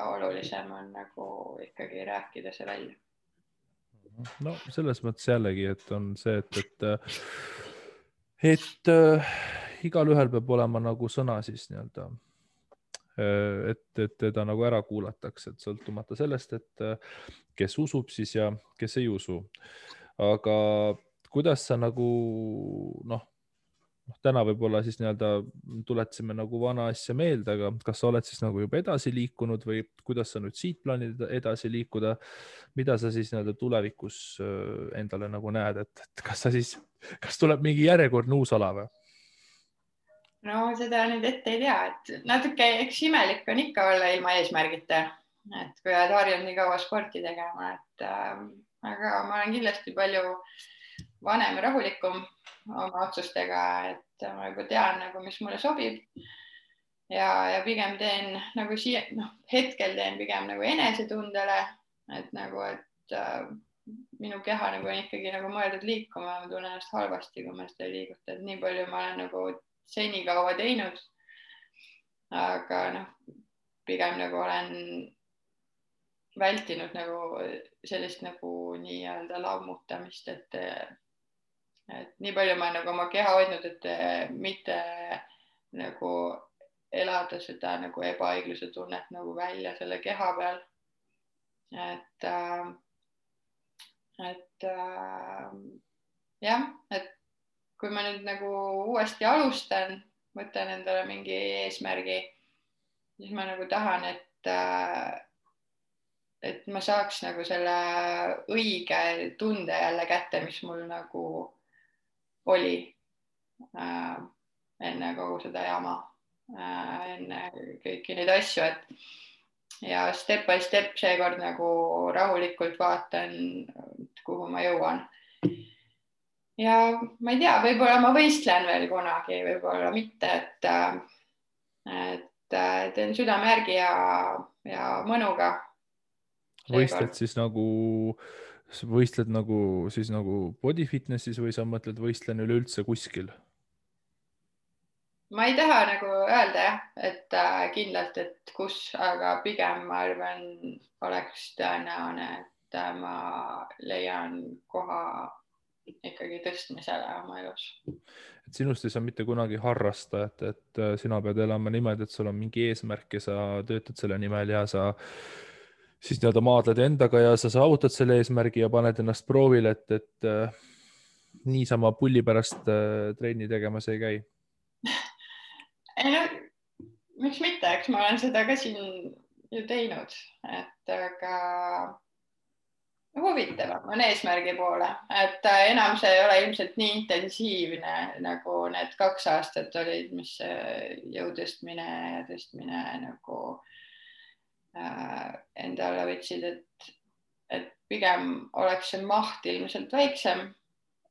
olulisem on nagu ikkagi rääkida see välja. No selles mõttes jällegi, et on see, et igalühel peab olema nagu sõna siis nii-öelda, et teda nagu ära kuulatakse, et sõltumata sellest, et kes usub siis ja kes ei usu. Aga kuidas sa nagu täna võib-olla siis nii-öelda tuletasime nagu vana asja meelde, aga kas sa oled siis nagu juba edasi liikunud või kuidas sa nüüd siit plaanid edasi liikuda? Mida sa siis nii-öelda tulevikus endale nagu näed, et kas tuleb mingi järjekordne uus ala või? No seda nüüd ette ei tea, et natuke eks imelik on ikka olla ilma eesmärgita, et kui oled harjunud nii kaua sporti tegema, et aga ma olen kindlasti palju vanem ja rahulikum oma otsustega, et ma juba tean nagu, mis mulle sobib ja pigem teen nagu hetkel teen pigem nagu enesetundele, et nagu, et minu keha nagu on ikkagi nagu mõeldud liikuma, ma tunnen ennast halvasti, kui ma seda ei liiguta, et nii palju ma olen nagu senikaua teinud, aga pigem nagu olen vältinud nagu sellist nagu nii-öelda lammutamist, et nii palju ma nagu oma keha hoidnud, et mitte nagu elada seda nagu ebaõigluse tunnet nagu välja selle keha peal. Et jah, et kui ma nüüd nagu uuesti alustan, võtan endale mingi eesmärgi, siis ma nagu tahan, et ma saaks nagu selle õige tunde jälle kätte, mis mul nagu oli enne kogu seda jama, enne kõiki neid asju, ja step by step seekord nagu rahulikult vaatan, kuhu ma jõuan. Ja ma ei tea, võib-olla ma võistlen veel kunagi, võib-olla mitte, et teen südame järgi ja mõnuga. Võistled siis nagu body fitnessis või sa mõtled võistlen üleüldse kuskil? Ma ei taha nagu öelda jah, et kindlalt, et kus, aga pigem ma arvan, oleks tõenäone, et ma leian koha ikkagi tõstmisele oma elus. Et sinust ei saa mitte kunagi harrastajat, et sina pead elama niimoodi, et sul on mingi eesmärk ja sa töötad selle nimel ja sa siis nii-öelda maadled endaga ja sa saavutad selle eesmärgi ja paned ennast proovile, et niisama pulli pärast trenni tegemas ei käi. Ei no, miks mitte, eks ma olen seda ka siin ju teinud, et aga huvitavam on eesmärgi poole, et enam see ei ole ilmselt nii intensiivne nagu need 2 aastat olid, mis jõu tõstmine nagu endale võtsid, et pigem oleks see maht ilmselt väiksem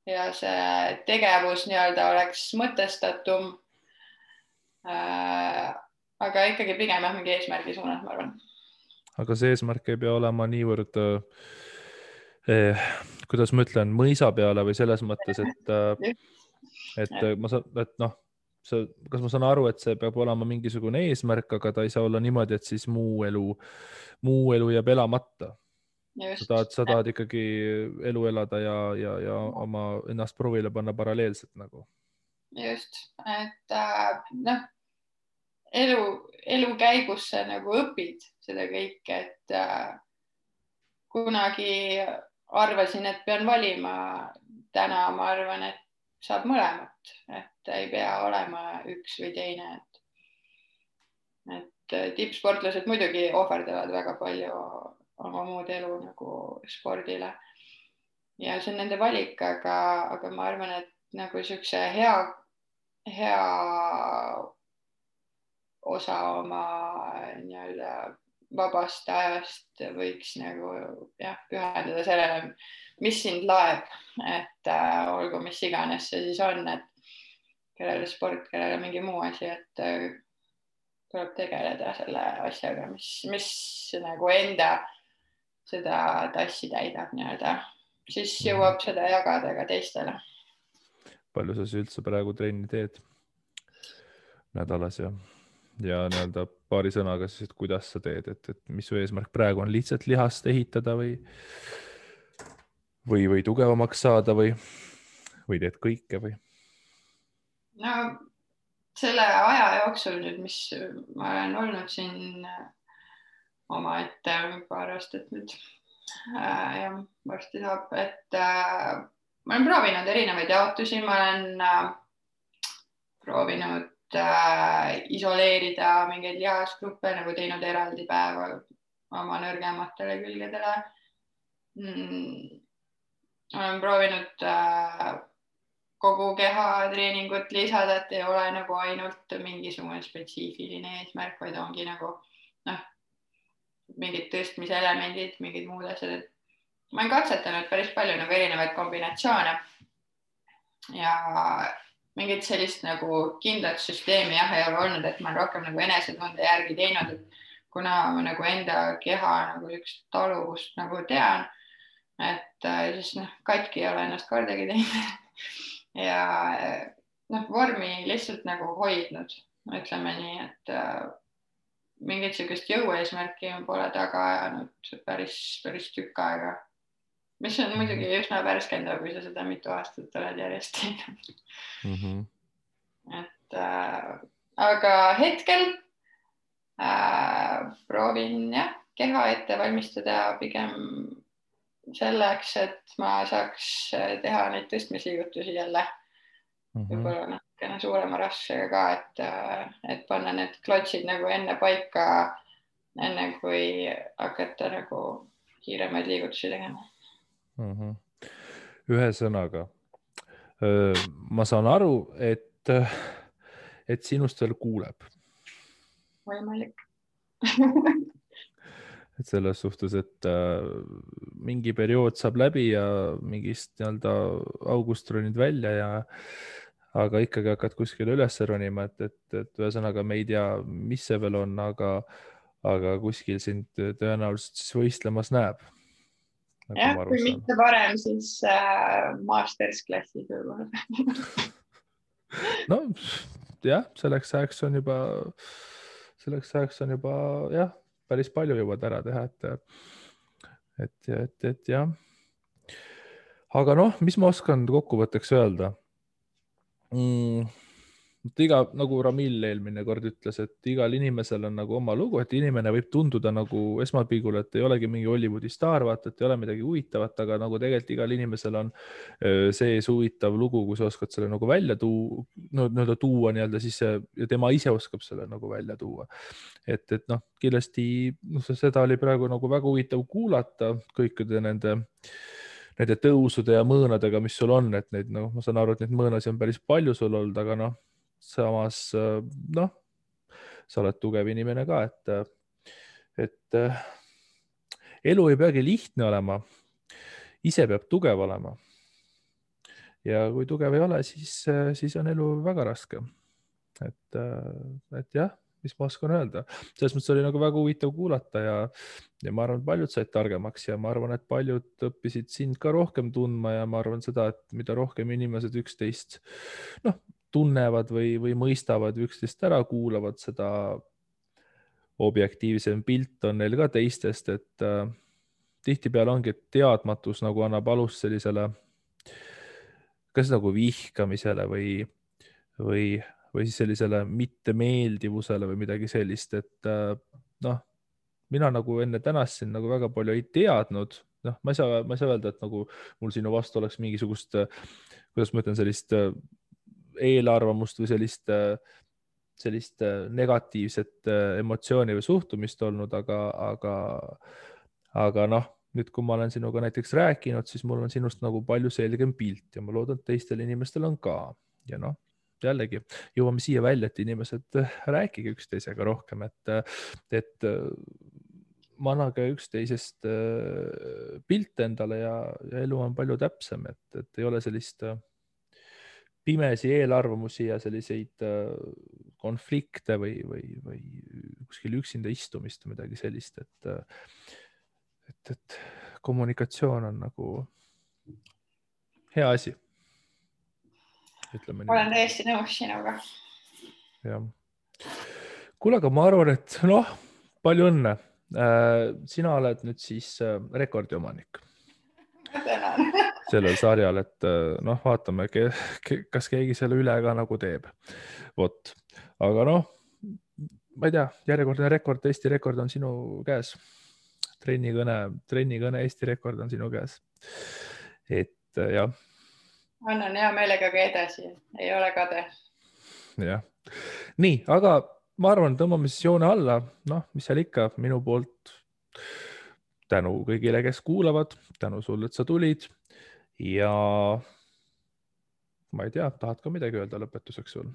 ja see tegevus nii-öelda oleks mõtestatum. Aga ikkagi pigem mingi eesmärgi suunas, ma arvan. Aga see eesmärk ei pea olema niivõrd kuidas ma ütlen, mõisa peale või selles mõttes, et noh, kas ma saan aru, et see peab olema mingisugune eesmärk, aga ta ei saa olla niimoodi, et siis muu elu jääb elamata. Sa tahad ikkagi elu elada ja oma ennast proovile panna paralleelselt nagu. Just, et elu käigus sa nagu õpid seda kõike, et kunagi arvasin, et pean valima. Täna ma arvan, et saab mõlemat, et ei pea olema üks või teine. Et tippsportlased muidugi ohverdavad väga palju oma muud elu nagu spordile. Ja see on nende valik, aga ma arvan, et nagu siukse hea osa oma nii-öelda vabast ajast võiks nagu pühendada sellele, mis sind laeb, et olgu mis iganes see siis on, et kellele sport, kellele mingi muu asi, et tuleb tegeleda selle asjaga, mis nagu enda seda tassi täidab nii-öelda, siis jõuab seda jagada ka teistele. Palju sa üldse praegu trenni teed nädalas ja nii-öelda paari sõnaga siis, et kuidas sa teed, et mis su eesmärk praegu on, lihtsalt lihast ehitada või tugevamaks saada või teed kõike või? No selle aja jooksul nüüd, mis ma olen olnud siin omaette paar aastat nüüd ja varsti saab, et ma olen proovinud erinevaid jaotusi, ma olen proovinud isoleerida mingeid lihasgruppe, nagu teinud eraldi päeva oma nõrgematele külgedele. Olen proovinud kogu keha treeningut lisada, et ei ole nagu ainult mingisugune spetsiifiline eesmärk, vaid ongi nagu mingid tõstmiselemendid, mingid muud asjad. Ma olen katsetanud päris palju nagu erinevaid kombinatsioone ja mingit sellist nagu kindlat süsteemi ei ole olnud, et ma olen rohkem nagu enesetunde järgi teinud, et kuna ma nagu enda keha nagu üks taluvust nagu tean, et siis katki ei ole ennast kordagi teinud ja vormi lihtsalt nagu hoidnud, ütleme nii, et mingit sellist jõueesmärki pole taga ajanud päris tükk aega, mis on muidugi üsna värskendav, kui sa seda mitu aastat oled järjest teinud. Et aga hetkel proovin keha ette valmistada pigem selleks, et ma saaks teha neid tõstmisliigutusi jälle võib-olla natukene suurema raskusega ka, et panna need klotsid nagu enne paika, enne kui hakata nagu kiiremaid liigutusi tegema. Ühesõnaga, ma saan aru, et sinust veel kuuleb. Võimalik. Et selles suhtes, et mingi periood saab läbi ja mingist nii-öelda august ronid välja aga ikkagi hakkad kuskile üles ronima, et ühesõnaga me ei tea, mis see veel on, aga kuskil sind tõenäoliselt siis võistlemas näeb. Kui mitte varem, siis mastersklassis võib-olla. No jah, selleks ajaks on juba päris palju jõuad ära teha, et jah. Aga mis ma oskan kokkuvõtteks öelda? nagu Ramil eelmine kord ütles, et igal inimesel on nagu oma lugu, et inimene võib tunduda nagu esmapilgul, et ei olegi mingi Hollywoodi staar, vaata, et ei ole midagi huvitavat, aga nagu tegelikult igal inimesel on sees huvitav lugu, kui sa oskad selle nagu välja tuua nii-öelda siis ja tema ise oskab selle nagu välja tuua. Et noh, kindlasti seda oli praegu nagu väga huvitav kuulata kõikide nende tõusude ja mõõnadega, mis sul on, et neid, noh, ma saan aru, et neid mõõnasid on päris palju sul olnud, aga noh, samas noh, sa oled tugev inimene ka, et elu ei peagi lihtne olema, ise peab tugev olema. Ja kui tugev ei ole, siis on elu väga raske. Et jah, mis ma oskan öelda. Selles mõttes oli nagu väga huvitav kuulata ja ma arvan, et paljud said targemaks ja ma arvan, et paljud õppisid sind ka rohkem tundma ja ma arvan seda, et mida rohkem inimesed üksteist tunnevad või mõistavad või üksteist ära kuulavad, seda objektiivsem pilt on neil ka teistest, et tihtipeale ongi, et teadmatus nagu annab alust sellisele kas nagu vihkamisele või siis sellisele mittemeeldivusele või midagi sellist, et noh, mina nagu enne tänast siin nagu väga palju ei teadnud, noh, ma ei saa öelda, et nagu mul sinu vastu oleks mingisugust, kuidas ma ütlen, sellist eelarvamust või sellist negatiivset emotsiooni või suhtumist olnud, aga noh, nüüd kui ma olen sinuga näiteks rääkinud, siis mul on sinust nagu palju selgem pilt ja ma loodan, et teistel inimestel on ka ja noh, jällegi jõuame siia välja, et inimesed rääkige üksteisega rohkem, et manage üksteisest pilte endale ja elu on palju täpsem, et ei ole sellist pimesi eelarvamusi ja selliseid konflikte või kuskil üksinda istumist või midagi sellist, et kommunikatsioon on nagu hea asi. Olen täiesti nõus sinuga. Jah. Kuule, aga ma arvan, et noh, palju õnne. Sina oled nüüd siis rekordiomanik sellel sarjal, et noh, vaatame, kas keegi selle üle ka nagu teeb. Vot, aga noh, ma ei tea, järjekordne rekord, Eesti rekord on sinu käes. Trennikõne Eesti rekord on sinu käes. Et jah. Annan hea meelega ka edasi, ei ole kade. Jah. Nii, aga ma arvan, tõmbame siis joone alla. Noh, mis seal ikka, minu poolt tänu kõigile, kes kuulavad, tänu sulle, et sa tulid ja ma ei tea, tahad ka midagi öelda lõpetuseks sul?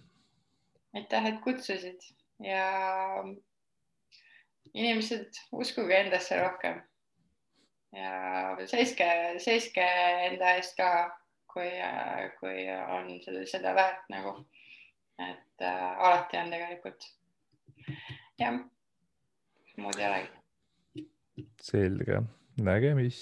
Aitäh, et kutsusid ja inimesed uskuge endasse rohkem ja seiske enda eest ka, kui on seda väärt nagu, et alati on tegelikult. Jah, muud ei olegi. Selge, nägemist.